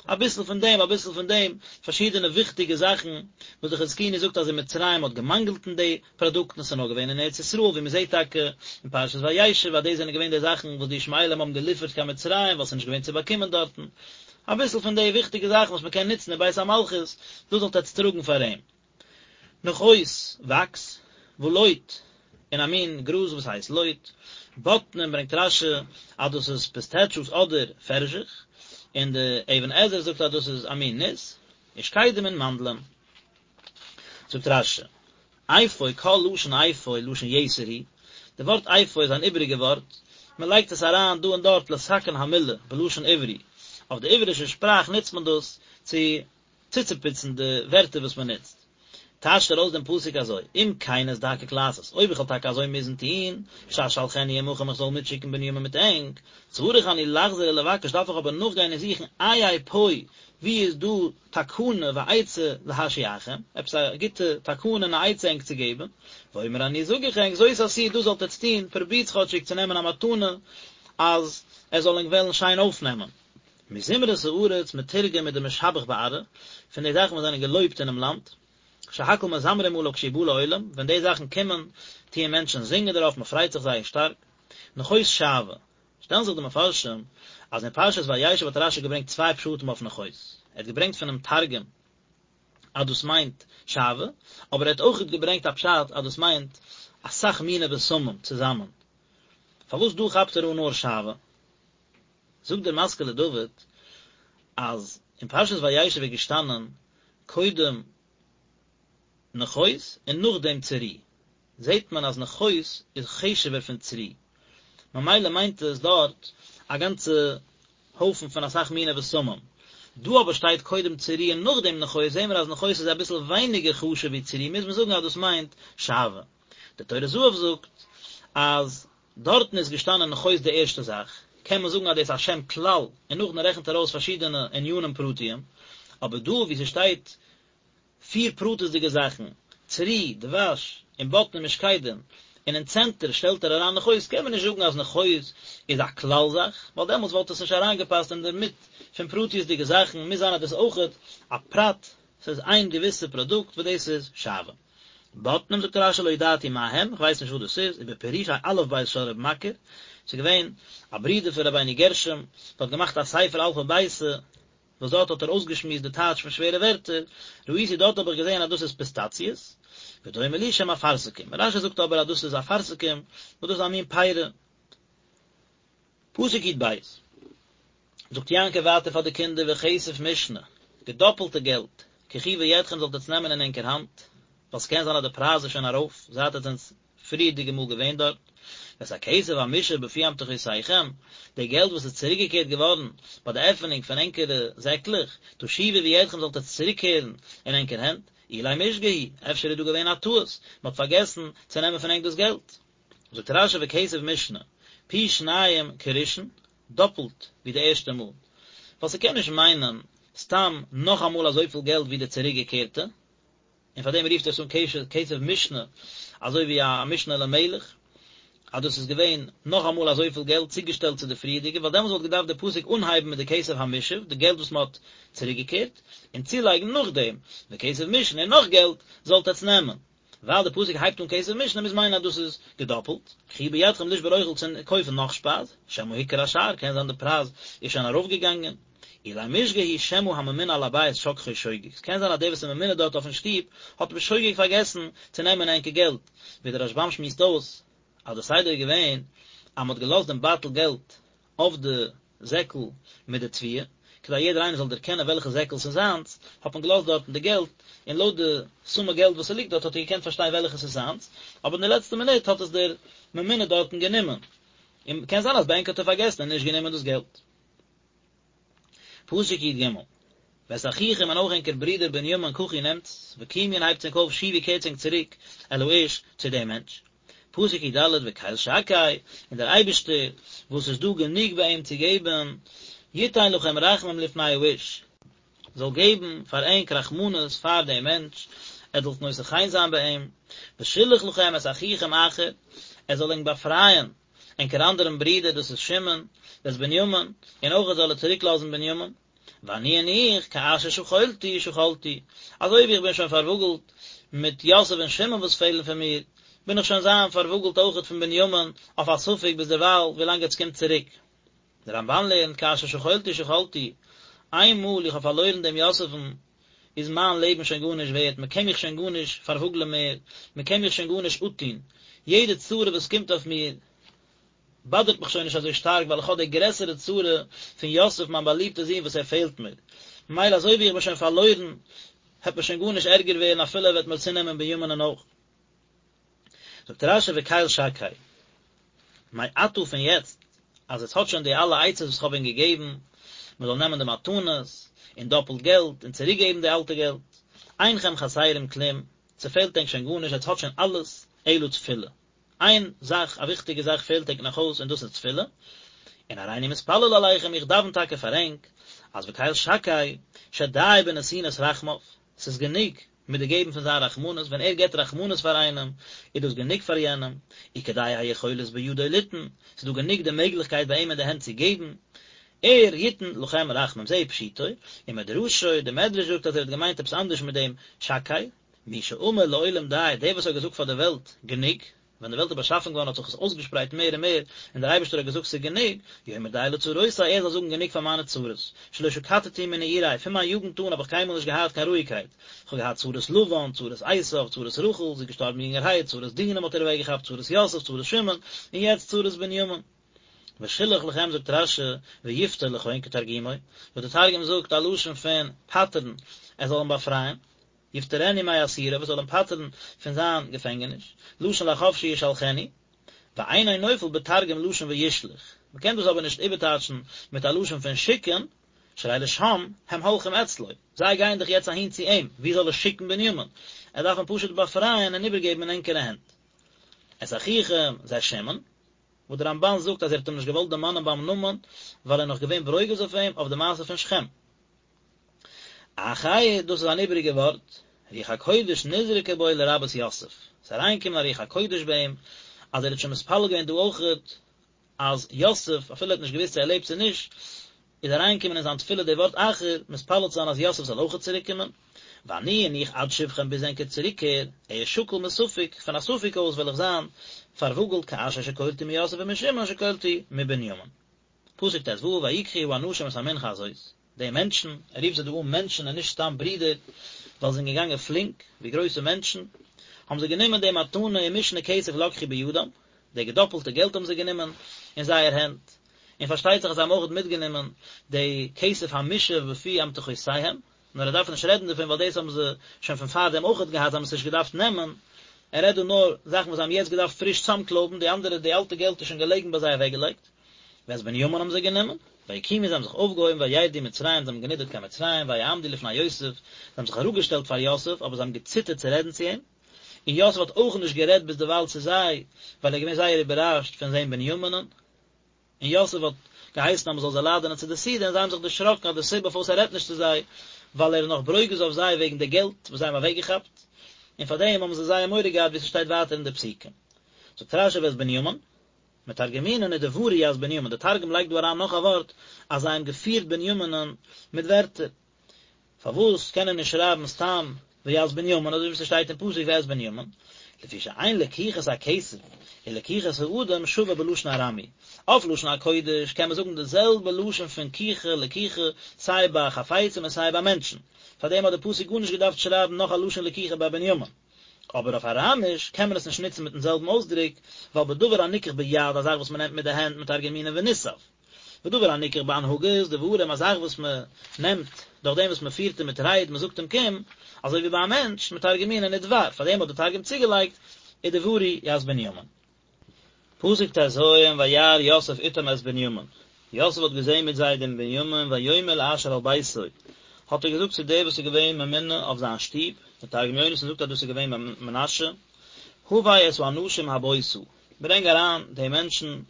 Speaker 1: אביסל פון דעם אביסל פון דעם, פארשידענע וויכטיגע זאכן, וואס די חזקוני זאגט אז אין מצרים האט געמאנגלט אין די פראדוקטן, ס'איז נאר געווען אין ארץ ישראל, ווי מ'זעט טאקע אין פרשת וישב אז דאס זענען געווען די זאכן וואס די ישמעאלים האבן געליפערט קיין מצרים ווייל ס'איז נישט געווען צו באקומען דארטן, אביסל פון די וויכטיגע זאכן וואס מ'קען נוצן אין בית המלכות, דאס זאלט עטץ טראגן פאר אים. נחת, וואקס, ולוט, און א מין גראז וואס הייסט לוט, בוטנים ברענגט רש"י אז דאס איז פיסטעטשאוס אדער פערזיך, און די אבן עזרא זאגט אז דאס איז א מין ניס, ושקדים און מאנדלען. זאגט רש"י, אפוא כל לשון אפוא לשון יתר הוא, די ווארט אפוא איז אן איבעריגע ווארט, מען לייגט עס אריין דא און דארט לתקן המילה בלשון עברי, אויף די עברישע שפראך נוצט מען דאס צו צוצופוצן די ווערטער וואס מען נוצט. טייטשט ער אויס דעם פסוק אזוי, אם כן אזדקק לעשות, אויב איך וועל טאקע אזוי מוזן טון, שאשלחנו עמכם איך זאל מיטשיקן בנימין מיט ענק, צריך אני לחזור ולבקש דארף איך אבער נאכגיין און זוכן איה פה, וואו איז דא תקנה ועצה להשיאכם, עפעס א גוטע תקנה און א עצה ענק צו געבן, ואומר אני זאג איך ענק, זאת עשו דאס זאלט עטץ טון, פרובירטס כאטשיג צו נעמען א מתנה אז ער זאל ענק וועלן שיין אויפנעמען. מזמרת הארץ מתורגם מדמשבח בארעא, פון די זאכן וואס זענען געלויבט אינעם לאנד, שהכל מזמרים עליו כשהוא בא לעולם, ווען די זאכן קומען, טוען מענטשן זינגען דערויף, מען פרייט זיך זייער שטארק. נכות שעוה, שטעלן זיך די מפרשים, אז אין פרשת וישב האט רש"י געברענגט צוויי פשטים אויף נכות, ער האט געברענגט פונעם תרגום אז דאס מיינט שעוה, אבער ער האט אויך געברענגט א פשט אז דאס מיינט אסאך מיני בשמים צוזאמען. פארוואס דא כאפט ער אן נאר שעוה? זאגט דער משכיל לדוד אז אין פרשת וישב איז געשטאנען קודם נכות און נאכדעם צרי, זעט מען אז נכות איז חשוב'ער פון צרי, ממילא מיינט עס דארט א גאנצע הויפן פון אסאך מיני בשמים, דא אבער שטייט קודם צרי און נאכדעם נכות, זעהן מיר אז נכות איז אביסל ווייניגער חשוב ווי צרי, מוז מען זאגן אז דאס מיינט שעוה. דער טורי זהב זאגט אז דארטן איז געשטאנען נכות די ערשטע זאך, קען מען זאגן אז דאס איז א שם כלל, און נאכדעם רעכנט ער אויס פארשידענע ענינים פרטיים, אבער דא וואו ס'שטייט פיר פרטית'דיגע זאכן, צרי, דבש, און בוטנים ושקדים, און אין צענטער שטעלט ער אריין נכות, קען מען נישט זאגן אז נכות איז א כלל זאך, ווייל דעמאלטס וואלט עס נישט אריינגעפאסט אינדערמיט. פון פרטיות'דיגע זאכן, מוז זיין אז דאס איז אויכעט א פרט, ס'איז איין געוויסע פראדוקט וואס דאס איז שעוה. בוטנים זאגט רשי לא ידעתי מה הם, כ'ווייס נישט וואס דאס איז, ובפירושי אלף בית של ר' מכיר, ס'איז געווען א ברודער פון רבינו גרשום, וואס האט געמאכט א ספר אלפא ביתא, וואס דארט האט ער אויסגעשמועסט די טייטש פון שווערע ווערטער, ראיתי דארט האב איך געזען אז דאס איז פיסטאציעס, ודומה לי שהם אפרסקים, רשי זאגט אבער אז דאס איז אפרסקים, וואס דאס איז א מין פירה. פסוק יב, זאגט יעקב ווייטער פאר די קינדער וכסף משנה, געדאפלטע געלט, קחו בידכם זאלט עטס נעמען אין ענקער האנט, ווייל ס'קען זיין אז די פרייז איז שוין ארויף זייט עטס זענטס פריערדיגע מאל געווען דארט, ואת הכסף המושב בפי אמתחותיכם, די געלט וואס איז צוריקגעקערט געווארן ביי די עפענונג פון ענקערע זעקלעך, תשיבו בידכם זאלט עטס צוריקקערן אין ענקער הענט, אולי משגה הוא, אפשר איז דא געווען א טעות, מ'האט פארגעסן צו נעמען פון ענק דאס געלט. זאגט רשי וכסף משנה, פי שניים כראשון, דאפלט ווי די ערשטע מאל, ווייל ס'קען נישט מיינען סתם נאכאמאל אזויפיל געלט ווי די צוריקגעקערטע, און פאר דעם רופט ער עס אן כסף משנה, אזוי ווי א משנה למלך, אז דאס איז געווען נאכאמאל אזויפיל געלט צוגעשטעלט צו די פריערדיגע, ווייל דעמאלס וואלט געדארפט די פסוק אנהייבן מיט די כסף המושב, די געלט וואס מען האט צוריקגעקערט, און צולייגן נאכדעם, וכסף משנה און נאך געלט זאלט עטס נעמען. ווייל די פסוק הייבט אן כסף משנה מוז מיינען אז דאס איז געדאפלט, קחו בידכם לשבור אוכל צו קויפן נאך שפייז, שמא הוכר השער, קען זיין די פרייז איז שוין ארויפגעגאנגען, אולי משגה הוא שמא הממונה על הבית שכחו שוגג, ס'קען זיין אז דער וואס איז ממונה דארט אויפן שטוב האט בשוגג פארגעסן צו נעמען ענקער געלט, ווי דער רשבם שמועסט אויס אז די סדר איז געווען אז מ'האט געלאזט דעם בייטל געלט אויף די זעקל מיט די תבואה, כדי יעדער איינער זאל דערקענען וועלכע זעקל ס'איז זיינס, האט מען געלאזט דארטן די געלט, און לויט די סומע געלט וואס ס'ליגט דארט האט ער געקענט פארשטיין וועלכע ס'איז זיינס, אבער אין די לעצטע מינוט האט עס דער ממונה דארטן גענומען, און קען זיין אז ביי ענק האט ער פארגעסן און נישט גענומען דאס געלט. פסוק י ג, ואת אחיכם און אויך ענקער ברודער בנימין קחו נעמטס, וקומו און הייבטס ענק אויף שובו קערטס ענק צוריק אל האיש צו דעם מענטש. פסוק י ד, וקל שקי, און דער אייבערשטער, וואס איז דא גענוג ביי אים צו געבן, יתן לכם רחמים לפני האיש, זאל געבן פאר ענק רחמנות פאר דעם מענטש, ער זאל נושא חן זיין ביי אים, ושילח לכם את אחיכם אחר, ער זאל ענק באפרייען ענקער אנדערן ברודער דאס איז שמעון, ואת בנימין, און אויך זאל ער צוריק לאזן בנימין, ואני און איך, כאשר שכלתי שכלתי, אזוי ווי איך בין שוין פארוואגלט מיט יוסף און שמעון וואס פעלן פון מיר, בין איך שוין זיין פארוואגלט אויכעט פון בנימין אויף א ספק ביז דערווייל ווילאנג עטס קומט צוריק. דער רמבן לערנט כאשר שכלתי שכלתי, איין מאל איך האב פארלוירן דעם יוסף'ן, איז מיין לעבן שוין גארנישט ווערט, מען קען מיך שוין גארנישט פארוואגלען מער, מען קען מיך שוין גארנישט אפטון, יעדע צרה וואס קומט אויף מיר, באדערט מיך שוין נישט אזוי שטארק, ווייל איך האב די גרעסערע צרה פון יוסף מיין באליבטע זון וואס ער פעלט מיר, ממילא אזוי ווי איך בין שוין פארלוירן, העט מיר שוין גארנישט ערגער ווערן אפילו ער וועט מיר צונעמען בנימינ'ען אויך. זאגט רשי וקל שקי, מעתה פון יעצט אז עטס האט שוין די אלע עצות וואס כ'האב ענק געגעבן, מען זאל נעמען די מתנות, און דאפלט געלט, און צוריק געבן די אלטע געלט, אינכם חסרים כלום, ס'פעלט ענק שוין גארנישט, עטס האט שוין אלעס, אלא תפילה. איין זאך, א וויכטיגע זאך פעלט ענק נאך אויס, און דאס איז תפילה. און הריני מתפלל עליכם, איך דאוון טאקע פאר ענק, אז וקל שקי, שדי בנתינת רחמיו, ס'איז גענוג מיט די געבן פון זיין רחמנות, ווען ער געבט רחמנות פאר איינעם, איז דאס גענוג פאר יענעם, וכדי היכולת בידו ליתן, ס'איז דא גענוג די מעגליכקייט ביי אים אין די הענט צו געבן, ער יתן לכם רחמים, זה פשוטו, ומדרשו, די מדרש זאגט אז ער האט געמיינט עפעס אנדערש מיט דעם שקי, מי שאמר לעולם די, דער וואס האט געזאגט פאר די וועלט, גענוג, ווען די וועלט איז באשאפן געווארן האט זיך עס אויסגעשפרייט מער און מער, און דער אייבערשטער האט געזאגט ס'איז גענוג, יאמר די לצרותי, ער זאל זאגן גענוג פאר מיינע צרות, שלא שקטתי מנעורי, פון מיין יוגנט אן האב איך קיינמאל נישט געהאט קיין רואיגקייט, איך האב געהאט צרות לבן, צרות עשיו, צרות רחל, זי איז געשטארבן יונגערהייט, צרות דינה מ'האט איר אוועקגעכאפט, צרות יוסף, צרות שמעון, און יעצט צרות בנימין. ושילח לכם זאגט רשי, ויפטר לכון כתרגומו, וואס דער תרגום זאגט א לשון פון פטר'ן, ער זאל אים באפרייען. יפטרנו מאסירו וואס זאל אים פטר'ן פון זיין געפענגעניש, לשון לחפשי ישלחנו, ואינו נופל בתרגום לשון וישלח, מען קען דאס אבער נישט איבערטייטשן מיט א לשון פון שיקן, שהרי לשם הם הולכים אצלו, זיי גייען דאך יעצט אהין צו אים, ווי זאל ער שיקן בנימין? ער דארף אים פשוט באפרייען און איבערגעבן אין ענקערע הענט. את אחיכם זה שמעון, וואס דער רמבן זאגט אז ער האט אים נישט געוואלט דערמאנען ביים נאמען, ווייל ער איז נאך געווען ברוגז אויף אים אויף די מעשה פון שכם. אחר, דאס איז אן איבעריגע ווארט, רוח הקודש נזרקה בו לרבות יוסף, ס'איז אריינגעקומען א רוח הקודש ביי אים, אז ער האט שוין מתפלל געווען דא אויכעט, אז יוסף, אפילו ער האט נישט געוואוסט צו ער לעבט צו נישט, איז אריינגעקומען אין זיין תפילה די ווארט אחר, מתפלל צו זיין אז יוסף זאל אויכעט צוריקקומען. ואני און איך עד שובכם ביז ענקער צוריקקער, אהיה שקול מספק, פון א ספק אויס וועל איך זיין פארוואגלט כאשר שקלתי מיוסף ומשמעון שקלתי מבנימין. פסוק ט"ו ויקחו האנשים את המנחה הזאת, די מענטשן, ער רופט זיי דא אן מענטשן און נישט סתם ברידער, ווייל זיי זענען געגאנגען פלינק, ווי גרויסע מענטשן, האבן זיי גענומען די מתנה ומשנה כסף לקחו בידם, די געדאפלטע געלט האבן זיי גענומען אין זייער הענט, און פארשטייט זיך אז זיי האבן אויך מיטגענומען די כסף המושב בפי אמתחותיהם, נאר ער דארף נישט רעדן דערפון ווייל דאס האבן זיי שוין פון פארדעם אויכעט געהאט, זיי האבן עס נישט געדארפט נעמען, ער רעדט דא נאר זאכן וואס זיי האבן יעצט געדארפט פריש צאמקלויבן, די אנדערע די אלטע געלט איז שוין געלעגן ביי זיי אוועקגעלייגט. ואת בנימין האבן זיי גענומען, ויקומו זיי האבן זיך אויפגעהויבן וירדו מצרים זיי האבן גענידערט קיין מצרים ויעמדו לפני יוסף, זיי האבן זיך אראפגעשטעלט פאר יוסף אבער זיי האבן געציטערט צו רעדן צו אים, און יוסף האט אויך נישט גערעדט ביזדערווייל צו זיי, ווייל ער איז געווען זייער איבערראשט פון זען בנימינ'ן. און יוסף האט געהייסן אז מען זאל זיי לאדענען צו די סעודה, און זיי האבן זיך דערשראקן אז די סיבה פארוואס ער רעדט נישט צו זיי, ווייל ער איז נאך ברוגז אויף זיי וועגן די געלט וואס זיי האבן אוועקגעכאפט, און פאר דעם האבן זיי זייער מורא געהאט ווי ס'שטייט ווייטער אין די פסוקים. זאגט רש"י ואת בנימין, מתרגמינן ודברו ית בנימין, די תרגום לייגט דא אריין נאך א ווארט אז זיי האבן געפירט בנימינ'ן מיט ווערטער. פארוואס קען ער נישט שרייבן סתם וית בנימין אזוי ווי ס'שטייט אין פסוק ואת בנימין? לפי שאין לקיחת הכסף ולקיחת האדם שווה בלשון ארמי. אויף לשון הקודש קען מען זאגן די זעלבע לשון פון קיחה לקיחה סיי ביי חפצים און סיי ביי מענטשן. פארדעם האט די פסוק גארנישט געדארפט שרייבן נאך א לשון לקיחה ביי בנימין. אבער אויף אראמיש קען מען עס נישט נוצן מיטן זעלבן אויסדרוק, ווייל בדבר הניקח ביד א זאך וואס מען נעמט מיט די הענט מתרגמינן ונסב. ודבר הניקח בהנהגת דברים, א זאך וואס מען נעמט דורך דעם וואס מען פירט אים מיט רייד, מען זאגט אים קום, אזוי ווי ביי א מענטש, מתרגמינן ודבר, פאר דעם האט די תרגום צוגעלייגט, ודברו ית בנימין. פסוק ט"ז, וירא יוסף אתם את בנימין, יוסף האט געזען מיט זיי דעם בנימין, ויאמר לאשר על ביתו, האט ער געזאגט צו דער וואס איז געווען ממונה אויף זיין שטוב, דער תרגום יונתן זאגט אז דאס איז געווען מנשה, הבא את האנשים הביתה, ברענג אריין די מענטשן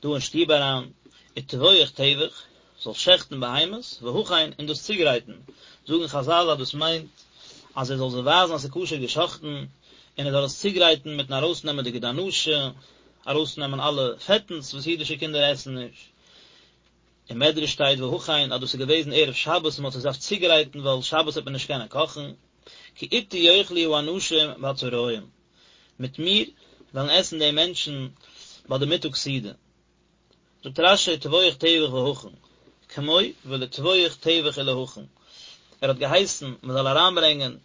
Speaker 1: דא אין שטוב אריין, וטבוח טבח, זאלסט שעכטן בהמות, והכן, און דאס צוגרייטן, זאגן חזל אז דאס מיינט אז ער זאל זיי ווייזן אז ס'איז כשר געשאכטן, און ער זאל עס צוגרייטן מיטן ארויסנעמען די גיד הנשה, ארויסנעמען אלע פעטנס וואס אידישע קינדער עסן נישט. אין מדרש שטייט והכן אז דאס איז געוועזן ערב שבת און מ'האט עס געדארפט צוגרייטן ווייל שבת וועט מען נישט קענען קאכן, כי אתי יאכלו האנשים בצהרים. מיט מיר וועלן עסן די מענטשן ביי די מיטאג סעודה. זאגט רש"י טבוח טבח והכן, כמו ולטבוח טבח ולהכין, ער האט געהייסן מען זאל אריינברענגען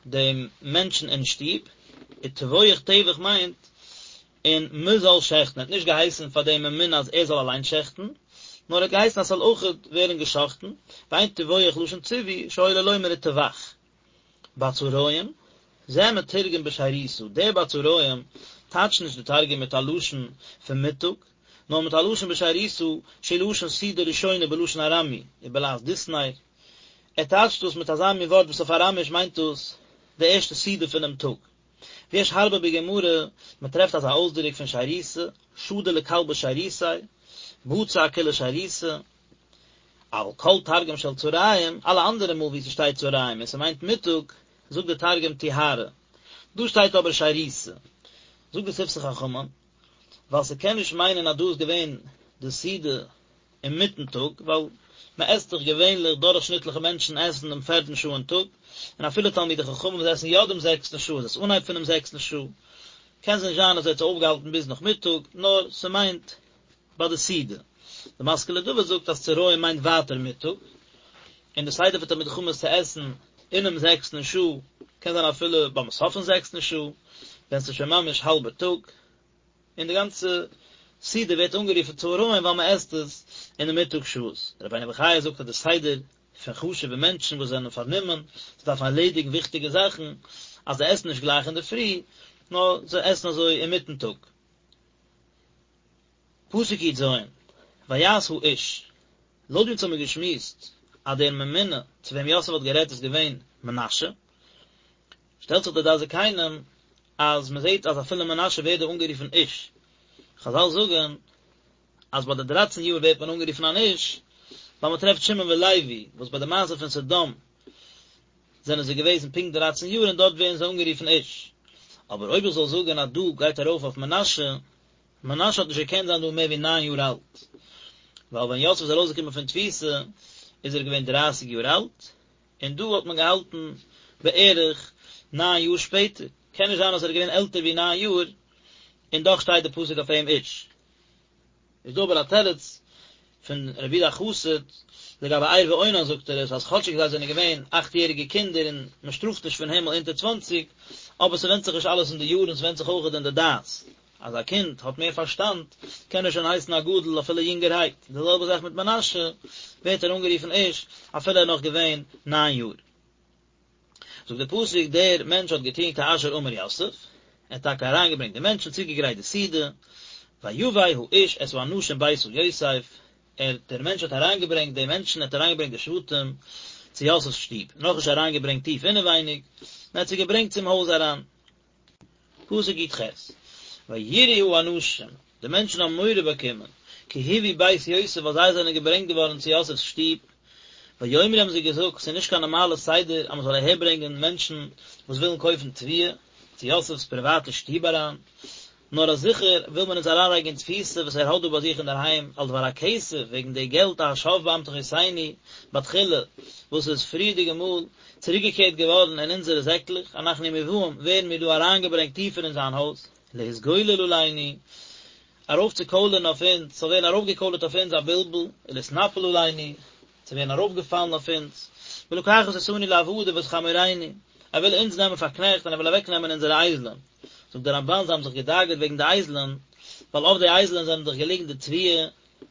Speaker 1: דעם מענטשן אין שטוב, וטבוח טבח מיינט און מען זאל שעכטן, ער האט נישט געהייסן פאר דעם ממונה אז ער זאל אליין שעכטן, נאר ער האט געהייסן אז ס'זאל אויכעט ווערן געשאכטן, ואין טבוח לשון ציווי, שהיה לו לומר וטבח. בצהרים, זה מתורגם בשירותא, דער בצהרים טייטשט נישט די תרגום מיט א לשון פון מיטאג, נאר מיט א לשון בשירותא, שהוא לשון סעודה ראשונה בלשון ארמי, ובלעז דיסנר. ער טייטשט דאס מיט אזא מין ווארט וואס אויף אראמיש מיינט דאס די ערשטע סעודה פונעם טאג. ויש הרבה בגמרא, מען טרעפט אזא אויסדרוק פון שירותא, שדי לכלבא שירותיה, בצע כולא שירותא. אבל כל תרגום של צהריים, אלע אנדערע מאל וואו ס'שטייט צהריים און ס'מיינט מיטאג, זאגט די תרגום טיהרא. דא שטייט אבער שירותא. זאגט די שפתי חכמים, ווייל ס'קען נישט מיינען אז דא איז געווען די סעודה אינמיטן טאג, ווייל מ'עסט דאך געווענליך, דורכשניטליכע מענטשן עסן דעם פערטן שעה אין טאג, און אפילו תלמידי חכמים וואס עסן יא דעם זעקסטן שעה איז עס אנהייב פונעם זעקסטן שעה. קען זיך נישט זיין אז ער האט זיך אויפגעהאלטן ביז נאכמיטאג, נאר ס'מיינט ביי די סעודה. די משכיל לדוד זאגט אז צהריים מיינט ווייטער מיטאג, און די סדר פון תלמידי חכמים איז צו עסן אינעם זעקסטן שעה, קען זיין אפילו ביים סוף פון זעקסטן שעה, ווען ס'איז שוין ממש האלבע טאג, און די גאנצע סעודה ווערט אנגערופן צהריים ווייל מען עסט עס אין די מיטאג שעות. רבינו בחיי זאגט אז די סדר פון חשוב'ע מענטשן וואס זענען פארנומען, זיי דארפן ערלעדיגן וויכטיגע זאכן, אז זיי עסן נישט גלייך אינדערפרי, נאר זיי עסן אזוי אינמיטן טאג. פסוק י"ז, ויעש האיש, לויט ווי אונז האמיר געשמועסט אז דער ממונה צו וועם יוסף האט גערעדט איז געווען מנשה, שטעלט זיך דער דעת זקנים אז מען זעט אז אפילו מנשה ווערט דא אנגערופן איש, חזל זאגן אז ביי די דרייצן יאר ווערט מען אנגערופן אן איש, ווייל מען טרעפט שמעון ולוי וואס ביי די מעשה פון סדום זענען זיי געוועזן פונקט דרייצן יאר און דארט ווערן זיי אנגערופן איש. אבער אויב איך זאל זאגן אז דא גייט ארויף אויף מנשה, מנשה האט נישט געקענט זיין דא מער ווי ניין יאר אלט. ווייל ווען יוסף איז ארויסגעקומען פון תפיסה איז ער געווען דרייסיג יאר אלט, און דא האט מען געהאלטן בערך ניין יאר שפעטער, קען נישט זיין אז ער איז געווען עלטער ווי ניין יאר, און דאך שטייט די פסוק אויף אים איש. איז דא אבער א תירוץ פון רבי יהודה החסיד, לגבי ער ואונן זאגט ער עס אז כאטשיג זיי זענען געווען אכט יעריגע קינדער און מען שטראפט נישט פון הימל אונטער צוואנציג, אבער ס'ווענדט זיך נישט אלעס אין די יארן ס'ווענדט זיך אויכעט אין די דעת, אז א קינד האט מער פארשטאנד קען ער שוין הייסן א גדול אפילו יונגערהייט, די זעלבע זאך מיט מנשה ווערט ער אנגערופן איש אפילו ער איז נאך געווען ניין יאר. זאגט דער פסוק דער מענטש האט געטון כאשר אמר יוסף, ער האט טאקע אריינגעברענגט די מענטשן, צוגעגרייט די סעודה, ויבא האיש את האנשים ביתה יוסף, ער, דער מענטש האט אריינגעברענגט די מענטשן, ער האט אריינגעברענגט די שבטים צו יוסף'ס שטוב, נאכנישט אריינגעברענגט טיף אינעווייניג, נאר ער האט זיי געברענגט צום הויז אריין. פסוק י"ח, וייראו האנשים, די מענטשן האבן מורא באקומען, כי הובאו בית יוסף ווייל זיי זענען געברענגט געווארן צו יוסף'ס שטוב, ויאמרו האבן זיי געזאגט, ס'איז נישט קיין נארמאלע סדר אז מ'זאל אהערברענגען מענטשן וואס ווילן קויפן תבואה, צו יוסף'ס פריוואטע שטוב אריין, נאר אז זיכער וויל מען אונז אריינלייגן אין תפיסה וואס ער האט דא ביי זיך אינדערהיים על דבר הכסף וועגן די געלט השב באמתחותינו בתחילה וואס איז פריערדיגע מאל צוריקגעקערט געווארן אין אונזערע זעקלעך אנחנו מובאים ווערן מיר דא אריינגעברענגט טיפער אין זיין הויז להתגולל עלינו ארויפצוקוילערן אויף אונז ס'זאל ווערן ארויפגעקוילערט אויף אונז א בלבול ולהתנפל עלינו צו ווערן ארויפגעפאלן אויף אונז ולקחת אותנו לעבדים ואת חמורינו ער וויל אונז נעמען פאר קנעכט און ער וויל אוועקנעמען אונזערע אייזלען. זאגט דער רמב"ן זיי האבן זיך געדאגה'ט וועגן די אייזלען, ווייל אויף די אייזלען זענען דאך געליגן די תבואה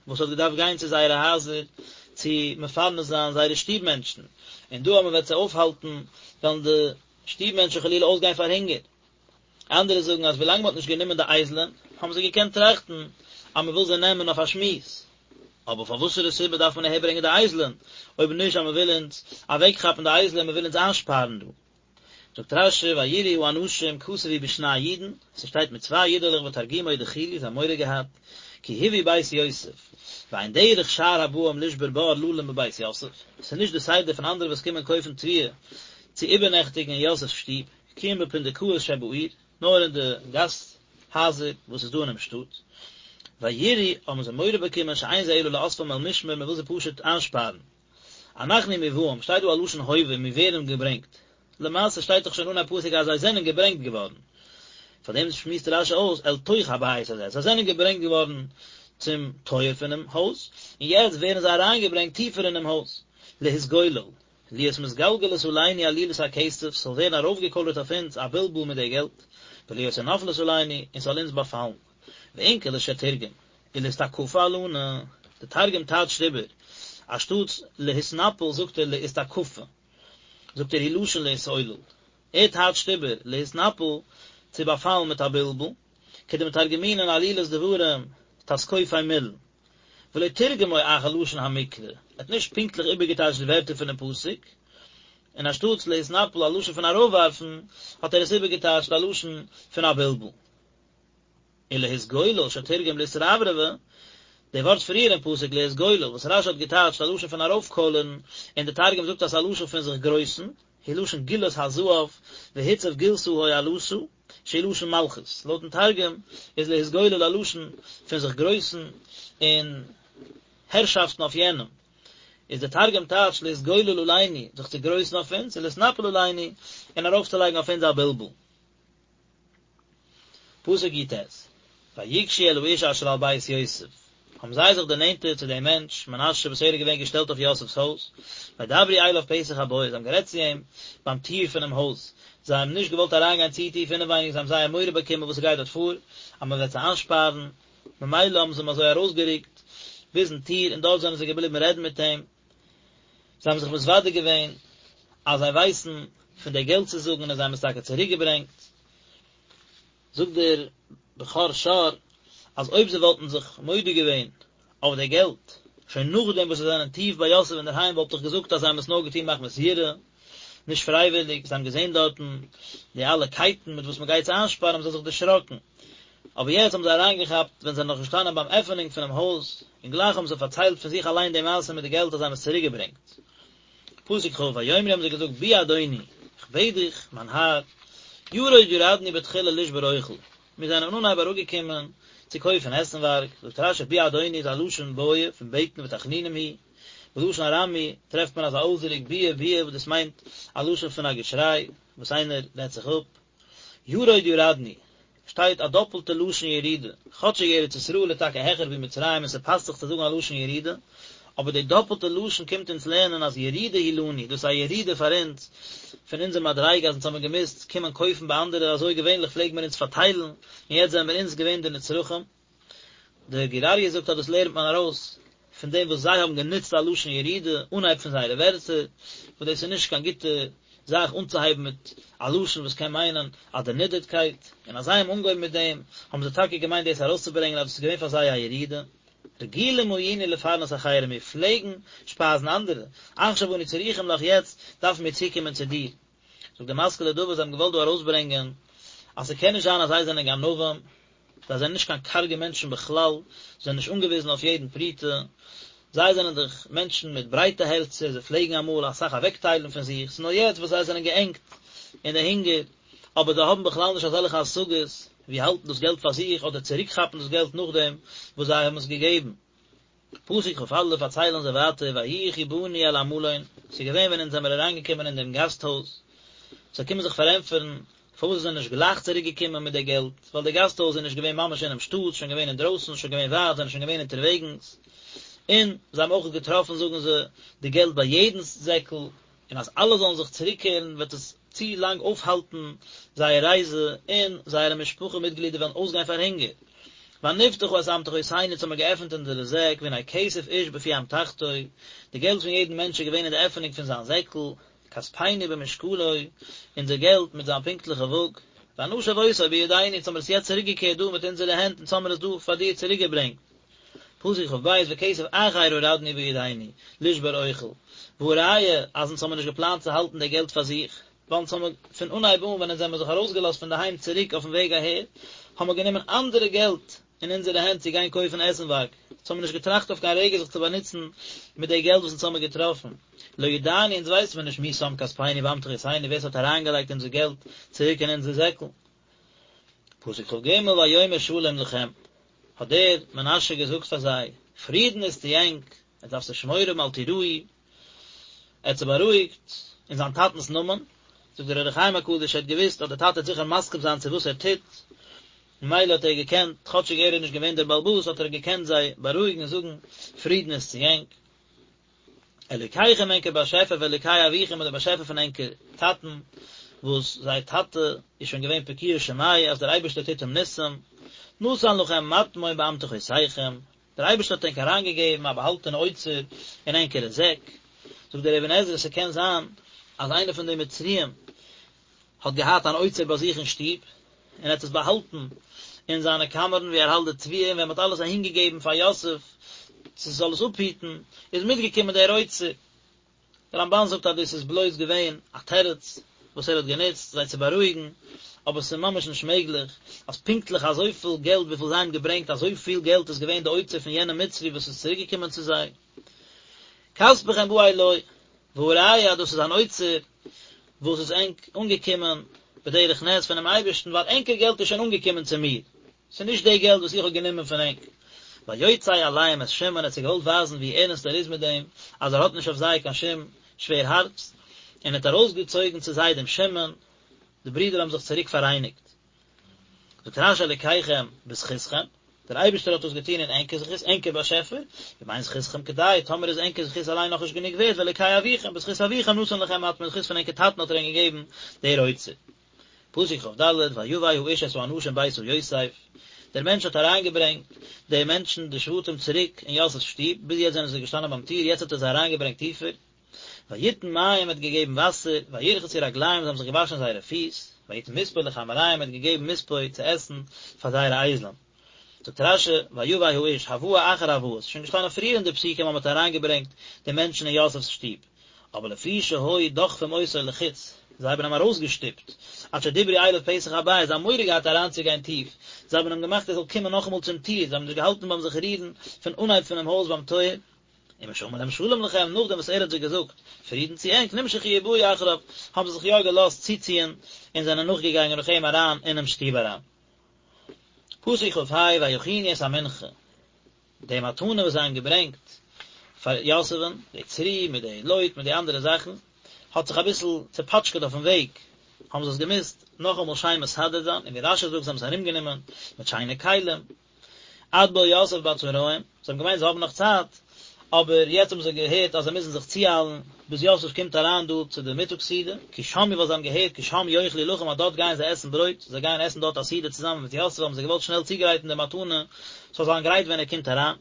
Speaker 1: וואס האט געדארפט גיין צו זייערע הייזער צו מפרנס זיין זייערע שטוב מענטשן, און דא אז מען וועט זיי אויפהאלטן וועלן די שטוב מענטשן חלילה אויסגיין פאר הונגער. אנדערע זאגן אז ווילאנג מען האט נישט גענומען די אייזלען האבן זיי געקענט טראכטן אז מען וויל זיי נעמען אויף א שמועס, אבער פאר וואסערע סיבה דארף מען אהערברענגען די אייזלען אויב נישט אז מען וויל אונז אוועקכאפן די אייזלען, מען וויל אונז איינשפארן דא? זאגט רש"י וייראו האנשים כתוב הוא בשני יודין, ס'שטייט מיט צוויי יודעלעך ותרגומו דחילו זיי האבן מורא געהאט, כי הובאו בית יוסף, ואין דרך שאר הבאים לשבור בר ללון בבית יוסף, ס'איז נישט די סדר פון אנדערע וואס קומען קויפן תבואה צו איבערנעכטיגן אין יוסף'ס שטוב, כי אם בפונדקאות שבעיר, נאר אין די גאסט הייזער וואס איז דא אינעם שטאט. וייראו האבן זיי מורא באקומען שאין זה אלא לאספם אל משמר מען וויל זיי פשוט איינשפארן. אנחנו מובאים, שטייט דא א לשון הווה, מיר ווערן געברענגט. למעשה שטייט דאך שוין אנהייב פסוק אז זיי זענען געברענגט געווארן. פאר דעם שמועסט רש"י אויס אל תוך הבית הזה, זיי זענען געברענגט געווארן צום טויער פונעם הויז, און יעצט ווערן זיי אריינגעברענגט טיפער אינעם הויז, להתגולל, להיות מתגלגלת עלינו עלילת הכסף, ס'זאל ווערן ארויפגעקוילערט אויף אונז א בלבול מיט די געלט, ולהיות נופלת עלינו, און ס'זאל אונז באפאלן. ואונקלוס שתרגם, ולאתתקפא עלנא, די תרגום טייטשט איבער, אנשטאטס להתנפל זאגט ער לאתתקפא, זאגט ער הוא לשון להתעולל, ער טייטשט איבער להתנפל צו באפאלן מיט א בלבול, כדמתרגמינן עלילת דברים תתקופי מילין, ולא תרגמו אחר לשון המקרא, ער האט נישט פונקטליך איבערגעטייטשט די ווערטער פונעם פסוק, און אנשטאטס להתנפל א לשון פון ארויפווארפן, האט ער עס איבערגעטייטשט א לשון פון א בלבול. ולהתגולל שתרגם לאתרברבא, די ווארט פריער אין פסוק להתגולל וואס רש"י האט געטייטשט א לשון פון ארויפקוילערן, און די תרגום זאגט אז ס'איז א לשון פון זיך גרויסן, הוא לשון גילת הזהב, והוצב גילתא הועלתא, שהוא לשון מלכות, לויטן תרגום איז להתגולל א לשון פון זיך גרויסן און הערשאפטן אויף יענעם, איז די תרגום טייטש להתגולל עלינו, זיך צו גרויסן אויף אונז, ולהתנפל עלינו, און ארויפצולייגן אויף אונז א בלבול. פסוק י"ט, ויגשו אל האיש אשר על בית יוסף, האבן זיי זיך דערנענטערט צו דעם מענטש, מנשה, וואס ער איז געווען געשטעלט אויף יוסף'ס הויז, וידברו אליו פתח הבית, זיי האבן גערעדט צו אים ביים טיר פונעם הויז, זיי האבן נישט געוואלט אריינגיין צו טיף אינעווייניג, זיי האבן זייער מורא באקומען וואס ס'גייט דארט פאר, אז מען וועט זיי איינשפארן, ממילא האבן זיי אים אזוי ארויסגערוקט ביזן טיר, און דארט זענען זיי געבליבן רעדן מיט אים. זיי האבן זיך מתוודה געווען אז זיי ווייסן פון די געלט צו זאגן און זיי האבן עס טאקע צוריק געברענגט. זאגט דער בכור שור אז אויב זיי וואלטן זיך מודה געווען אויף די געלט שוין נאכדעם וואס זיי זענען טיף ביי יוסף אינדערהיים וואלט איך געזאגט אז זיי האבן עס נאר געטון מחמת יראה, נישט פרייוויליג, זיי האבן געזען דארטן די אלע קייטן מיט וואס מען גייט זיי איינשפארן האבן זיי זיך דערשראקן. אבער יעצט האבן זיי אריינגעכאפט ווען זיי זענען נאך געשטאנען ביים עפענונג פונעם הויז, און גלייך האבן זיי פארציילט פון זיך אליין די מעשה מיט די געלט אז זיי האבן עס צוריקגעברענגט. פסוק כ', ויאמרו האבן זיי געזאגט בי אדוני, איך בעט דיך, מיין האר, ירד ירדנו בתחילה לשבור אוכל, מיר זענען אנהייב אראפגעקומען. צו קויפן עסנווארג, זאגט רש"י בי אדוני איז א לשון בעיא פון בעטן ותחנונים הוא, בלשון ארמי טרעפט מען אזא אויסדרוק ביע ביע וואס דאס מיינט א לשון פון א געשריי וואס איינער רעדט זיך אפ. ירוד ירדנו, שטייט א דאפלטע לשון ירידה, כאטשיג ארץ ישראל איז טאקע העכער ווי מצרים און ס'פאסט זיך צו זאגן א לשון ירידה, אבער די דאפלטע לשון קומט אונז לערנען אז ירידה היא לנו, דאס איז א ירידה פאר אונז, פון אונזער מדריגה אז אונז האבן געמוזט קומען קויפן ביי אנדערע, אזוי געווענליך פלעגן מיר אונז פארטיילן, און יעצט זענען מיר אונז געווען די נצרכים. דער גור אריה זאגט אז דאס לערנט מען ארויס פון דעם וואס זיי האבן גענוצט א לשון ירידה אנהייב פון זייערע ווערטער, וואס דאס איז נישט קיין גוטע זאך אנצוהייבן מיט א לשון וואס קען מיינען א דערנידערטקייט, און אז זיי האבן אנגעהויבן מיט דעם האבן זיי טאקע געמיינט דאס ארויסצוברענגען אז דאס איז געווען פאר זיי א ירידה. רגילים היינו לפרנס אחרים, מיר פלעגן שפייזן אנדערע, עכשיו אנו צריכים לך יעצט דארפן מיר צוקומען צו דיר. זאגט דער משכיל לדוד, זיי האבן געוואלט דא ארויסברענגען אז ס'קען נישט זיין אז זיי זענען גנבים, זיי זענען נישט קיין קארגע מענטשן בכלל, זיי זענען נישט אנגעוויזן אויף יעדן פרוטה, זיי זענען דאך מענטשן מיט ברייטע הערצער, זיי פלעגן אמאל אסאך אוועקטיילן פון זיך, ס'איז נאר יעצט וואס זיי זענען געענגט אין די הונגער, אבער זיי האבן בכלל נישט אזעלכע השגות ווי האלטן דאס געלט פאר זיך אדער צוריקכאפן דאס געלט נאכדעם וואס זיי האבן עס געגעבן. פסוק כ"א פארציילן זיי ווייטער ויהי כי באנו אל המלון, ס'איז געווען ווען אונז זעמיר אריינגעקומען אין דעם גאסט הויז, זיי קומען זיך פארענטפערן פארוואס זיי זענען נישט גלייך צוריק געקומען מיט די געלט, ווייל די גאסט הויז איז נישט געווען ממש אינעם שטאט, שוין געווען אינדרויסן, שוין געווען ווייט, זענען שוין געווען אונטערוועגנס, און זיי האבן אויך געטראפן זאגן זיי די געלט ביי יעדנס זעקל, און אז אלע זאלן זיך צוריקקערן וועט עס צו לאנג אויפהאלטן זייער רייזע און זייערע משפחה מיטגלידער וועלן אויסגיין פאר הונגער. ונפתחה את אמתחותינו אונז האבן מיר געעפנט אונזערע זעק והנה כסף איש בפי אמתחתו, די געלט פון יעדן מענטש איז געווען אין די עפענונג פון זיין זעקל, כספינו במשקלו, אונזער געלט מיט זיין פונקטליכע וואג, ונשב אותו בידינו אונז האבן מיר עס יעצט צוריקגעקערט דא מיט אונזערע הענט אונז האבן מיר עס דא פאר דיר צוריקגעברענגט. פסוק כ"ב וכסף אחר הורדנו בידינו לשבור אוכל, והא ראיה אז אונז האבן נישט געפלאנט צו האלטן די געלט פאר זיך, ווייל אונז האבן פון אנהייב אן ווען אונז זעמיר זיך ארויסגעלאזט פון די היים צוריק אויפן וועג אהער, האבן מיר גענומען אנדערע געלט אין אונזערע הענט צו גיין קויפן עסנווארג, אונז האבן נישט געטראכט אויף קיין רגע זיך צו באנוצן מיט די געלט וואס אונז האבן געטראפן, לא ידענו אונז ווייסן מיר נישט מי שם כספינו באמתחותינו ווער ס'האט אריינגעלייגט אונזער געלט צוריק אין אונזער זעקל. פסוק כ"ג ויאמר שלום לכם, האט דער מנשה געזאגט פאר זיי, פרידן איז צו ענק, עטס דארפטס נישט מורא האבן אל תיראו, ער האט זיי בארואיגט אין זיין טאטנ'ס נאמען, זאגט דער אור החיים הקדוש, ער האט געוואוסט אז דער טאטע וועט זיכער מסכים זיין צו וואס ער טוט, ממילא האט ער געקענט, כאטשיג ער איז נישט געווען דער בעל הבית, האט ער געקענט זיי בארואיגן און זאגן, פרידן איז צו ענק. אלוקיכם ענקער באשעפער ואלוקי אביכם און דער באשעפער פון ענקער טאטן, וואס זייער טאטע איז שוין געווען פקוע שמיה אז דער אייבערשטער טוט אים ניסים, נתן לכם מטמון באמתחותיכם, דער אייבערשטער האט ענק אריינגעגעבן א באהאלטענע אוצר אין ענקערע זעק, זאגט דער אבן עזרא ס'קען זיין אז איינער פון די מצריים האט געהאט אן אוצר ביי זיך אין שטוב, און ער האט עס באהאלטן אין זיינע קאמערן וואו ער האלט די תבואה, און ווען מען האט אלעס אהינגעגעבן פאר יוסף צו זאל עס אפהיטן, איז מיטגעקומען דער אוצר. דער רמב"ן זאגט אז דאס איז בלויז געווען א תירוץ וואס ער האט גענוצט זיי צו בארואיגן, אבער עס איז ממש נישט מעגליך אז פונקטליך אזויפיל געלט וויפיל זיי האבן געברענגט אזויפיל געלט איז געווען די אוצר פון יענעם מצרי וואס איז צוריקגעקומען צו זיי. כספכם בא אלי, והא ראיה אז דאס איז אן אוצר וואס איז ענק אנגעקומען בדרך נס פונעם אייבערשטן, ווייל ענקער געלט איז שוין אנגעקומען צו מיר, ס'איז נישט די געלט וואס איך האב גענומען פון ענק. ויוצא אליהם את שמעון, ער האט זיי געוואלט ווייזן ווי ערנסט ער איז מיט דעם, אז ער האט נישט אויף זיי קיין שום שווער הארץ, און ער האט ארויסגעצויגן צו זיי דעם שמעון, די ברידער האבן זיך צוריק פאראייניגט. זאגט רש"י אלוקיכם בזכותכם, דער אייבערשטער האט דאס געטון אין ענקער זכות, ענקער באשעפער, ואם אין זכותכם כדאי, טאמער איז ענקער זכות אליין נאכנישט גענוג ווערט, ואלוקי אביכם, בזכות אביכם נתן לכם מטמון, זכות פון ענקער טאטן האט ער ענק געגעבן דער אוצר. פסוק כ"ד, ויבא האיש את האנשים ביתה יוסף, דער מענטש האט אריינגעברענגט די מענטשן, די שבטים צוריק אין יוסף'ס שטוב, ביז יעצט זענען זיי געשטאנען ביים טיר, יעצט האט ער זיי אריינגעברענגט טיפער, ויתן מים האט געגעבן וואסער, וירחצו רגליהם זיי האבן זיך געוואשן זייערע פיס, ויתן מספוא לחמוריהם האט געגעבן מספוא צו עסן פאר זייערע אייזלען. זאגט רש"י, ויבא האיש, הבאה אחר הבאה, ס'איז שוין געשטאנען פריער אין די פסוקים אז מ'האט אריינגעברענגט די מענטשן אין יוסף'ס שטוב, אבער לפי שהיו דוחפים אותו לחוץ, זיי האבן אים ארויסגעשטופט, עד שדיברו אליו פתח הבית, זיי האבן מורא געהאט אריינצוגיין טיף, זיי האבן אים געמאכט ער זאל קומען נאכאמאל צום טיר, זיי האבן נישט געהאלטן ביים זיך רירן פון אנהייב פונעם הויז ביים טויער. ומשאמר להם שלום לכם, נאכדעם וואס ער האט זיי געזאגט פרידן צו ענק, נמשכו ובאו אחריו, האבן זיי זיך יא געלאזט צוציען און זענען נאכגעגאנגען נאך אים אריין אינעם שטוב אריין. פסוק כ"ה ויכינו את המנחה, די מתנה וואס זיי האבן געברענגט פאר יוסף'ן, די צריה מיט די לוט מיט די אנדערע זאכן, האט זיך אביסל צעפאטשקעט אויפן וועג, האבן זיי עס געמוזט נאכאמאל שיין מסדר זיין, און ווי רש"י זאגט זיי האבן עס ארומגענומען מיט שיינע כלים, עד בא יוסף בצהרים, זיי האבן געמיינט זיי האבן נאך צייט, אבער יעצט האבן זיי געהערט אז זיי מוזן זיך צואיילן ביז יוסף קומט אריין דא צו די מיטאג סעודה, כי שמעו ווייל זיי האבן געהערט כי שם יאכלו לחם אז דארט גייען זיי עסן ברויט, זיי גייען עסן דארט א סעודה צוזאמען מיט יוסף האבן זיי געוואלט שנעל צוגרייטן די מתנה ס'זאל זיין גרייט ווען ער קומט אריין.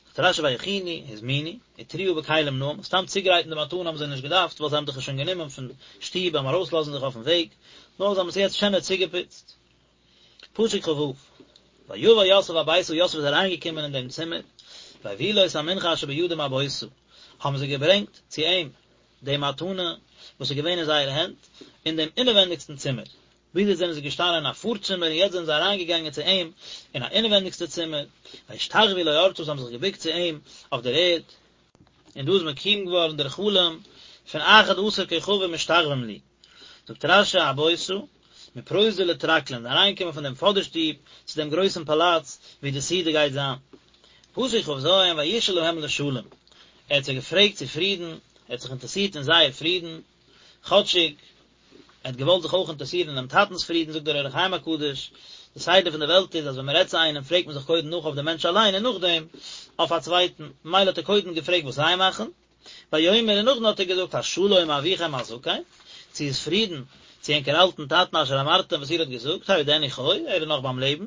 Speaker 1: זאגט רש"י ויכינו, הזמינו, וטרוה בכלים נאים, סתם צוגרייטן די מתנה האבן זיי נישט געדארפט ווייל זיי האבן דאך עס שוין גענומען פון שטוב ביים ארויסלאזן זיך אויפן וועג, נאר זיי האבן עס יעצט שענער צוגעפוצט. פסוק כ"ו, ויבא יוסף הביתה יוסף איז אריינגעקומען אין דעם צימער, ויביאו לו את המנחה אשר בידם הביתה, האבן זיי געברענגט צו אים די מתנה וואס איז געווען אין זייערע הענט, אין דעם אינעווענדיגסטן צימער. ביז יעצט זענען זיי געשטאנען אין א פארצימער און יעצט זענען זיי אריינגעגאנגען צו אים אין א אינעווענדיגסטע צימער, וישתחוו לו ארצה זיי האבן זיך געבוקט צו אים אויף דער ערד, און דא איז מקוים געווארן דער חלום פון אחד עשר כוכבים משתחווים לי. זאגט רש"י הביתה, מפרוזדור לטרקלין, אריינגעקומען פון דעם פאדערשטוב צו דעם גרויסן פאלאץ וואו די סעודה גייט זיין. פסוק כ"ז, וישאל להם לשלום, ער האט זיי געפרעגט צו פרידן, ער האט זיך אינטערעסירט אין זייער פרידן, כאטשיג ער האט געוואלט זיך אויך אינטערעסירן אינעם טאטנ'ס פרידן, זאגט דער אור החיים הקדוש, די סדר פון די וועלט איז אז ווען מען רעדט צו איינעם פרעגט מען זיך קודם נאך אויף דעם מענטש אליין און נאכדעם אויף א צווייטן, ממילא האט ער קודם געפרעגט וואס זיי מאכן, ויאמר און נאכדעם האט ער געזאגט השלום אביכם הזקן, צו איז פרידן צו ענקער אלטן טאטן אשר אמרתם וואס איר האט געזאגט, העודנו חי, ער איז נאך ביים לעבן.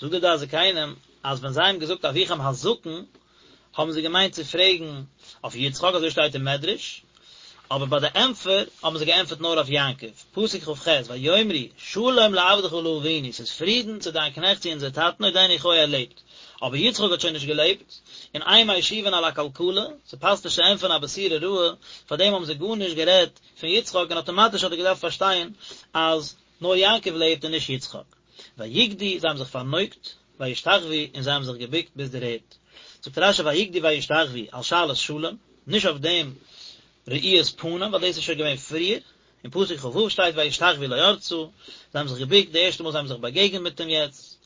Speaker 1: זאגט דער דעת זקנים אז ווען זיי האבן געזאגט אביכם הזקן האבן זיי געמיינט צו פרעגן אויף יצחק אזוי שטייט אין מדרש, אבער ביי די ענטפער האבן זיי געענטפערט נאר אויף יעקב, פסוק כ"ח, ויאמרו שלום לעבדך לאבינו, ס'איז פרידן צו דיין קנעכט צו אונזער טאטן עודנו חי ער לעבט, אבער יצחק האט שוין נישט געלעבט, און אין משיבין על הקלקלה, ס'פאסט נישט צו ענטפערן א בשורה רעה, פארדעם האבן זיי גארנישט גערעדט פון יצחק און אטאמאטיש האט ער געדארפט פארשטיין אז נאר יעקב לעבט און נישט יצחק. ויקדו, זיי האבן זיך פארנויגט, וישתחוו, און זיי האבן זיך געבוקט ביז דער ערד. זאגט רש"י ויקדו וישתחוו על שאלת שלום, נישט אויף דעם ראיית פנים, ווייל דאס איז שוין געווען פריער, אין פסוק כ"ו שטייט וישתחוו לו ארצה, זיי האבן זיך געבוקט די ערשטע מאל זיי האבן זיך באגעגנט מיט אים יעצט,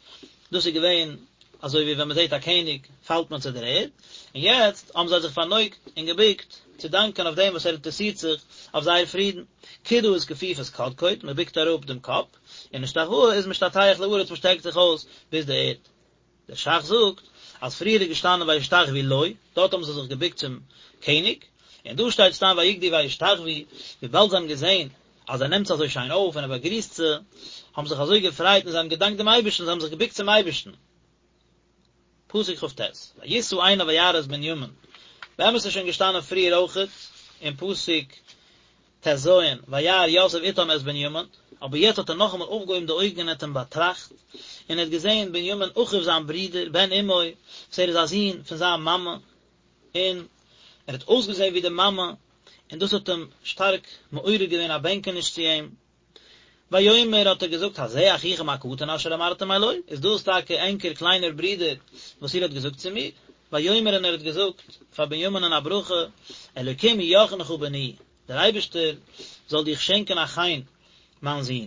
Speaker 1: דאס איז געווען אזוי ווי ווען מען זעט א קעניג פאלט מען צו דער ערד, און יעצט האבן זיי זיך פארנויגט און געבוקט צו דאנקען אויף דעם וואס ער אינטערעסירט זיך אויף זייער פרידן. קידה איז כפיפת קדקוד, מען בוקט אראפ דעם קאפ, און השתחוואה איז משתטח לארץ מען שטרעקט זיך אויס ביז די ערד. דער ש"ך זאגט אז פריער איז געשטאנען וישתחוו לו, דארט האבן זיי זיך געבוקט צום קעניג, און דא שטייט סתם ויקדו וישתחוו, וויבאלד זיי האבן געזען אז ער נעמט זיי אזוי שיין אויף און ער באגריסט זיי, האבן זיך אזוי געפרייט און זיי האבן געדאנקט דעם אייבערשטן, זיי האבן זיך געבוקט צום אייבערשטן. פסוק כ"ט, וישא עיניו וירא את בנימין, באמת איז שוין געשטאנען פריער אויכעט אין פסוק ט"ז, וירא יוסף איתם את בנימין, אבער יעצט האט ער נאכאמאל אויפגעהויבן די אויגן און האט אים באטראכט, און ער האט געזען בנימין אחיו זיין ברודער, בן אמו, וואס ער איז א זון פון זיין מאמע, און ער האט אויסגעזען ווי די מאמע, און דאס האט אים שטארק מעורר געווען א בענקעניש צו אים. ויאמר האט ער געזאגט הזה אחיכם הקטן אשר אמרתם אלי, איז דאס טאקע ענקער קליינער ברודער וואס איר האט געזאגט צו מיר? ויאמר און ער האט געזאגט פאר בנימינ'ען א ברכה, אלוקים יחנך בני, דער אייבערשטער זאל דיך שענקען א חן, מיין זון.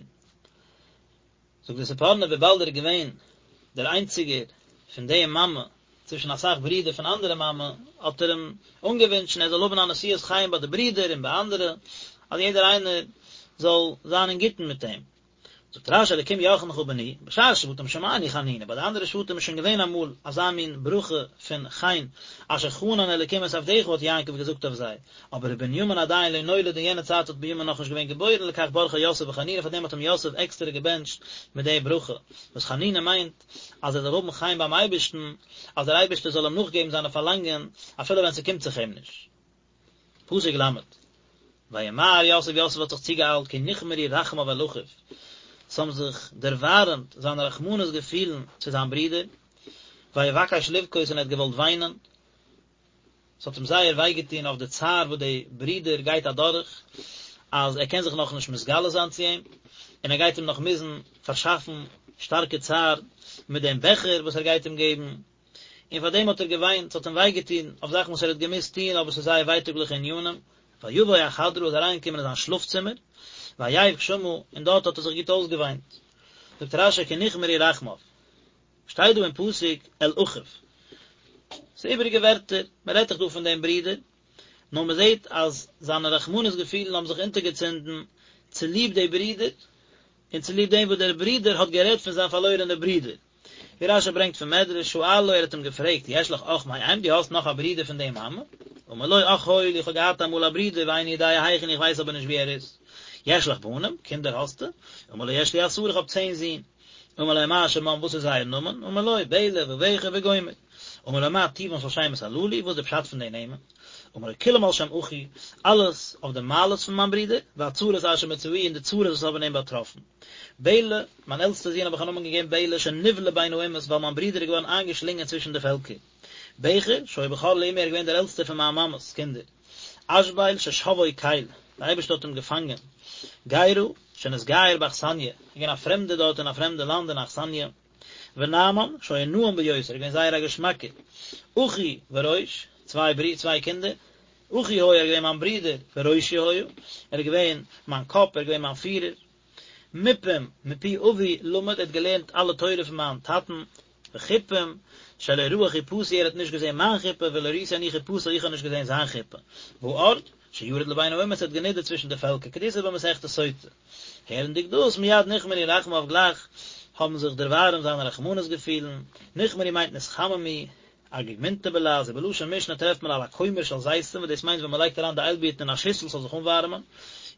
Speaker 1: זאגט דער ספורנו וויבאלד ער איז געווען דער איינציגער פון די מאמע צווישן אסאך ברידער פון אנדערע מאמע, האט ער אים אנגעווינטשן ער זאל האבן א נשיאת חן ביי די ברידער און ביי אנדערע, אז יעדער איינער זאל זיין אין גוטן מיט אים. זאגט רש"י אלקים יחנך בני, בשאר שבטים שמענו חנינה, ביי די אנדערע שבטים איז שוין געווען אמאל אזא מין ברכה פון חן, אשר חנן אלקים את עבדך האט יעקב געזאגט אויף זיי, אבער ובנימין עדיין לא נולד אין יענע צייט האט בנימין נאכנישט געווען געבוירן לכך ברכו יוסף בחנינה פאר דעם האט אים יוסף עקסטערע געבענטשט מיט די ברכה, וואס חנינה מיינט אז ער זאל האבן חן ביים אייבערשטן, אז דער אייבערשטער זאל אים נאכגעבן זיינע פארלאנגען אפילו ווען ס'קומט זיך אים נישט. פסוק ל', וימהר יוסף יוסף האט זיך צוגעאיילט כי נכמרו רחמיו אל אחיו, ס'האבן זיך דערווארעמט זיינע רחמנות געפילן צו זיין ברודער, ויבקש לבכות און ער האט געוואלט וויינען, ס'האט אים זייער וויי געטון אויף די צער וואס די ברודער גייט אדורך, אז ער קען זיך נאכנישט מתגלה זיין צו אים, און ער גייט אים נאך מוזן פארשאפן שטארקע צער מיט דעם בעכער וואס ער גייט אים געבן, און פאר דעם האט ער געוויינט, ס'האט אים וויי געטון אויף זאכן וואס ער האט געמוזט טון, אבער ס'איז זייער ווייטאגליכע ענינים. ויבא החדרה איז אריינגעקומען אין זיין שלאף צימער, ויבך שמה, און דארט האט ער זיך גוט אויסגעוויינט. זאגט רש"י כי נכמרו רחמיו. שטייט דא אין פסוק אל אחיו. ס'איז איבעריגע ווערטער, מען רעדט דאך דא פון דעם ברודער, נאר מען זעט אז זיינע רחמנות געפילן האבן זיך אונטערגעצינדן צוליב די ברודער, און צוליב דעם וואס דער ברודער האט גערעדט פון זיין פארלוירענע ברודער. ווי רש"י ברענגט פון מדרש, שאלו, ער האט אים געפרעגט, יש לך אח מאם, דו האסט נאך א ברודער פון די מאמע? אמר לו, אח היה לי, איך האב געהאט אמאל א ברודער, ואיני יודע היכן, איך ווייס אבער נישט וואו ער איז. יש לך בנים, קינדער האסטו? אמר לו, יש לי עשרה, איך האב צען זין. אמר לו, מה שמם, וואס איז זייער נאמען? אמר לו, בלע ובכר וגומר. אמר לו, מה טיבן של שמות הללו, וואס איז די פשט פון די נעמען? אמר לו, כולם על שם אחי, אלעס אויף די מעלות פון מיין ברודער, והצרות אשר מצאוהו, און די צרות וואס האבן אים באטראפן. בלע, מיין עלטסטער זון האב איך א נאמען געגעבן בלע, שנבלע בין האומות, ווייל מיין ברודער איז געווארן איינגעשלינגען צווישן די פעלקער. בכר, שהיה בכור לאמי, ער איז געווען דער עלטסטער פון מיין מאמע'ס קינדער. אשבל, ששבאו קל, דער אייבערשטער האט אים געפאנגען. גרא, שנתגייר באכסניא, ער איז געווען א פרעמדער דארט אין א פרעמדע לאנד אין אכסניא. ונעמן, שהיה נעים ביותר, ער איז געווען זייער א געשמאקער. אחי וראש, צוויי ברי, צוויי קינדער. אחי היה, ער איז געווען מיין ברודער, וראשי היה, ער איז געווען מיין קאפ, ער איז געווען מיין פירער. מופים, מפי אבי למד, ער האט געלערנט אלע תורה פון מיין טאטן. וחופים, שלא ראה חופתי, ער האט נישט געזען מיין חופה, ולא ראיתי אני חופתו, איך האב נישט געזען זיין חופה. וארד, שירד לבין האומות, ער האט גענידערט צווישן די פעלקער, כדאיתא במסכת סוטה. הערנדיג דאס, מיד נכמרו רחמיו גלייך האבן זיך דערווארעמט זיינע רחמנות געפילן, נכמרו מיינט נתחממו, אגיגמינתא בלע"ז, ובלשון משנה טרעפט מען על הכומר של זיתים וואס דאס מיינט ווען מען לייגט אריין די איילבירטן אין א שיסל ס'זאל זיך אנווארעמען,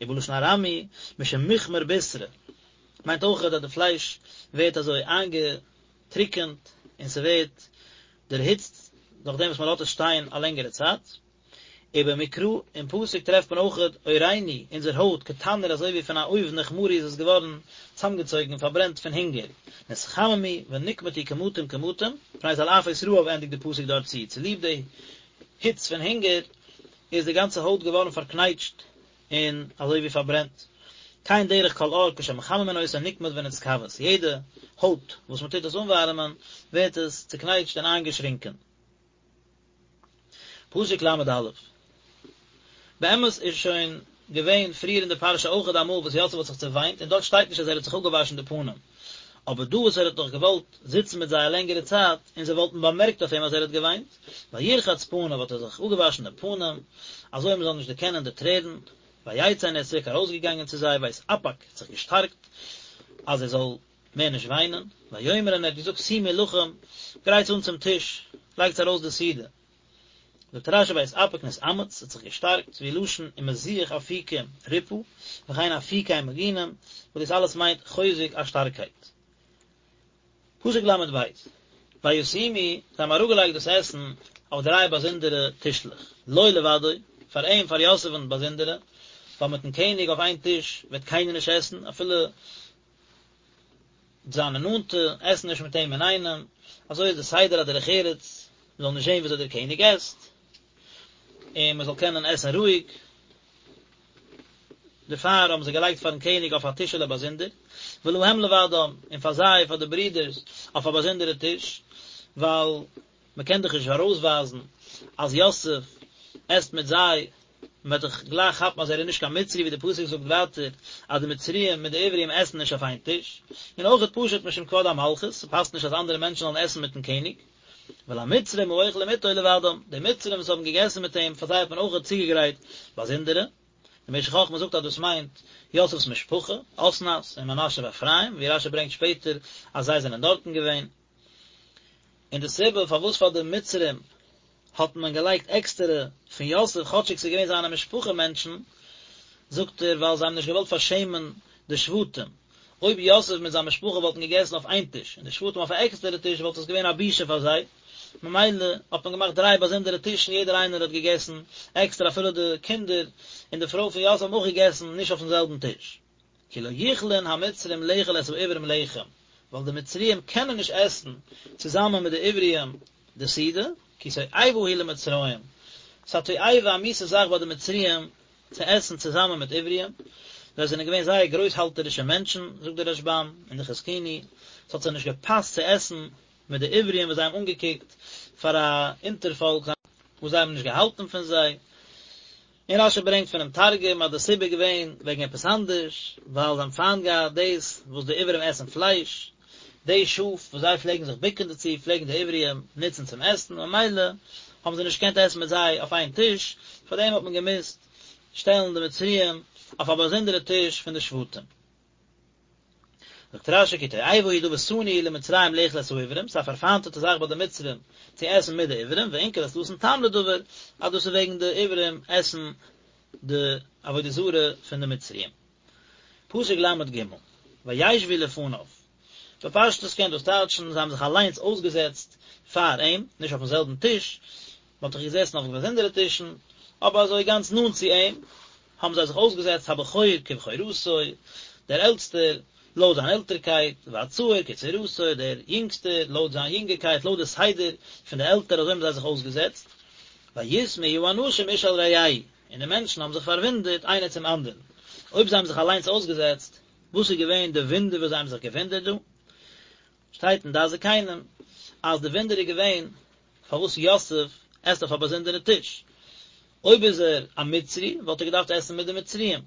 Speaker 1: ובלשון ארמי, משום מוכמר בישרא, מיינט אויך אז די פלייש ווערט אזוי איינגעטריקענט און ס'ווערט דערהיצט נאכדעם וואס מ'לאזט עס שטיין א לענגערע צייט. ובמקרא, אין פסוק טרעפט מען אויכעט עורנו, אונזער הויט, כתנור אזוי ווי פון א אויוון נכמרו איז עס געווארן צאמגעצויגן און פארברענט פון הונגער, נתחממו ונקמטו קמטים קמטים, מפני תלעפות רעב ענדיגט די פסוק דארט צו, צוליב די היץ פון הונגער איז די גאנצע הויט געווארן פארקנייטשט און אזוי ווי פארברענט. כן דרך כל עור כשמחממין אותו נקמט ונתכווץ, יעדע הויט וואס מען טוט עס אנווארעמען ווערט עס צוקנייטשט און איינגעשרינקען. פסוק ל"א. באמת איז שוין געווען פריער אין די פרשה אויכעט אמאל וואס יוסף האט זיך צעוויינט און דארט שטייט נישט אז ער האט זיך אפגעוואשן די פנים, אבער דא וואס ער האט דאך געוואלט זיצן מיט זיי א לענגערע צייט און זיי וואלטן באמערקט אויף אים אז ער האט געוויינט, וירחץ פניו האט ער זיך אפגעוואשן די פנים אזוי מען זאל נישט דערקענען די טרערן, ויצא און ער איז צוריק ארויסגעגאנגען צו זיי ויתאפק האט זיך געשטארקט אז ער זאל מער נישט וויינען, ויאמר און ער האט געזאגט שימו לחם, גרייטס אן צום טיש, לייגטס ארויס די סעודה. זאגט רש"י ויתאפק נתאמץ, האט זיך געשטארקט, והוא לשון ומזיח אפיקים ריפא, וכן אפיקי מגינים, וואס דאס אלעס מיינט חוזק א שטארקייט. פסוק ל"ב, וישימו, זיי האבן אראפגעלייגט דאס עסן אויף דריי באזונדערע טישלעך, לו לבדו, פאר אים, פאר יוסף'ן באזונדערע, ווייל מיט'ן קעניג אויף איין טיש וועט קיינער נישט עסן, אפילו זיינע נאנטע עסן נישט מיט אים אינאיינעם, אזוי איז די סדר א דרך ארץ, מען זאל נישט זען וויאזוי דער קעניג עסט, און מען זאל קענען עסן רואיג, דערפאר האבן זיי געלייגט פארן קעניג אויף א טישעלע באזונדער, ולהם לבדם, און פאר זיי, פאר די ברידערס, אויף א באזונדערע טיש, ווייל מען קען דאך נישט ארויסווייזן אז יוסף עסט מיט זיי, מען וועט דאך גלייך כאפן אז ער איז נישט קיין מצרי, ווי די פסוק זאגט ווייטער אז די מצריים מיט די עברים עסן נישט אויף איין טיש, און אויכעט פשוט משום כבוד המלכות, ס'פאסט נישט אז אנדערע מענטשן זאלן עסן מיטן קעניג. ולמצרים האוכלים אתו לבדם, די מצרים וואס האבן געגעסן מיט אים, פאר זיי האט מען אויכעט צוגעגרייט באזונדערע. די משך חכמה זאגט אז דאס מיינט יוסף'ס משפחה, אסנת און מנשה ואפרים, ווי רש"י ברענגט שפעטער אז זיי זענען דארטן געווען. און די סיבה פארוואס פאר די מצרים האט מען געלייגט עקסטערע פון יוסף כאטשיג ס'איז געווען זיינע משפחה מענטשן, זאגט ער ווייל זיי האבן נישט געוואלט פארשעמען די שבטים, אויב יוסף מיט זיין משפחה וואלטן געגעסן אויף איין טיש און די שבטים אויף א עקסטערע טיש וואלט עס געווען א בושה פאר זיי, ממילא האט מען געמאכט דריי באזונדערע טישן יעדער איינער האט געגעסן עקסטער אפילו די קינדער און די פרוי פון יוסף האבן אויך געגעסן נישט אויפן זעלבן טיש. כי לא יכלון המצרים לאכול את העברים לחם, ווייל די מצריים קענען נישט עסן צוזאמען מיט די עבריים די סעודה, כי תועבה היא למצרים, ס'איז א תועבה א מיאוסע זאך ביי די מצריים צו עסן צוזאמען מיט עבריים, זיי זענען געווען זייער גרויסהאלטערישע מענטשן, זאגט דער רשב"ם און די חזקוני, ס'האט זיי נישט געפאסט צו עסן מיט די עבריים וואס זיי האבן אנגעקוקט פאר א אונטערפאלק וואס זיי האבן נישט געהאלטן פון זיי. און רש"י ברענגט פונעם תרגום אז די סיבה איז געווען וועגן עפעס אנדערש, ווייל זיי האבן פיינט געהאט דאס וואס די עברים עסן פלייש. די שאף וואס זיי פלעגן זיך בוקן דערצו פלעגן די עבריים נוצן צום עסן, ממילא האבן זיי נישט געקענט עסן מיט זיי אויף איין טיש, פארדעם האט מען געמוזט שטעלן די מצריים אויף א באזונדערע טיש פון די שבטים. זאגט רש"י כי תועבה היא דבר שנאוי הוא למצרים לאכול את העברים, ס'איז א פארפיינטעטע זאך ביי די מצרים צו עסן מיט די עברים, ואונקלוס נתן טעם לדבר, אז דאס איז וועגן די עברים עסן די עבודה זרה פון די מצריים. פסוק ל"ג, וישבו לפניו, בפשטות קען דאס טייטשן זיי האבן זיך אליינס אויסגעזעצט פאר אים, נישט אויפן זעלבן טיש, מען האט דאך געזעסן אויף באזונדערע טישן, אבער אזוי גאנץ נאנט צו אים, האבן זיי זיך אויסגעזעצט הבכור כבכורתו, דער עלטסטער לויט זיין עלטערקייט, והצעיר כצעירותו, דער יונגסטער לויט זיין יונגערקייט, לויט די סדר פון די עלטער, אזוי האבן זיי זיך אויסגעזעצט. ויתמהו האנשים איש אל רעהו, און די מענטשן האבן זיך פארוואונדערט איינער צום אנדערן. אויב זיי האבן זיך אליינס אויסגעזעצט, וואס איז געווען די וואונדער וואס זיי האבן זיך געוואונדערט דא? שטייט אין דעת זקנים אז די וואונדער איז געווען פארוואס יוסף עסט אויף א באזונדערע טיש. אויב איז ער א מצרי וואלט ער געדארפט עסן מיט די מצריים,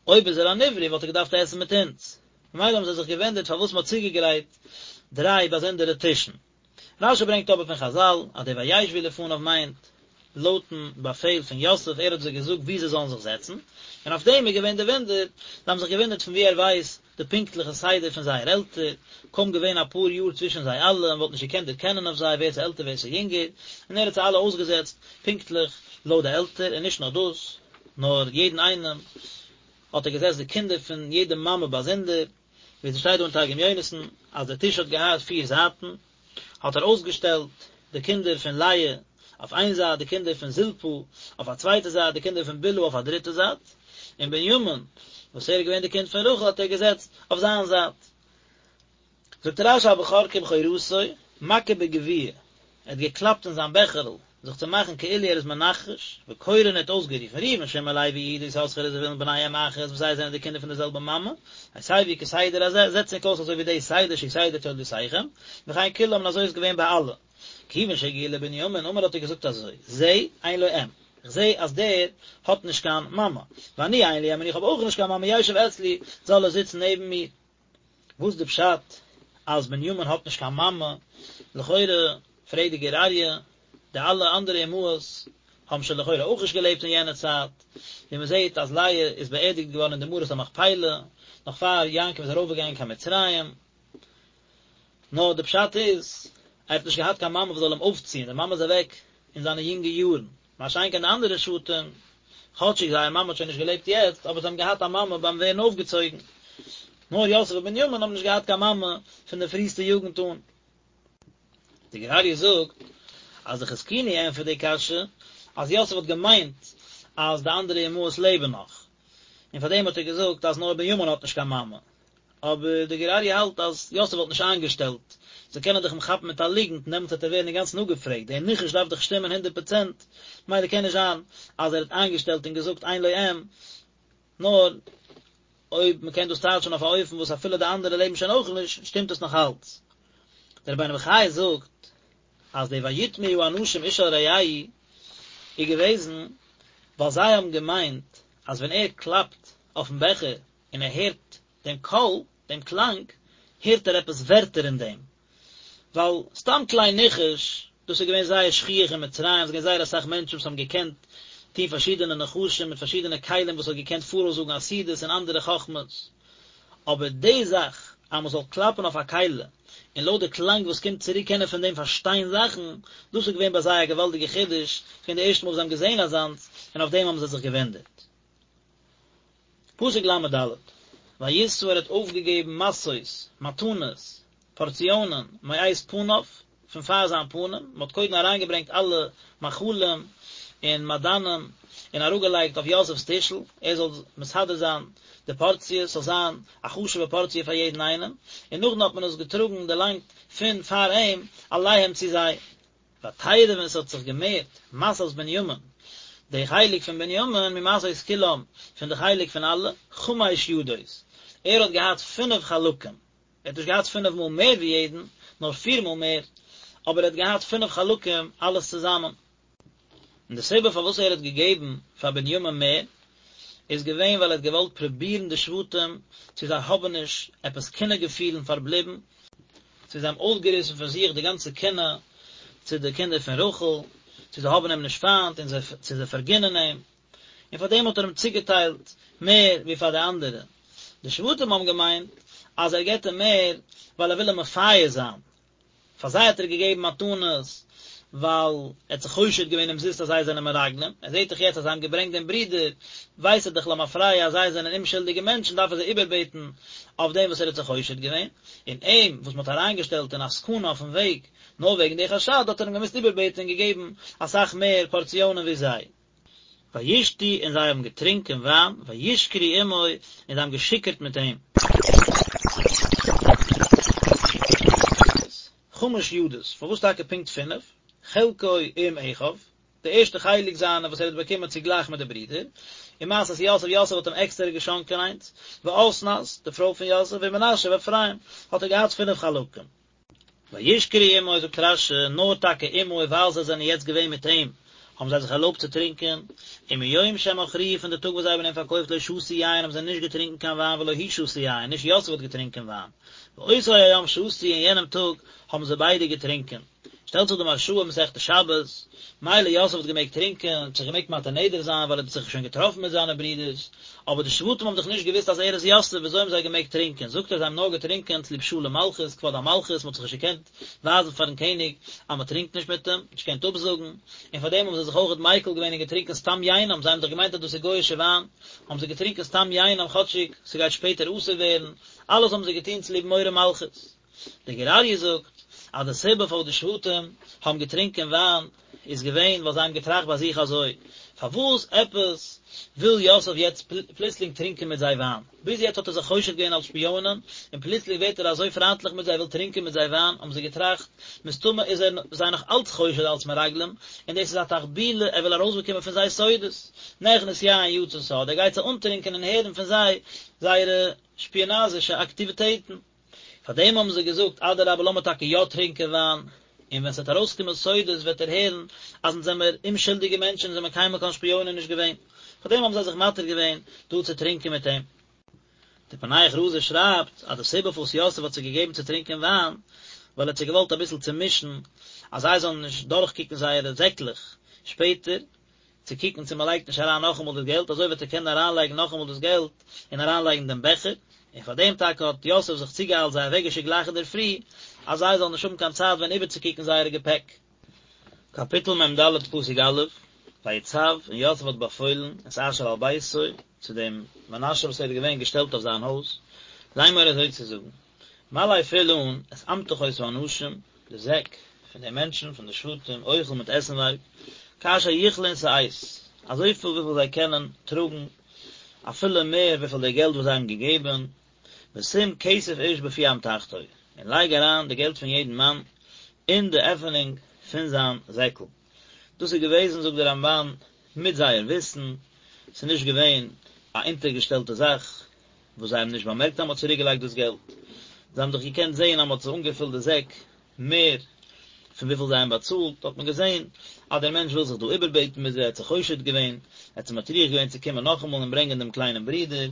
Speaker 1: אויב איז ער אן עברי וואלט ער געדארפט עסן מיט אונז. ממילא האבן זיי זיך געוואונדערט פארוואס מען האט צוגעגרייט דריי באזונדערע טישן. רש"י ברענגט אבער פון חז"ל אז די וישבו לפניו מיינט לויטן באפעל פון יוסף, ער האט זיי געזאגט וואו זיי זאלן זיך זעצן, און אויף דעם איז געווען די וואונדער, זיי האבן זיך געוואונדערט פון וואו ער ווייסט די פונקטליכע סדר פון זייער עלטער, קוים געווען אפאר יאר צווישן זיי אלע, מען וואלט נישט געקענט דערקענען אויף זיי ווער ס'איז עלטער ווער ס'איז יונגער, און ער האט זיי אלע אויסגעזעצט פונקטליך לויט די עלטער, און נישט נאר דאס, נאר יעדן איינעם האט ער געזעצט די קינדער פון יעדע מאמע באזונדער. ווי ס'שטייט דא אין תרגום יונתן אז דער טיש האט געהאט פיר זייטן, האט ער אויסגעשטעלט די קינדער פון לאה אויף איין זייט, די קינדער פון זלפה אויף א צווייטע זייט, די קינדער פון בלהה אויף א דריטע זייט, און בנימין וואס ער איז געווען די קינד פון רחל האט ער געזעצט אויף זיין זייט. זאגט רש"י הבכור כבכורתו, מכה בגביע, ער האט געקלאפט אין זיין בעכערל, זיך צו מאכן כאילו ער איז מנחש, וקורא און ער האט אויסגערופן, ראובן שמעון לוי יהודה יששכר וזבולון בני אם אחת וואס זיי זענען די קינדער פון די זעלבע מאמע, הסבו כסדר הזה, זעצט ענק אויס אזוי ווי די סדר שהוא סדר תולדותיכם, וכן כולם און אזוי איז געווען ביי אלע. כיוון שהגיע לבנימין אמר האט ער געזאגט אזוי, זה אין לו אם, איך זע אז דער האט נישט קיין מאמע, ואני אין לי אם און איך האב אויך נישט קיין מאמע ישב אצלי, זאל ער זיצן נעבן מיר. וואס די פשט אז בנימין האט נישט קיין מאמע? לכאורה פרעגט די גור אריה, די אלע אנדערע אמהות האבן שוין לכאורה אויך נישט געלעבט אין יענע צייט, ווי מען זעט אז לאה איז באערדיגט געווארן אין די מערת המכפילה נאך פאר יעקב איז ארויפגעגאנגען קיין מצרים, נאר די פשט איז ער האט נישט געהאט קיין מאמע וואס זאל אים אויפציען, די מאמע איז אוועק אין זיינע יונגע יארן. מה שאין כן די אנדערע שבטים, כאטשיג זייער מאמע האט שוין נישט געלעבט יעצט, אבער זיי האבן געהאט א מאמע ביים ווערן אויפגעצויגן. נאר יוסף און בנימין האבן נישט געהאט קיין מאמע פון די פריסטע יוגנט אן. די גור אריה זאגט אז די חזקוני ענטפערט די קשיא, אז יוסף האט געמיינט אז די אנדערע אמהות לעבן נאך, און פארדעם האט ער געזאגט אז נאר בנימין האט נישט קיין מאמע. אבער די גור אריה האלט אז יוסף וואלט נישט איינגעשטעלט, זיי קענען דאך אים כאפן מיט א ליגנט און דעמאלטס וועט ער ווערן אינגאנצן אפגעפרעגט, דער ניחוש דארף דאך שטימען הונדערט פראצענט, ממילא קען נישט זיין אז ער האט איינגעשטעלט און געזאגט אין לו אם, נאר אויב מען קען דאס טייטשן אויף א אופן וואס אפילו די אנדערע לעבן שוין אויך נישט, שטימט עס נאך אלץ. דער רבינו בחיי זאגט אז די ויתמהו האנשים איש אל רעהו איז געוועזן ווייל זיי האבן געמיינט אז ווען ער קלאפט אויפן בעכער און ער הערט דעם קול, דעם קלאנג, הערט ער עפעס ווערטער אין דעם. ווייל סתם כלי ניחוש, דאס איז געווען זייער שכיח אין מצרים, עס איז געווען זייער אסאך מענטשן וואס האבן געקענט טון פארשידענע נחשים מיט פארשידענע כלים וואס האט געקענט פאראויסזאגן עתידות און אנדערע חכמות. אבער די זאך אז מען זאל קלאפן אויף א כלי, און לויט די קלאנג וואס קומט צוריק קענען פון דעם פארשטיין זאכן, דאס איז געווען ביי זיי א געוואלדיגע חידוש, ס'איז געווען די ערשטע מאל וואס זיי האבן געזען אזאנס, און אויף דעם האבן זיי זיך געוואונדערט. פסוק ל"ד, וישא ער האט אויפגעגעבן משאות, מתנות, פארציאנען, מאת פניו, פון פאר זיין פנים, מען האט קודם אריינגעברענגט אלע מאכלים און מעדנים און אראפגעלייגט אויף יוסף'ס טישל, ער זאל מסדר זיין די פארציעס, ס'זאל זיין א חשוב'ע פארציע פאר יעדן איינעם, און נאכדעם האט מען עס געטראגן, דערלאנגט פון פאר אים, אליהם צו זיי. ותרב און עס האט זיך געמערט משאת בנימין, די חלק פון בנימין, ממשאות כולם, פון די חלק פון אלע, חמש ידות, ער האט געהאט פינף חלקים, ער האט נישט געהאט פינף מאל מער ווי יעדן, נאר פיר מאל מער, אבער ער האט געהאט פינף חלקים אלעס צוזאמען. און די סיבה פארוואס ער האט געגעבן פאר בנימין מער, איז געווען ווייל ער האט געוואלט פרובירן די שבטים צו זיי האבן נישט עפעס קנאה געפילן פארבליבן,. צו זיי האבן אויסגעריסן פון זיך די גאנצע קנאה צו די קינדער פון רחל, צו זיי האבן אים נישט פיינט און זיי צו זיי פארגינען אים, און פאר דעם האט ער אים צוגעטיילט מער ווי פאר די אנדערע. די שבטים האבן געמיינט אז ער געבט אים מער ווייל ער וויל אים מפייס זיין, פאר זיי האט ער געגעבן מתנות ווייל ער האט זיך חושד געווען אומזיסט אז זיי זענען מרגלים, ער זעט דאך יעצט אז זיי האבן געברענגט דעם ברודער, ווייסט ער דאך למפרע אז זיי זענען אומשולדיגע מענטשן דארף ער זיי איבערבעטן אויף דעם וואס ער האט זיך חושד געווען, און אים וואס מען האט אריינגעשטעלט אין א סכנה אויפן וועג נאר וועגן די חשד האט ער אים געמוזט איבערבעטן און געגעבן אסאך מער פארציאנען ווי זיי. וישתו און זיי האבן געטרונקען וויין, וישכרו עמו און זיי האבן געשיכורט מיט אים. חמש ידות, פארוואס טאקע פונקט פינף? חלקו עם אחיו, די ערשטע חלק זיינע וואס ער האט באקומען צוגלייך מיט די ברידער, ומשאת יוסף, יוסף האט אים עקסטערע געשאנקען איינס, ואסנת, די פרוי פון יוסף, ומנשה ואפרים, האט ער געהאט פינף חלקים. וישכרו עמו זאגט רש"י, נאר טאקע עמו ווייל זיי זענען יעצט געווען מיט אים, האבן זיי זיך ערלויבט צו טרינקען, ומיום שמכרוהו פון די טאג וואס זיי האבן אים פארקויפט לא שתו יין האבן זיי נישט געטרינקען קיין וויין ולא הוא שתה יין, נישט יוסף האט געטרינקען וויין, ואותו היום שתו אין יענעם טאג האבן זיי ביידע געטרינקען. שטעלט זיך די מהרש"א אין מסכת שבת, מילא יוסף האט געמעגט טרינקען, האט זיך געמעגט מתיר נדר זיין ווייל ער האט זיך שוין געטראפן מיט זיינע ברידערס, אבער די שבטים האבן דאך נישט געוואוסט אז ער איז יוסף, וויאזוי האבן זיי געמעגט טרינקען? זאגט ער זיי האבן נאר געטרינקען צוליב שלום מלכות, כבוד המלכות, מען האט זיך נישט געקענט ווייזן פארן קעניג אז מען טרינקט נישט מיט אים, נישט געקענט אפזאגן, און פאר דעם האבן זיי זיך אויכעט מיקל געווען און געטרינקען סתם יינם, זיי האבן דאך געמיינט אז דאס איז גוי'אישע וויין, האבן זיי געטרינקען סתם יינם כאטשיג ס'גייט שפעטער אסור ווערן, אלעס האבן זיי געטון צוליב מורא מלכות. דער גור אריה זאגט אז די סיבה פארוואס די שבטים האבן געטרינקען וויין איז געווען ווייל זיי האבן געטראכט ביי זיך אזוי, פארוואס עפעס וויל יוסף יעצט פלוצלינג טרינקען מיט זיי וויין? ביז יעצט האט ער זיך חושד געווען אלס שפיאנען, און פלוצלינג ווערט ער אזוי פריינטליך מיט זיי, וויל טרינקען מיט זיי וויין, האבן זיי געטראכט, מסתמא איז ער זיי נאך אלץ חושד אלס מרגלים, און דאס איז א תחבולה, ער וויל ארויסבאקומען פון זיי סודות. נכנס יין יצא סוד, ער גייט זיי אנטרינקען און הערן פון זיי זייערע שפיאנאזישע אקטיוויטעטן. פאר דעם האבן זיי געזאגט, אדרבה לאמיר טאקע יא טרינקען וויין, און ווען ס'וועט ארויסקומען סודות וועט ער הערן אז אונז זעמיר אומשולדיגע מענטשן און זעמיר קיינמאל קיין שפיאנען נישט געווען. פאר דעם האבן זיי זיך מתיר געווען דא צו טרינקען מיט אים. דער פענח רזא שרייבט אז די סיבה פארוואס יוסף האט זיי געגעבן צו טרינקען וויין, ווייל ער האט זיי געוואלט אביסל צומישן אז זיי זאלן נישט דורכקוקן זייערע זעקלעך שפעטער, צו קוקן צו מען לייגט נישט אריין נאכאמאל דאס געלט, אזוי וועט ער קענען אריינלייגן נאכאמאל דאס געלט און אריינלייגן דעם בעכער, און פאר דעם טאקע האט יוסף זיך צוגעאיילט זיי אוועקגעשיקט גלייך אינדערפרי, אז זיי זאלן נישט האבן קיין צייט ווען איבערצוקוקן זייערע געפעק. קאפיטל מ"ד פסוק א', ויצו, און יוסף האט באפוילן, את אשר על ביתו, צו דעם מנשה וואס ער איז געווען געשטעלט אויף זיין הויז, לאמור אזוי צו זאגן, מלא פיל אן את אמתחות האנשים, די זעק פון די מענטשן פון די שבטים, אוכל מיט עסנווארג, כאשר יכלון שאת, אזויפיל וויפיל זיי קענען טראגן, אפילו מער וויפיל די געלט וואס זיי האבן געגעבן, ושים כסף איש בפי אמתחתו, און לייג אריין די געלט פון יעדן מאן אין די עפענונג פון זיין זעקל. דאס איז געוועזן, זאגט דער רמב"ן, מיט זייער וויסן, ס'איז נישט געווען א אונטערגעשטעלטע זאך, וואס זיי האבן נישט באמערקט אז מען האט צוריק געלייגט דאס געלט, זיי האבן דאך געקענט זען אז מען האט זיי אנגעפילט די זעק מער פון וויפיל זיי האבן באצאלט, האט מען געזען אז דער מענטש וויל זיך דא איבערבעטן מיט זיי, ער האט זיך חושד געווען, ער האט זיי מטריח געווען צו קומען נאכאמאל און ברענגען דעם קליינעם ברודער,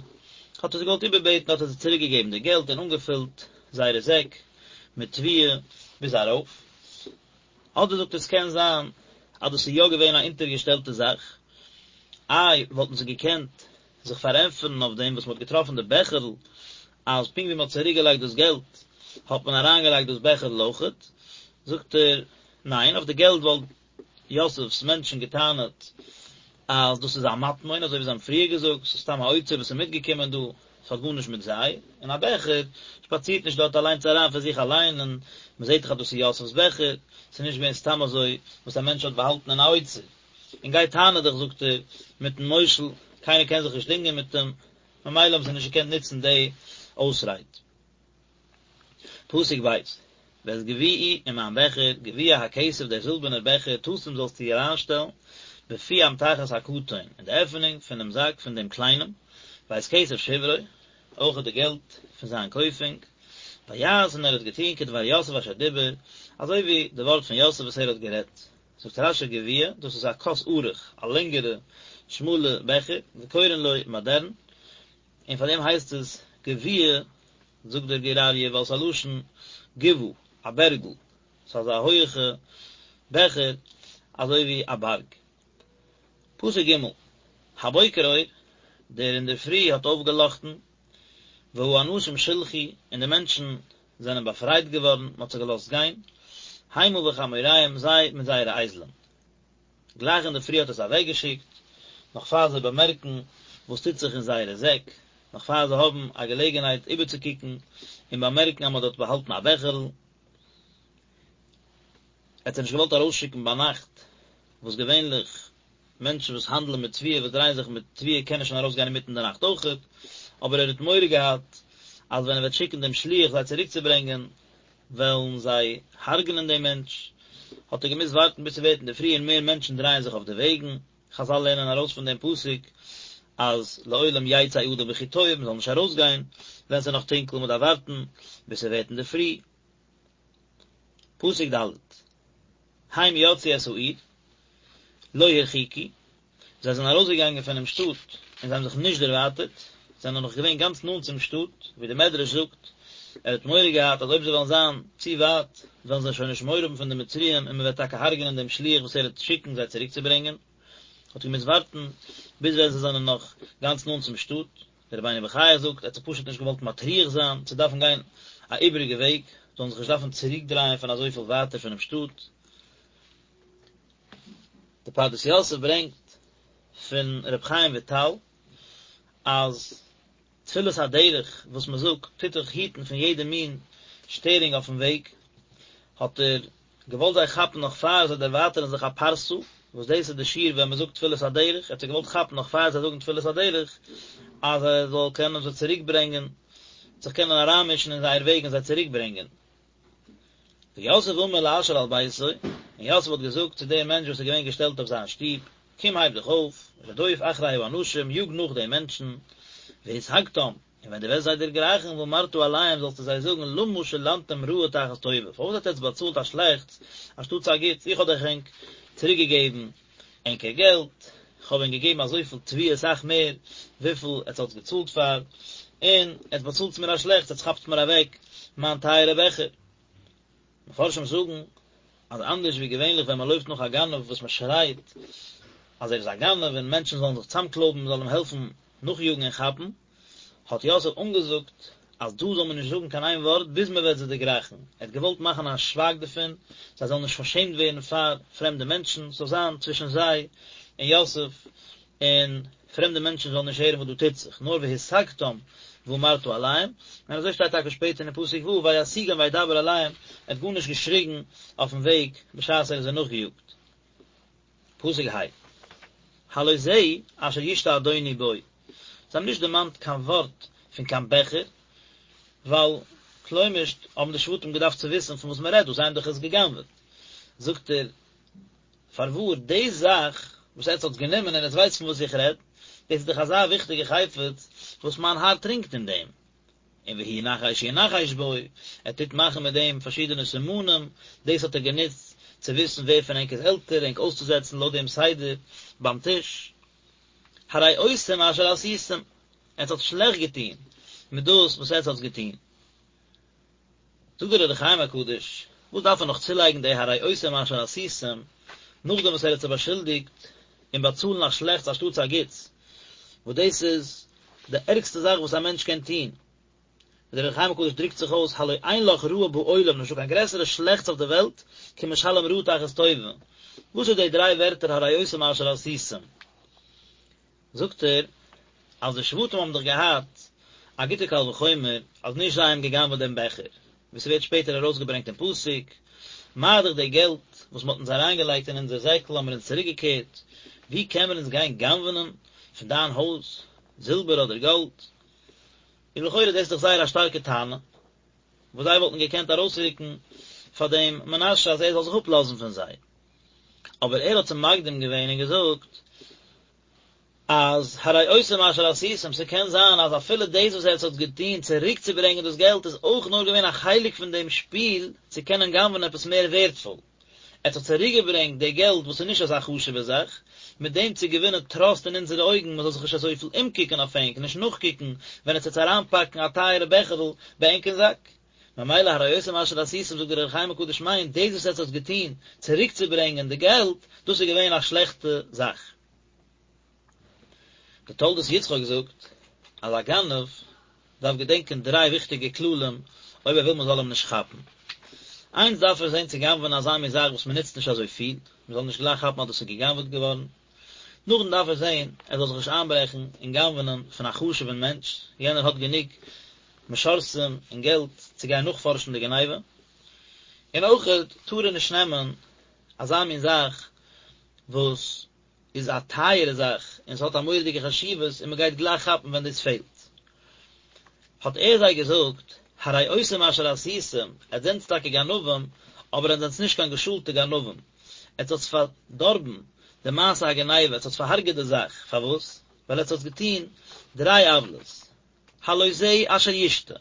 Speaker 1: האט ער זיי געוואלט איבערבעטן האט ער זיי צוריק געגעבן די געלט און אנגעפילט זייערע זעק מיט תבואה ביז ארויף. אדער זאגט ער עס קען זיין אז דאס איז יא געווען א אונטערגעשטעלטע זאך, איי וואלטן זיי געקענט זיך פארענטפערן אויף דעם וואס מען האט געטראפן די בעכערל, אז פונקט ווי מען האט צוריק געלייגט דאס געלט האט מען אריין געלייגט דאס בעכערל אויכעט, זאגט ער, ניין, אויף די געלט וואלט יוסף'ס מענטשן געטענה'ט אז דאס איז א מטמון, אזוי ווי זיי האבן פריער געזאגט, ס'איז סתם א אוצר וואס איז מיטגעקומען דא, ס'האט גארנישט מיט זיי, און א בעכער שפאצירט נישט דארט אליינס אריין פון זיך אליין, און מען זעט דאך אז דאס איז יוסף'ס בעכער, ס'איז נישט געווען סתם אזוי וואס א מענטש האט באהאלטן אין א אוצר. און גיי טענה דיך זאגט ער, מיטן מושל, קיינער קען זיך נישט דינגען מיט אים, ממילא האבן זיי נישט געקענט נוצן די אויסרייד. פסוק ב', ואת גביעי און מיין בעכער, גביע הכסף דער זילבערנער בעכער, תשים זאלסטו אריינשטעלן, בפי אמתחת הקטן, אין די עפענונג פון דעם זאק פון דעם קליינעם, ואת כסף שברו, אויך די געלט פון זיין קויפונג, ויעש און ער האט געטון כדבר יוסף אשר דיבר, אזוי ווי די ווארט פון יוסף וואס ער האט גערעדט. זאגט רש"י גביע, דאס איז א כוס ארוך, א לענגערע שמאלע בעכער, וקורין לו מדרן, און פאר דעם הייסט עס גביע, זאגט דער גור אריה, ווייל עס איז א לשון גבעה. א בערגל, ס'איז אזא הויעכע בעכער אזוי ווי א בארג. פסוק ג', הבוקר אור, דער אינדערפרי האט אויפגעלאכטן, והאנשים שולחו, און די מענטשן זענען באפרייט געווארן, מען האט זיי געלאזט גיין, המה וחמוריהם, זיי מיט זייערע אייזלען. גלייך אינדערפרי האט ער זיי אוועקגעשיקט, נאך פאר זיי באמערקן וואס טוט זיך אין זייערע זעק, נאך פאר זיי האבן א געלעגנהייט איבערצוקוקן און באמערקן אז מען האט דארט באהאלטן א בעכערל. ער האט זיי נישט געוואלט ארויסשיקן ביינאכט, וואס געווענליך מענטשן וואס האנדלען מיט תבואה, וואס דרייען זיך מיט תבואה קענען שוין ארויסגיין אינמיטן די נאכט אויכעט, אבער ער האט מורא געהאט אז ווען ער וועט שיקן דעם שליח זיי צוריקצוברענגען, וועלן זיי הרג'נען דעם מענטש, האט ער געמוזט ווארטן ביז ס'ווערט אינדערפרי און מער מענטשן דרייען זיך אויף די וועגן, חזל לערנען ארויס פון דעם פסוק אז לעולם יצא אדם בכי טוב, מ'זאל נישט ארויסגיין ווען ס'איז נאך טונקל, מ'דארף ווארטן ביז ס'ווערט אינדערפרי. פסוק ד', הם יצאו את העיר, לא הרחיקו, זיי זענען ארויסגעגאנגען פונעם שטאט און זיי האבן זיך נישט דערווייטערט, זיי זענען נאך געווען גאנץ נאנט צום שטאט, ווי דער מדרש זאגט, ער האט מורא געהאט אז אויב זיי וועלן זיין צו ווייט, וועלן זיי שוין נישט מורא האבן פון די מצריים און מען וועט טאקע הרג'נען דעם שליח וואס ער וועט שיקן זיי צוריקצוברענגען, האט געמוזט ווארטן ביז ווען זיי זענען נאך גאנץ נאנט צום שטאט. דער רבינו בחיי זאגט, ער האט זיך פשוט נישט געוואלט מטריח זיין צו דארפן גיין א איבעריגע וועג, זאלן זיך נישט דארפן צוריקדרייען פון אזויפיל ווייטער פונעם שטאט. די פרדס יוסף ברענגט פון ר' חיים וויטאל אז תפילת הדרך וואס מען זאגט טוט דיך היטן פון יעדע מין שטערונג אויפן וועג, האט ער געוואלט זיי כאפן נאך פאר זיי דערווייטערן זיך א פרסה, וואס דאס איז די שיעור ווען מען זאגט תפילת הדרך, ער האט זיי געוואלט כאפן נאך פאר זיי זאגן תפילת הדרך, אז ער זאל קענען זיי צוריק ברענגען, זיך קענען אריינמישן אין זייער וועג און זיי צוריק ברענגען. ויוסף אמר לאשר על ביתו, און יוסף האט געזאגט צו דעם מענטש וואס איז געווען געשטעלט אויף זיין שטוב, קום הייב דיך אויף, רדוף אחרי האנשים, יאג נאך די מענטשן, והשגתם, און ווען דו וועסט זיי דערגרייכן, ואמרת אליהם, זאלסטו זיי זאגן, למה שלמתם רעה תחת טובה, פארוואס האט עטץ באצאלט א שלעכטס אנשטאטס א גוטס, איך האב דאך ענק צוריקגעגעבן ענקער געלט, איך האב ענק געגעבן אזויפיל תבואה אסאך מער וויפיל עטס האטס געצאלט פאר, און עטס באצאלטס מיר א שלעכטס, עטס כאפטס מיר אוועק מיין טייערע בעכער. מפרשים זאגן אז אנדערש ווי געווענליך ווען מען לויפט נאך א גנב וואס מען שרייט אז ער איז א גנב און מענטשן זאלן זיך צאמקלויבן מען זאל אים העלפן נאכיאגן און כאפן, האט יוסף אנגעזאגט אז דא זאל מען נישט זאגן קיין איין ווארט ביז מען וועט זיי דערגרייכן, ער האט געוואלט מאכן א שווייג דערפון, זיי זאלן נישט פארשעמט ווערן פאר פרעמדע מענטשן, ס'זאל זיין צווישן זיי און יוסף, און פרעמדע מענטשן זאלן נישט הערן וואס דא טוט זיך, נאר והשגתם ואמרת אליהם, און אזוי שטייט טאקע שפעטער אין פסוק ו' וישיגם וידבר אליהם, ער האט גארנישט געשריגן אויפן וועג בשעת ער איז זיי נאכגעיאגט. פסוק ה', הלא זה אשר ישתה אדוני בו, זיי האבן נישט דערמאנט קיין ווארט פון קיין בעכער, ווייל כלומר'שט האבן די שבטים געדארפט צו וויסן פון וואס מען רעדט דא, זיי האבן דאך עס גע'גנב'עט. זאגט ער, פארוואר, די זאך וואס עטץ האטס גענומען און עטץ ווייסט פון וואס איך רעד, דאס איז דאך אזא וויכטיגע חפץ וואס מיין האר טרינקט אין דעם. און והוא נחש ינחש בו, ער טוט מאכן מיט דעם פארשידענע סימנים, דאס האט ער גענוצט צו וויסן ווער פון ענק איז עלטער, ענק אויסצוזעצן לויט דעם סדר ביים טיש. הרעותם אשר עשיתם, עטס האט שלעכט געטון מיט דאס וואס עטס האטס געטון. זאגט דער אור החיים הקדוש, וואס דארף ער נאך צולייגן די הרעותם אשר עשיתם, נאכדעם וואס ער האט זיי באשולדיגט אין באצאלן א שלעכטס אנשטאטס א גוטס, וואס דאס איז די ערגסטע זאך וואס א מענטש קען טון, ווי דער אור החיים הקדוש דרוקט זיך אויס, הלא אין לך רעה בעולם, נישטא קיין גרעסערע שלעכטס אויף די וועלט, כמשלם רעה תחת טובה. וואס איז די דריי ווערטער הרעותם אשר עשיתם? זאגט ער אז די שבטים האבן דאך געהאט א גוטע קל וחומר אז נישט זיי האבן גע'גנב'עט דעם בעכער, ווי ס'ווערט שפעטער ארויסגעברענגט אין פסוק, מה דאך די געלט וואס מ'האט אונז אריינגעלייגט אין אונזער זעקל האבן מיר אונז צוריקגעקערט, ווי קען מיר אונז גיין גנב'נען פון דיין הויז זילבער אדער גאלד? און לכאורה דאס איז דאך זייער א שטארקע טענה, וואס זיי וואלטן געקענט ארויסרוקן פאר דעם מנשה אז ער זאל זיך אפלאזן פון זיי. אבער ער האט צו מקדים געווען און געזאגט אז הרעותם אשר עשיתם, ס'קען זיין אז אפילו דאס וואס עטס האט געטון צוריקצוברענגען דאס געלט איז אויך נאר געווען א חלק פון דעם שפיל צו קענען גנב'ענען עפעס מער ווערדפול. עטס האט צוריקגעברענגט די געלט וואס איז נישט אזא חשוב'ע זאך, מיט דעם צו געווינען טראסט אין אונזערע אויגן מ'זאל זיך נישט אזויפיל אומקוקן אויף ענק, נישט נאכקוקן ווען עטס וועטס אריינפאקן א טייערע בעכערל ביי ענק אין זאק. ממילא הרעותם אשר עשיתם זאגט דער אור החיים הקדוש מיינט דאס וואס עטס האטס געטון צוריקצוברענגען די געלט, דאס איז געווען א שלעכטע זאך. דער תולדות יצחק זאגט אז א גנב דארף געדענקען דריי וויכטיגע כללים אויב ער וויל מען זאל אים נישט כאפן. איינס דארף ער זען צו גנב'ענען אזא מין זאך וואס מען נוצט נישט אזוי פיל, מען זאל נישט גלייך כאפן אז דאס איז געגנב'עט געווארן. נאכדעם דארף ער זען ער זאל זיך נישט איינברעכן און גנב'ענען פון א חשוב'ן מענטש, יענער האט גענוג משרתים און געלט צו גיין נאכפארשן די גניבה. און אויכעט טאר ער נישט נעמען אזא מין זאך וואס איז א טייערע זאך און ס'האט א מורא'דיגע חשיבות און מ'גייט גלייך כאפן ווען דאס פעלט. האט ער זיי געזאגט, הרעותם אשר עשיתם, עטס זענטס טאקע גנבים, אבער עטס זענטס נישט קיין געשולטע גנבים, עטס האטס פארדארבן די מעשה הגניבה, עטס האטס פארהארגעט די זאך, פארוואס? ווייל עטס האטס געטון דריי עוולות, הלא זה אשר ישתה,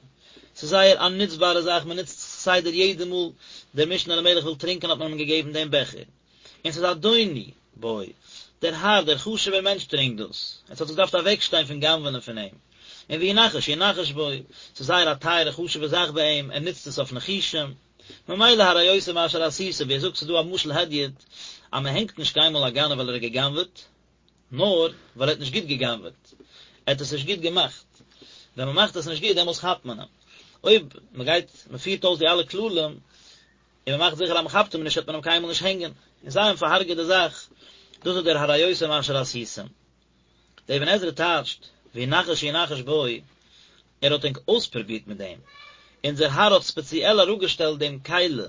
Speaker 1: ס'איז זייער א נוצבארע זאך, מען נוצט עס כסדר יעדע מאל דער משנה למלך וויל טרינקען האט מען אים געגעבן דעם בעכער, און ס'איז אדוני בו, דער האר, דער חשוב'ער מענטש טרינקט דאס, עטס האט געדארפט אוועקשטיין פון גנב'נען פון אים, און והוא נחש ינחש בו, ס'איז זייער א טייערע חשוב'ע זאך ביי אים, ער נוצט עס אויף ניחושים, ממילא הרעותם אשר עשיתם, ווי ער זאגט ס'איז דא א משל הדיוט, אז מען הענגט נישט קיינמאל א גנב ווייל ער האט געגנב'עט, נאר ווייל ער האט נישט גוט גע'גנב'עט, ער האט עס נישט גוט געמאכט, ווען מען מאכט עס נישט גוט דעמאלס כאפט מען אים, אויב מען גייט מען פירט אויס די אלע כללים און מען מאכט זיכער אז מען כאפט אים נישט וועט מען אים קיינמאל נישט הענגען, און זיי האבן פארהארגעט די זאך, דאס איז דער הרעותם אשר עשיתם. דער אבן עזרא טייטשט, והוא נחש ינחש בו, ער האט ענק אויספרובירט מיט דעם, אונזער האר האט ספעציעל אראפגעשטעלט דעם כלי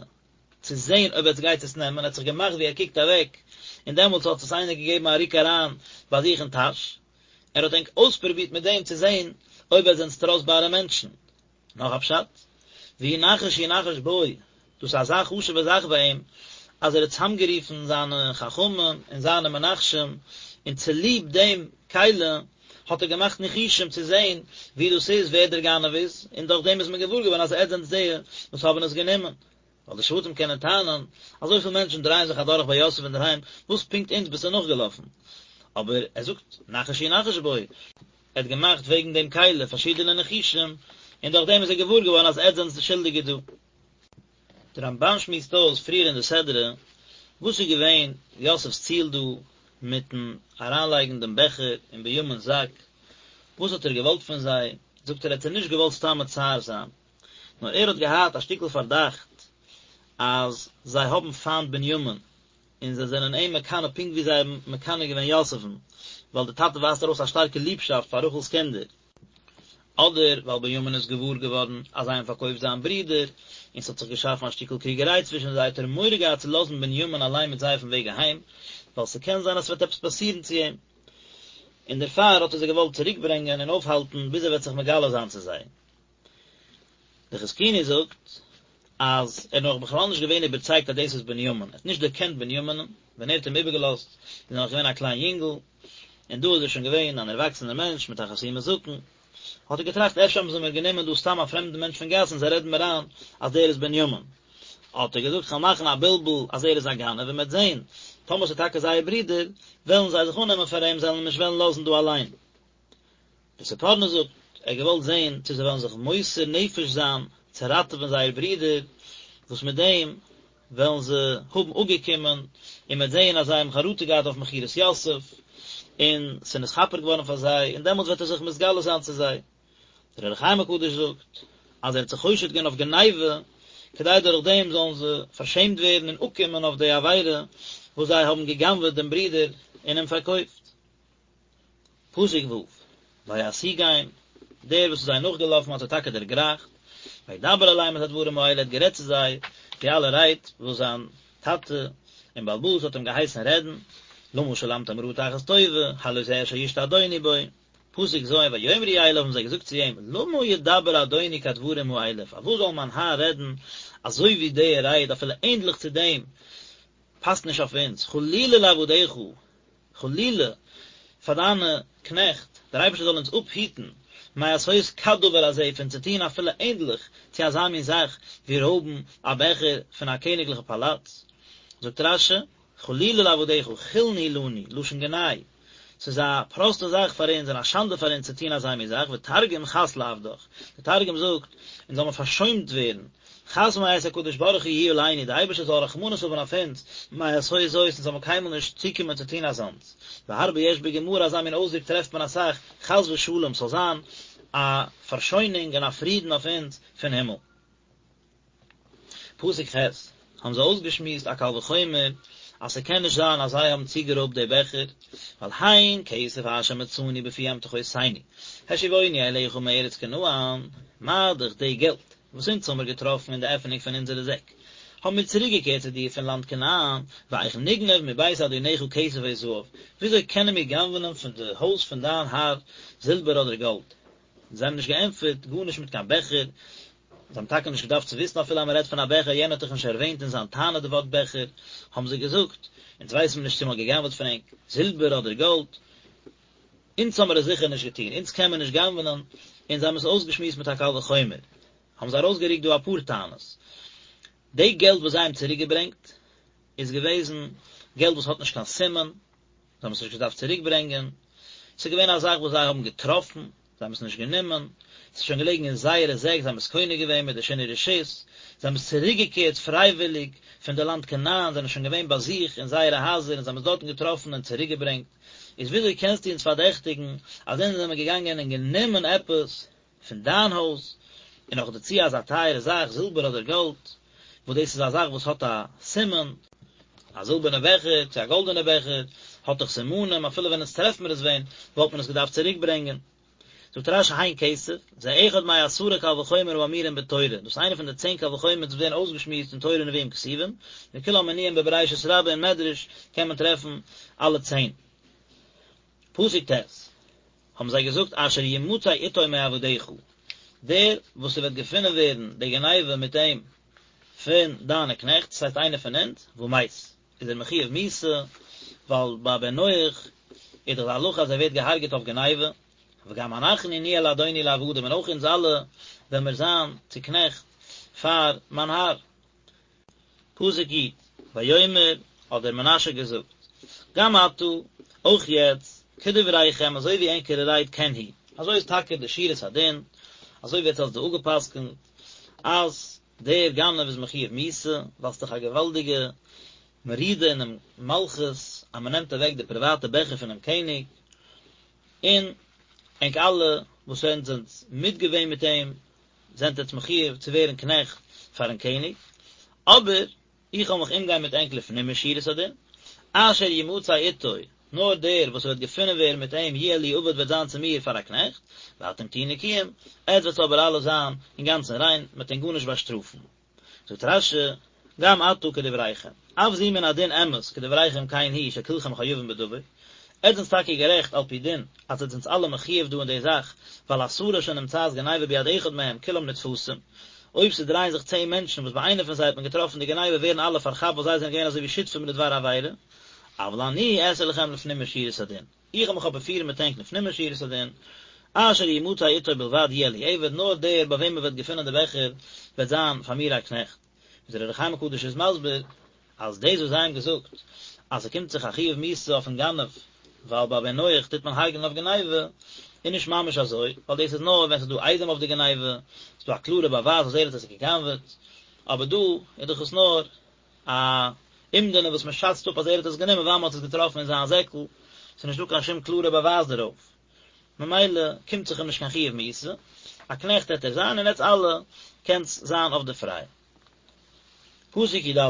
Speaker 1: צו זען אויב עטס גייט עס נעמען, ער האט זיך געמאכט ווי ער קוקט אוועק, און דעמאלטס האט עס איינער געגעבן א רוק אריין ביי זיך אין טאש, ער האט ענק אויספרובירט מיט דעם צו זען אויב עטס זענטס טראסטבארע מענטשן. נאך א פשט, והוא נחש ינחש בו, דאס איז אזא חשוב'ע זאך ביי אים, אז ער האט צוזאמגערופן זיינע חכמים און זיינע מנחשים, און צוליב דעם כלי האט ער געמאכט ניחושים צו זען ווי דאס איז, ווער דער גנב איז, און דורך דעם איז מען געוואר געווארן אז עטס זענטס די וואס האבן עס גענומען. ווייל די שבטים קענען טענה'ן, אזויפיל מענטשן דרייען זיך אדורך ביי יוסף אינדערהיים, וואס פונקט אונז ביסטו נאכגעלאפן? אבער ער זאגט, נחש ינחש בו, ער האט געמאכט וועגן דעם כלי פארשידענע ניחושים, און דורך דעם איז ער געוואר געווארן אז עטס זענטס די שולדיגע דא. דער רמב"ן שמועסט אויס פריער אין די סדרה, וואס איז געווען יוסף'ס ציל דא מיטן אריינלייגן דעם בעכער אין בנימינ'ס זאק, וואס האט ער געוואלט פון זיי, זאגט ער, ער האט זיי נישט געוואלט סתם מצער זיין, נאר ער האט געהאט א שטיקל פארדאכט אז זיי האבן פיינט בנימין, און זיי זענען אים מקנא פונקט ווי זיי האבן מקנא געווען יוסף'ן, ווייל דער טאטע ווייזט ארויס א שטארקע ליבשאפט פאר רחל'ס קינדער. אדער ווייל בנימין איז געוואר געווארן אז זיי האבן פארקויפט זיין ברודער, און ס'האט זיך געשאפן א שטיקל קריגעריי צווישן זיי, האט ער מורא געהאט צו לאזן בנימין אליין מיט זיי אויפן וועג אהיים, ווייל ס'קען זיין אז ס'וועט עפעס פאסירן צו אים. און דערפאר האט ער זיי געוואלט צוריקברענגען און אויפהאלטן ביז ער וועט זיך מגלה זיין צו זיי. דער חזקוני זאגט אז ער איז נאך בכלל נישט געווען איבערצייגט אז דאס איז בנימין, ער האט נישט דערקענט בנימינ'ן, ווען ער האט אים איבערגעלאזט איז ער נאך געווען א קליין יונגל, און דא איז ער שוין געווען אן ערוואקסענער מענטש מיט א חתימת זקן, האט ער געטראכט אפשר האבן זיי מיר גענומען דא סתם א פרעמדן מענטש פון גאס און זיי רעדן מיר איין אז דער איז בנימין. האט ער געזאגט כ'וועל מאכן א בלבול אז ער איז א גנב און מ'וועט זען טאמער ס'איז טאקע זייער ברודער וועלן זיי זיך אננעמען פאר אים זיי וועלן אים נישט וועלן לאזן דא אליין. דער ספורנו זאגט, ער האט געוואלט זען צו זיי וועלן זיך מוסר נפש זיין צו ראטעווען זייער ברודער, וואס מיט דעם וועלן זיי האבן אפגעקומען, און מ'וועט זען אז זיי האבן חרטה געהאט אויף מכירת יוסף, און ס'איז נתכפר געווארן פאר זיי, און דעמאלטס וועט ער זיך מתגלה זיין צו זיי. דער אור החיים הקדוש זאגט, אז ער האט זיי חושד געווען אויף גניבה, כדי דורך דעם זאלן זיי פארשעמט ווערן און אפקומען אויף די עבירה וואס זיי האבן גע'גנב'עט דעם ברודער און אים פארקויפט. פסוק ו', וישיגם, דער וואס איז זיי נאכגעלאפן האט זיי טאקע דערגרייכט, וידבר אליהם את הדברים האלה, ער האט גערעדט צו זיי די אלע רייד וואס זיין טאטע און בעל הבית האט אים געהייסן רעדן, למה שלמתם רעה תחת טובה, הלא זה אשר ישתה אדוני בו. פסוק ז', ויאמרו אליו האבן זיי געזאגט צו אים, למה ידבר אדוני כדברים האלה, פארוואס זאל מיין האר רעדן אזוי ווי די רייד, אפילו ענדליך צו דעם פאסט נישט אויף אונז, חלילה לעבדיך, חלילה פאר דיינע קנעכט, דער אייבערשטער זאל אונז אפהיטן מעשות כדבר הזה פון צו טון אפילו ענדליך צו אזא מין זאך ווי רויבן א בעכער פון א קעניגליכע פאלאץ. זאגט רש"י, חלילה לעבדיך, חולין הוא לנו, לשון גנאי. ס'איז א פראסטע זאך פאר אונז און א שאנדע פאר אונז צו טון אזא מין זאך, ותרגום חס לעבדך, דער תרגום זאגט, אונז זאל מען פארשוינט ווערן, חס מאת הקדוש ברוך הוא יהי עלינו, דער אייבערשטער זאל רחמנות האבן אויף אונז, מעשות זאת, אונז זאל מען קיינמאל נישט צוקומען צו טון אזאנס. והרבה יש בגמרא, אזא מין אויסדרוק טרעפט מען אסאך, חס ושלום, ס'זאל זיין א פארשוינונג און א פרידן אויף אונז פון הימל. פסוק ח', האבן זיי אויסגעשמועסט א קל וחומר אז ס'קען נישט זיין אז זיי האבן צוגערויבט די בעכער, ווייל הן כסף אשר מצאנו בפי אמתחותינו השיבונו אליך מארץ כנען, מה דאך די געלט וואס אונז האמיר געטראפן אין די עפענונג פון אונזערע זעק, האבן מיר צוריקגעקערט צו דיר פון לאנד כנען, ואיך נגנוב מבית אדוניך כסף או זהב, וויאזוי קענען מיר גנב'נען פון די הויז פון דיין האר זילבער אדער גאלד? זיי האבן נישט געענטפערט גארנישט מיט קיין בעכער, זיי האבן טאקע נישט געדארפט צו וויסן אפילו אז מען רעדט פון א בעכער, יענער האט דאך נישט ערווענט אין זיין טענה די ווארט בעכער, האבן זיי געזאגט, אונז ווייסן מיר נישט צו מען האט גע'גנב'עט פון ענק זילבער אדער גאלד, אונז האמיר עס זיכער נישט געטון, אונז קען מען נישט גנב'נען, און זיי האבן עס אויסגעשמועסט מיט א קל וחומר, האבן זיי ארויסגערוקט דא אפאר טענות, די געלט וואס זיי האבן צוריקגעברענגט איז געוועזן געלט וואס האט נישט קיין סימן, זיי האבן עס נישט געדארפט צוריק ברענגען, ס'איז געווען א זאך וואס זיי האבן געטראפן, זיי האבן עס נישט גענומען, ס'איז שוין געלעגן אין זייערע זעק, זיי האבן עס קונה געווען מיט די שינוי רשות, זיי האבן עס צוריק געקערט פרייוויליג פון די לאנד כנען, זענען שוין געווען ביי זיך אין זייערע הייזער און זיי האבן עס דארטן געטראפן און צוריק געברענגט, איז וויאזוי קענסטו אונז פארדעכטיגן אז אונז זעמער געגאנגען און גענומען עפעס פון דיין הויז, און נאך דערצו אזא טייערע זאך, זילבער אדער גאלד, וואס דאס איז א זאך וואס האט א סימן, א זילבערנע בעכער צו א גאלדענע בעכער, האט דאך סימנים, אפילו ווען אונז טרעפט מיר עס ווען, וואלט מען עס געדארפט צוריק ברענגען. זאגט רש"י הן כסף, זה אחד מעשרה קל וחומר האמורים בתורה, דאס איז איינע פון די צען קל וחומר וואס ווערן אויסגעשמועסט אין תורה נביאים כתובים, וכולם מנויים בבראשית רבה אין מדרש קען מען טרעפן אלע צען. פסוק ט', האבן זיי געזאגט אשר ימצא איתו מעבדיך, דער וואס ס'וועט געפונען ווערן די גניבה מיט אים פון דיינע קנעכט, דאס הייסט איינער פון אונז, ומת, איז ער מחויב מיתה, ווייל ביי בן נח איז דאך די הלכה אז ער ווערט געהארגעט אויף גניבה, וגם אנחנו נהיה לאדוני לעבדים, און אויך אונז אלע וועלן מיר זיין צו קנעכט פאר מיין האר. פסוק י', ויאמר, האט דער מנשה געזאגט, גם עתה, אויך יעצט, כדבריכם, אזוי ווי ענקערע רייד כן הוא, אזוי איז טאקע די שורת הדין, אזוי ווי עטס האטס דא אפגע'פסק'נט, אז דער גנב איז מחויב מיתה, ווייל ס'איז דאך א געוואלדיגע מרידה אינעם מלכות, אז מ'נעמט אוועק די פריוואטע בעכער פונעם קעניג, און ענק אלע וואס ענק זענטס מיטגעווען מיט אים, זענט עטס מחויב צו ווערן קנעכט פארן קעניג, אבער איך וועל מיך אומגיין מיט ענק לפנים משורת הדין, אשר ימצא איתו, נאר דער וואס וועט געפונען ווערן מיט אים יהיה לי עבד וועט זיין צו מיר פאר א קנעכט, ואתם תהיו נקיים, עטס וועטס אבער אלע זיין אינגאנצן ריין, מען וועט ענק גארנישט באשטראפן. זאגט רש"י, גם עתה כדבריכם, אף זו מן הדין אמת כדבריכם כן הוא שכולכם חייבים בדבר, עטס זענטס טאקע גערעכט על פי דין אז עטס זענטס אלע מחויב דא אין די זאך, ווייל עשרה שנמצאת גניבה ביד אחד מהם כולם נתפסים, אויב ס'דרייען זיך צען מענטשן וואס ביי איינער פון זיי האט מען געטראפן די גניבה ווערן אלע פארכאפט ווייל זיי זענען געווען אזוי ווי שותפים לדבר עבירה, אבל אני אעשה לכם לפנים משורת הדין. איך וועל מיך אבער פירן מיט ענק לפנים משורת הדין, אשר ימצא איתו בלבד יהיה לי עבד, נאר דער ביי וועם מען וועט געפינען די בעכער וועט זיין פאר מיר א קנעכט. ווי דער אור החיים הקדוש איז מסביר, אז דאס וואס זיי האבן געזאגט אז ס'קומט זיך א חיוב מיתה אויפן גנב, ווייל ביי בן נח טוט מען הרג'נען אויף גניבה, איז נישט ממש אזוי, ווייל דאס איז נאר ווען ס'איז דא עדים אויף די גניבה, ס'איז דא א קלארע באווייז אז ער האט עס גע'גנב'עט, אבער דא איז דאך עס נאר א אומדנא וואס מען שאצט אפ אז ער האט עס גענומען ווייל מען האט עס געטראפן אין זיין זעקל, ס'איז נישט דא קיין שום קלארע באווייז דערויף, ממילא קומט זיך אים נישט קיין חיוב מיתה, א קנעכט העט ער זיין און עטס אלע קענטס זיין אויף די פריי. פסוק י"א,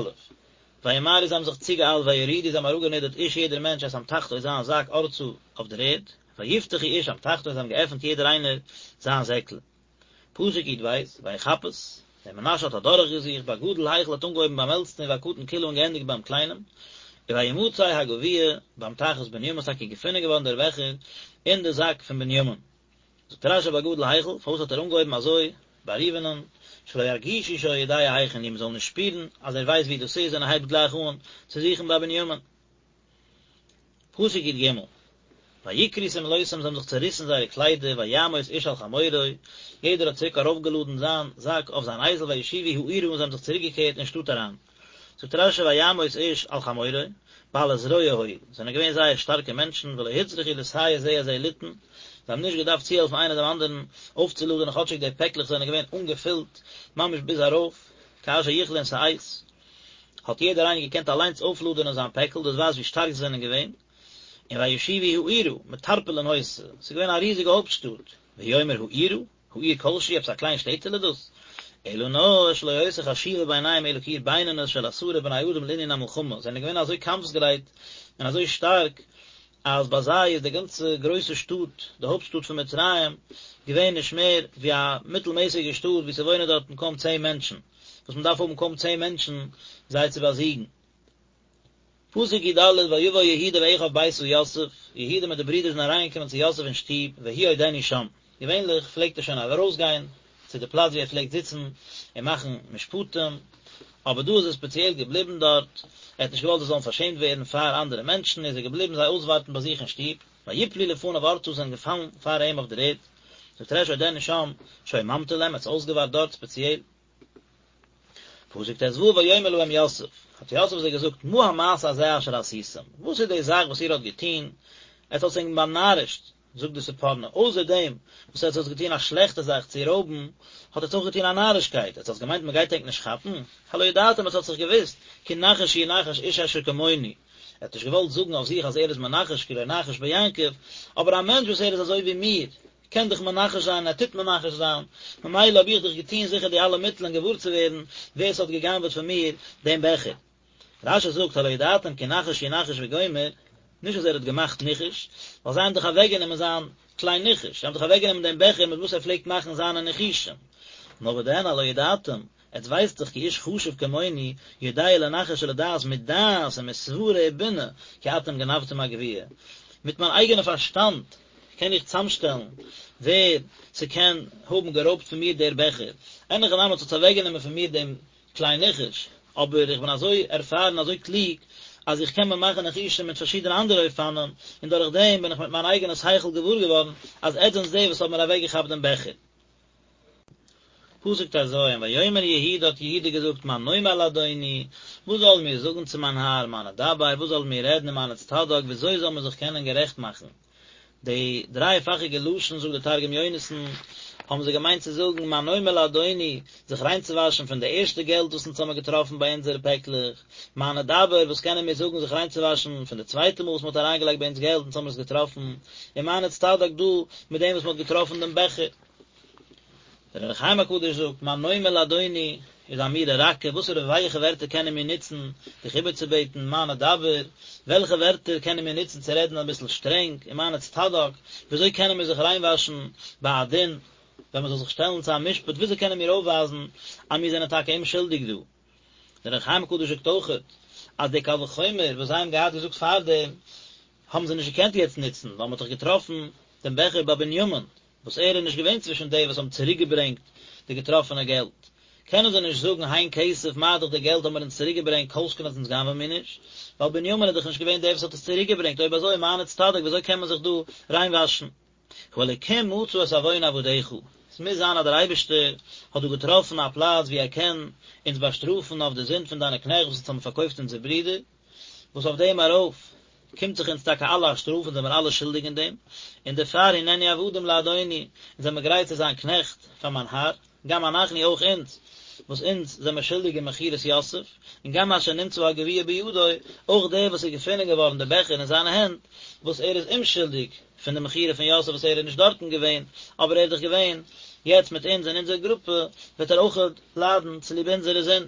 Speaker 1: וימהרו זיי האבן זיך צוגעאיילט ויורידו זיי האבן אראפגענידערט איש יעדער מענטש את אמתחתו זיין זאק ארצה אויף דער ערד, ויפתחו איש אמתחתו זיי האבן געעפנט יעדער איינער זיין זעקל. פסוק י"ב, ויחפש, דער מנשה האט אדורכגעזוכט, בגדול החל האט אנגעהויבן ביים עלטסטן ובקטן כלה און געענדיגט ביים קליינעם, וימצא הגביע באמתחת בנימין איז טאקע געפונען געווארן דער בעכער אין די זאק פון בנימין. זאגט רש"י בגדול החל, פארוואס האט ער אנגעהויבן אזוי ביי ראובנ'ן, שלא ירגישו שהוא יודע היכן הוא, מ'זאל נישט שפירן אז ער ווייסט וואו דאס איז און ער הייבט גלייך אן צו זוכן ביי בנימין. פסוק י"ג, ויקרעו שמלותם זיי האבן זיך צעריסן זייערע קליידער ויעמוס איש על חמורו, יעדער האט צוריק ארויפגעלאדן זיין זאק אויף זיין אייזל וישובו העירה און זיי האבן זיך צוריקגעקערט אין שטאט אריין. זאגט רש"י ויעמוס איש על חמורו, בעלי זרוע היו, זענען געווען זייער שטארקע מענטשן, ולא הוצרכו לסייע זה את זה ליתן, זיי האבן נישט געדארפט צוהעלפן איינער דעם אנדערן אויפצולאדענען כאטשיג די פעקלעך זענען געווען אנגעפילט ממש ביז ארויף, כאשר יכלון שאת, האט יעדער איינער געקענט אליינס אויפלאדענען זיין פעקל, דאס ווייזט ווי שטארק זיי זענען געווען. און וישובו העירה, מטרפולין היתה, ס'איז געווען א ריזיגע הויפטשטאט, והוא אומר העירה, העיר כלשהי, עפעס א קליין שטעטעלע דאס? אלא נאר שלא היתה חשובה בעיניהם אלא כעיר בינונית של עשרה בני אדם לענין המלחמה, זענען געווען אזוי קאמפסגרייט און אזוי שטארק, אז ביי זיי איז די גאנצע גרויסע שטאט, די הויפט שטאט פון מצרים, געווען נישט מער ווי א מיטלמעסיגע שטאט וואו ס'וואוינען דארטן קוים צען מענטשן, וואס מ'דארף האבן קוים צען מענטשן זיי צו באזיגן. פסוק י ד, ויבא יהודה ואחיו ביתה יוסף, יהודה מיט די ברידער זענען אריינגעקומען צו יוסף אין שטוב, והוא עודנו שם. געווענליך פלעגט ער שוין ארויסגיין צו די פלאץ וואו ער פלעגט זיצן און מאכן משפטים, אבער דא איז ער ספעציעל געבליבן דארט, ער האט נישט געוואלט זיי זאלן פארשעמט ווערן פאר אנדערע מענטשן, איז ער געבליבן זיי אויסווארטן ביי זיך אין שטוב, ויפלו לפניו ארצה זענען געפאלן פאר אים אויף דער ערד, זאגט רש י עודנו שם, שהיה ממתין להם, ער האט זיי אויסגעווארט דארט ספעציעל. פסוק ט ו ויאמר להם יוסף, האט יוסף זיי געזאגט, מה המעשה הזה אשר עשיתם, וואס איז די זאך וואס איר האט געטון, עטס האטס ענק באנארישט, זאגט די ספורנו, אויסער דעם וואס עטס האטס געטון א שלעכטע זאך צו רויבן, האט עטס אויך געטון א נארישקייט, עטס האטס געמיינט מען גייט ענק נישט כאפן, הלא ידעתם עטס האטס דאך געוואוסט, כי נחש ינחש איש אשר כמוני, ער האט נישט געוואלט זאגן אויף זיך אז ער איז מנחש כי לא נחש ביעקב, אבער א מענטש וואס ער איז אזוי ווי מיר, קען דאך מנחש זיין און ער טוט מנחש זיין, ממילא האב איך דאך געטון זיכער די אלע מיטלען געוואר צו ווערן ווער ס'האט גע'גנב'עט פון מיר דעם בעכער. רש י זאגט הלא ידעתם כי נחש ינחש וגומר, נישט אז ער האט געמאכט ניחוש, ווייל זיי האבן דאך אוועקגענומען זיין כלי ניחוש, זיי האבן דאך אוועקגענומען דעם בעכער מיט וואס ער פלעגט מאכן זיינע ניחושים. נאר וואדען הלא ידעתם, עטס ווייסט דאך כי איש חשוב כמוני יודע לנחש ולדעת מדעת ומסברה ובינה כי אתם גנבתם הגביע. מיט מיין אייגענע פארשטאנד קען איך צאמשטעלן ווער ס'קען האבן גערויבט פון מיר דער בעכער. אין הכי נמי עטס האטס אוועקגענומען פון מיר דעם כלי ניחוש, אבער איך בין אזוי ערפארן אזוי קלוג אז איך קען מיר מאכן ניחושים מיט פארשידענע אנדערע אופנים, און דורך דעם בין איך מיט מיין אייגענע שכל געוואר געווארן אז עטס זענטס די וואס האבן מיר אוועקגעכאפט דעם בעכער. פסוק ט ז, ויאמר יהודה האט יהודה געזאגט מה נאמר לאדוני, וואס זאלן מיר זאגן צו מיין האר, מה נדבר, וואס זאלן מיר רעדן ומה נצטדק, וויאזוי זאל מען זיך קענען גערעכט מאכן? די דרייפאכיגע לשון זאגט דער תרגום יונתן, האבן זיי געמיינט צו זאגן מה נאמר לאדוני, זיך ריינצואוואשן פון די ערשטע געלט וואס אונז האמיר געטראפן ביי אונזערע פעקלעך, מה נדבר, וואס קענען מיר זאגן זיך ריינצואוואשן פון די צווייטע מאל וואס מען האט אריינגעלייגט ביי אונז געלט אונז האמיר עס געטראפן, און מה נצטדק דא מיט דעם וואס מען האט געטראפן דעם בעכער. דער אור החיים הקדוש זאגט, מה נאמר לאדוני, איז אמירה רכה, וואסערע ווייעכע ווערטער קענען מיר נוצן דיך איבערצובעטן, מה נדבר, וועלכע ווערטער קענען מיר נוצן צו רעדן אביסל שטרענג, און מה נצטדק, וויאזוי קענען מיר זיך ריינוואשן ביי א דין, ווען מען זאל זיך שטעלן צו א משפט, וויאזוי קענען מיר אויפווייזן אז מיר זענען טאקע אומשולדיג דא. דער אור החיים הקדוש זאגט אויכעט, אז די קל וחומר וואס זיי האבן געהאט געזאגט פארדעם, האבן זיי נישט געקענט יעצט נוצן, ווייל מען האט דאך געטראפן דעם בעכער ביי בנימין, וואס ער איז נישט געווען צווישן די וואס האבן צוריק געברענגט די געטראפענע געלט, קענען זיי נישט זאגן הן כסף מה דאך די געלט האבן מיר אונז צוריק געברענגט כל שכן אז אונז גנב'ען מיר נישט, ווייל בנימין איז דאך נישט געווען דער וואס האט עס צוריק געברענגט, אויב אזוי מה נצטדק וויאזוי קען מען זיך דא ריינוואשן? האלקים מצא את עון עבדיך, עס מוז זיין אז דער אייבערשטער האט דא געטראפן א פלאץ וואו ער קען אונז באשטראפן אויף די זינד פון דיינע קנעכט וואס אונז האבן פארקויפט אונזער ברודער, וואס אויף דעם ארויף קומט זיך אונז טאקע אלע א שטראף אונז זעמיר אלע שולדיג אין דעם, און דערפאר הננו עבדים לאדוני, אונז זעמיר גרייט צו זיין קנעכט פאר מיין האר, גם אנחנו אויך אונז, וואס אונז זעמיר שולדיג אין מכירת יוסף, און גם אשר נמצא הגביע בידו, אויך דער וואס איז געפונען געווארן דער בעכער אין זיינע הענט, וואס ער איז אומשולדיג פון די מכירה פון יוסף וואס ער איז נישט דארטן געווען, אבער ער איז דאך געווען יעצט מיט אונז אין אונזער גרופע, וועט ער אויך ליידן צוליב אונזערע זינד.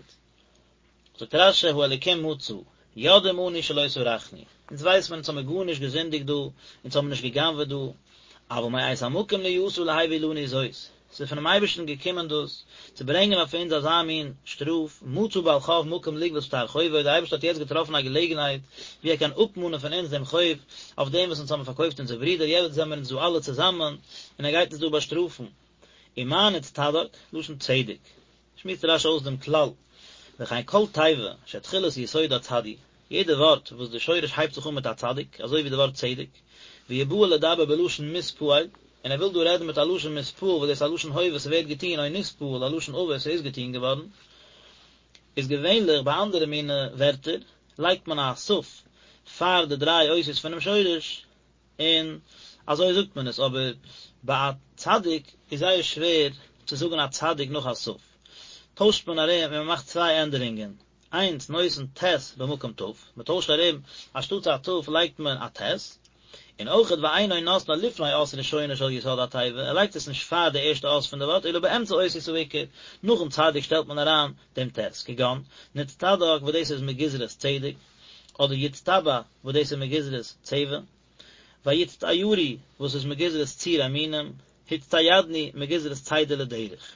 Speaker 1: זאגט רש"י האלקים מצא, יודעים אנו שלא סרחנו, אונז ווייס מען אונז האמיר גארנישט געזינדיגט דא, אונז האמיר נישט גע'גנב'עט דא, אבל מאת המקום נהיתה להביא לנו זאת, ס'איז פונעם אייבערשטן געקומען דאס, צו ברענגען אויף אונז אזא מין שטראף, מצא בעל חוב מקום לגבות שטר חובו, דער אייבערשטער האט יעצט געטראפן א געלעגנהייט ווי ער קען אפמאנען פון אונז דעם חוב אויף דעם וואס אונז האמיר פארקויפט אונזער ברודער, יעצט זעמיר אונז דא אלע צוזאמען, און ער גייט אונז דא באשטראפן. ומה נצטדק, לשון צדק. שמועסט רש"י אויס דעם כלל, וכן כל תיבה שתחילת יסודה צדי, יעדע ווארט וואס די שורש הייבט זיך אן מיט א צדיק, אזוי ווי די ווארט צדק, והוא בא לדבר בלשון מתפעל, און ער וויל דא רעדן מיט א לשון מתפעל וואס דאס איז א לשון הווה ס'ווערט געטון או נתפעל א לשון עבר ס'איז געטון געווארן, איז געווענליך ביי אנדערע מיני ווערטער לייגט מען א ת'. פאר די דריי אותיות פונעם שורש, און אזוי זאגט מען עס, אבער ביי א צדיק איז זייער שווער צו זאגן א צדיק נאך א ת', טוישט מען ארום און מען מאכט צוויי ענדערונגען, איינס נותן ט' במקום ת', מען טוישט ארום אנשטאטס א ת' לייגט מען א ט', און אויכעט ואינו נותנה לפני אות ראשונה של יסוד התיבה, ער לייגט עס נישט פאר די ערשטע אות פון די ווארט אלא באמצע אותיות העיקר, נאכן צדיק שטעלט מען אריין דעם ט', כגון, נצטדק וואס דאס איז מגזרת צדק, אדער יצטבע וואס דאס איז מגזרת צבע, ויצטיירו וואס איז מגזרת ציור המינים, הצטיידנו מגזרת צידה לדרך.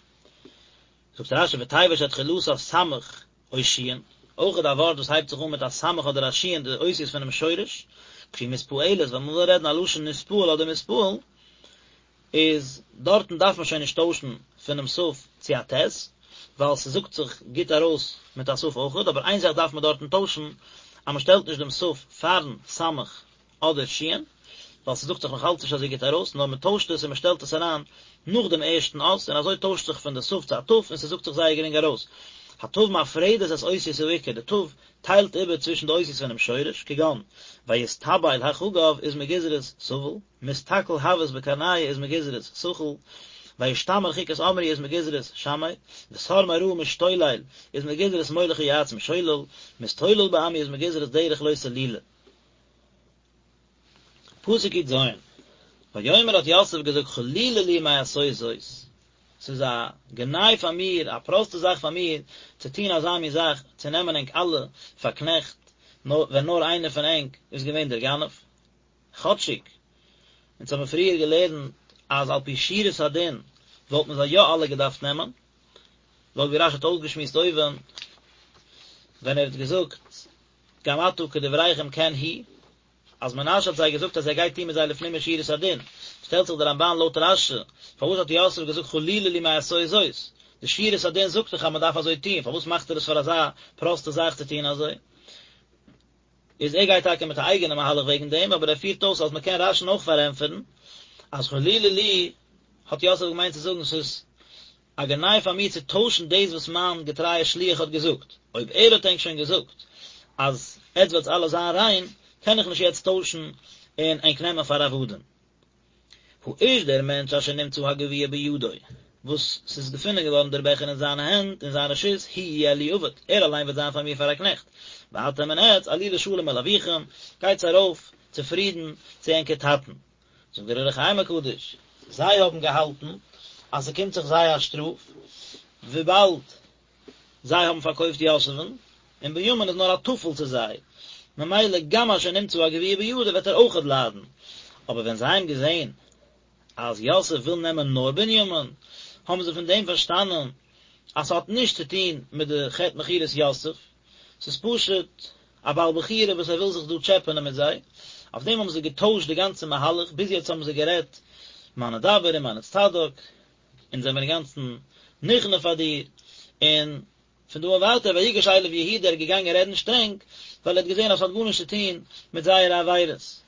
Speaker 1: זאגט רשי ותיבה שתחילתה סמך או שין, אויכעט א ווארט וואס הייבט זיך אן מיט א סמך אדער א שין די אותיות פונעם שורש, כשהיא מתפעלת ווען מ'וויל רעדן א לשון נתפעל אדער מתפעל, איז דארטן דארף מען שוין נישט טוישן פונעם ת' צו א ט', ווייל ס'זאגט זיך גוט ארויס מיט א ת' אויכעט, אבער איין זאך דארף מען דארטן טוישן, אז מ'שטעלט נישט דעם ת' פארן סמך אדער שין, ווייל ס'זאגט זיך נאך אלץ נישט אזוי גוט ארויס, נאר מ'טוישט עס און מ'שטעלט עס אריין נאך דעם ערשטן אות, און אזוי טוישט זיך פון די ת' צו א ט', און ס'זאגט זיך זייער גרינג ארויס. הת' מפרדת את אותיות העיקר, די ת' טיילט איבער צווישן די אותיות פונעם שורש, כגון, ויסתבל החגב איז מגזרת סבל, מסתכל הוות בקרניא איז מגזרת סכל, וישתמר חוקת עמרי איז מגזרת שמר, וסר מרע משתולל איז מגזרת מוליך יועץ משולל, מסתולל בעמי איז מגזרת דרך לא סלולה. פסוק י"ז, ויאמר האט יוסף געזאגט חלילה לי מעשות זאת, ס'איז א גנאי פאר מיר, א פראסטע זאך פאר מיר, צו טון אזא מין זאך, צו נעמען ענק אלע פאר קנעכט, ווען נאר איינער פון ענק איז געווען דער גנב. כאטשיג אונז האבן פריער געלערנט אז על פי שורת הדין וואלט מען זיי יא אלע געדארפט נעמען, לויט ווי רשי האט אויסגעשמועסט אויבן ווען ער האט געזאגט גם עתה כדבריכם כן הוא, אז מנשה האט זיי געזאגט אז ער גייט טון מיט זיי לפנים משורת הדין, שטעלט זיך דער רמבן לויט רשי, פארוואס האט יוסף געזאגט חלילה לי מעשות זאת, די שורת הדין זאגט דאך אז מען דארף אזוי טון, פארוואס מאכט ער עס פאר אזא פראסטע זאך צו טון אזוי? איז ער גייט טאקע מיט א אייגענע מהלך וועגן דעם, אבער ער פירט אויס אז מען קען רשי'ן אויך פארענטפערן אז חלילה לי האט יוסף געמיינט צו זאגן ס'איז א גנאי פאר מיר צו טוישן דאס וואס מיין געטרייער שליח האט געזאגט, אויב ער האט ענק שוין געזאגט אז עטס וועטס אלע זיין ריין, קען איך נישט יעצט טוישן און ענק נעמען פאר עבדים. האיש דער מענטש אשר נמצא הגביע בידו, וואס ס'איז געפונען געווארן דער בעכער אין זיינע הענט, אין זיין רשות, הוא יהיה לי עבד, ער אליין וועט זיין פאר מיר פאר א קנעכט. ואתם און עטס, עלו לשלום אל אביכם, גייטס ארויף צופרידן צו ענקער טאטן. זאגט דער אור החיים הקדוש, זיי האבן געהאלטן אז ס'קומט זיך זיי א שטראף, וויבאלד זיי האבן פארקויפט יוסף'ן, און בנימין איז נאר א טפל צו זיי, ממילא גם אשר נמצא הגביע בידו וועט ער אויכעט ליידן. אבער ווען זיי האבן געזען אז יוסף וויל נעמען נאר בנימין, האבן זיי פון דעם פארשטאנען אז ס'האט נישט צו טון מיט די חטא מכירת יוסף, ס'איז פשוט א בעל בחירה וואס ער וויל זיך דא טשעפענען מיט זיי, אויף דעם האבן זיי געטוישט די גאנצע מהלך, ביז יעצט האבן זיי גערעדט מה נדבר און מה נצטדק, אונז זעמיר אינגאנצן נכנע פאר דיר, און פון דא און ווייטער ויגש אליו יהודה ער איז געגאנגען רעדן שטרענג, ווייל ער האט געזען אז ס'האט גארנישט צו טון מיט זייערע עבירות.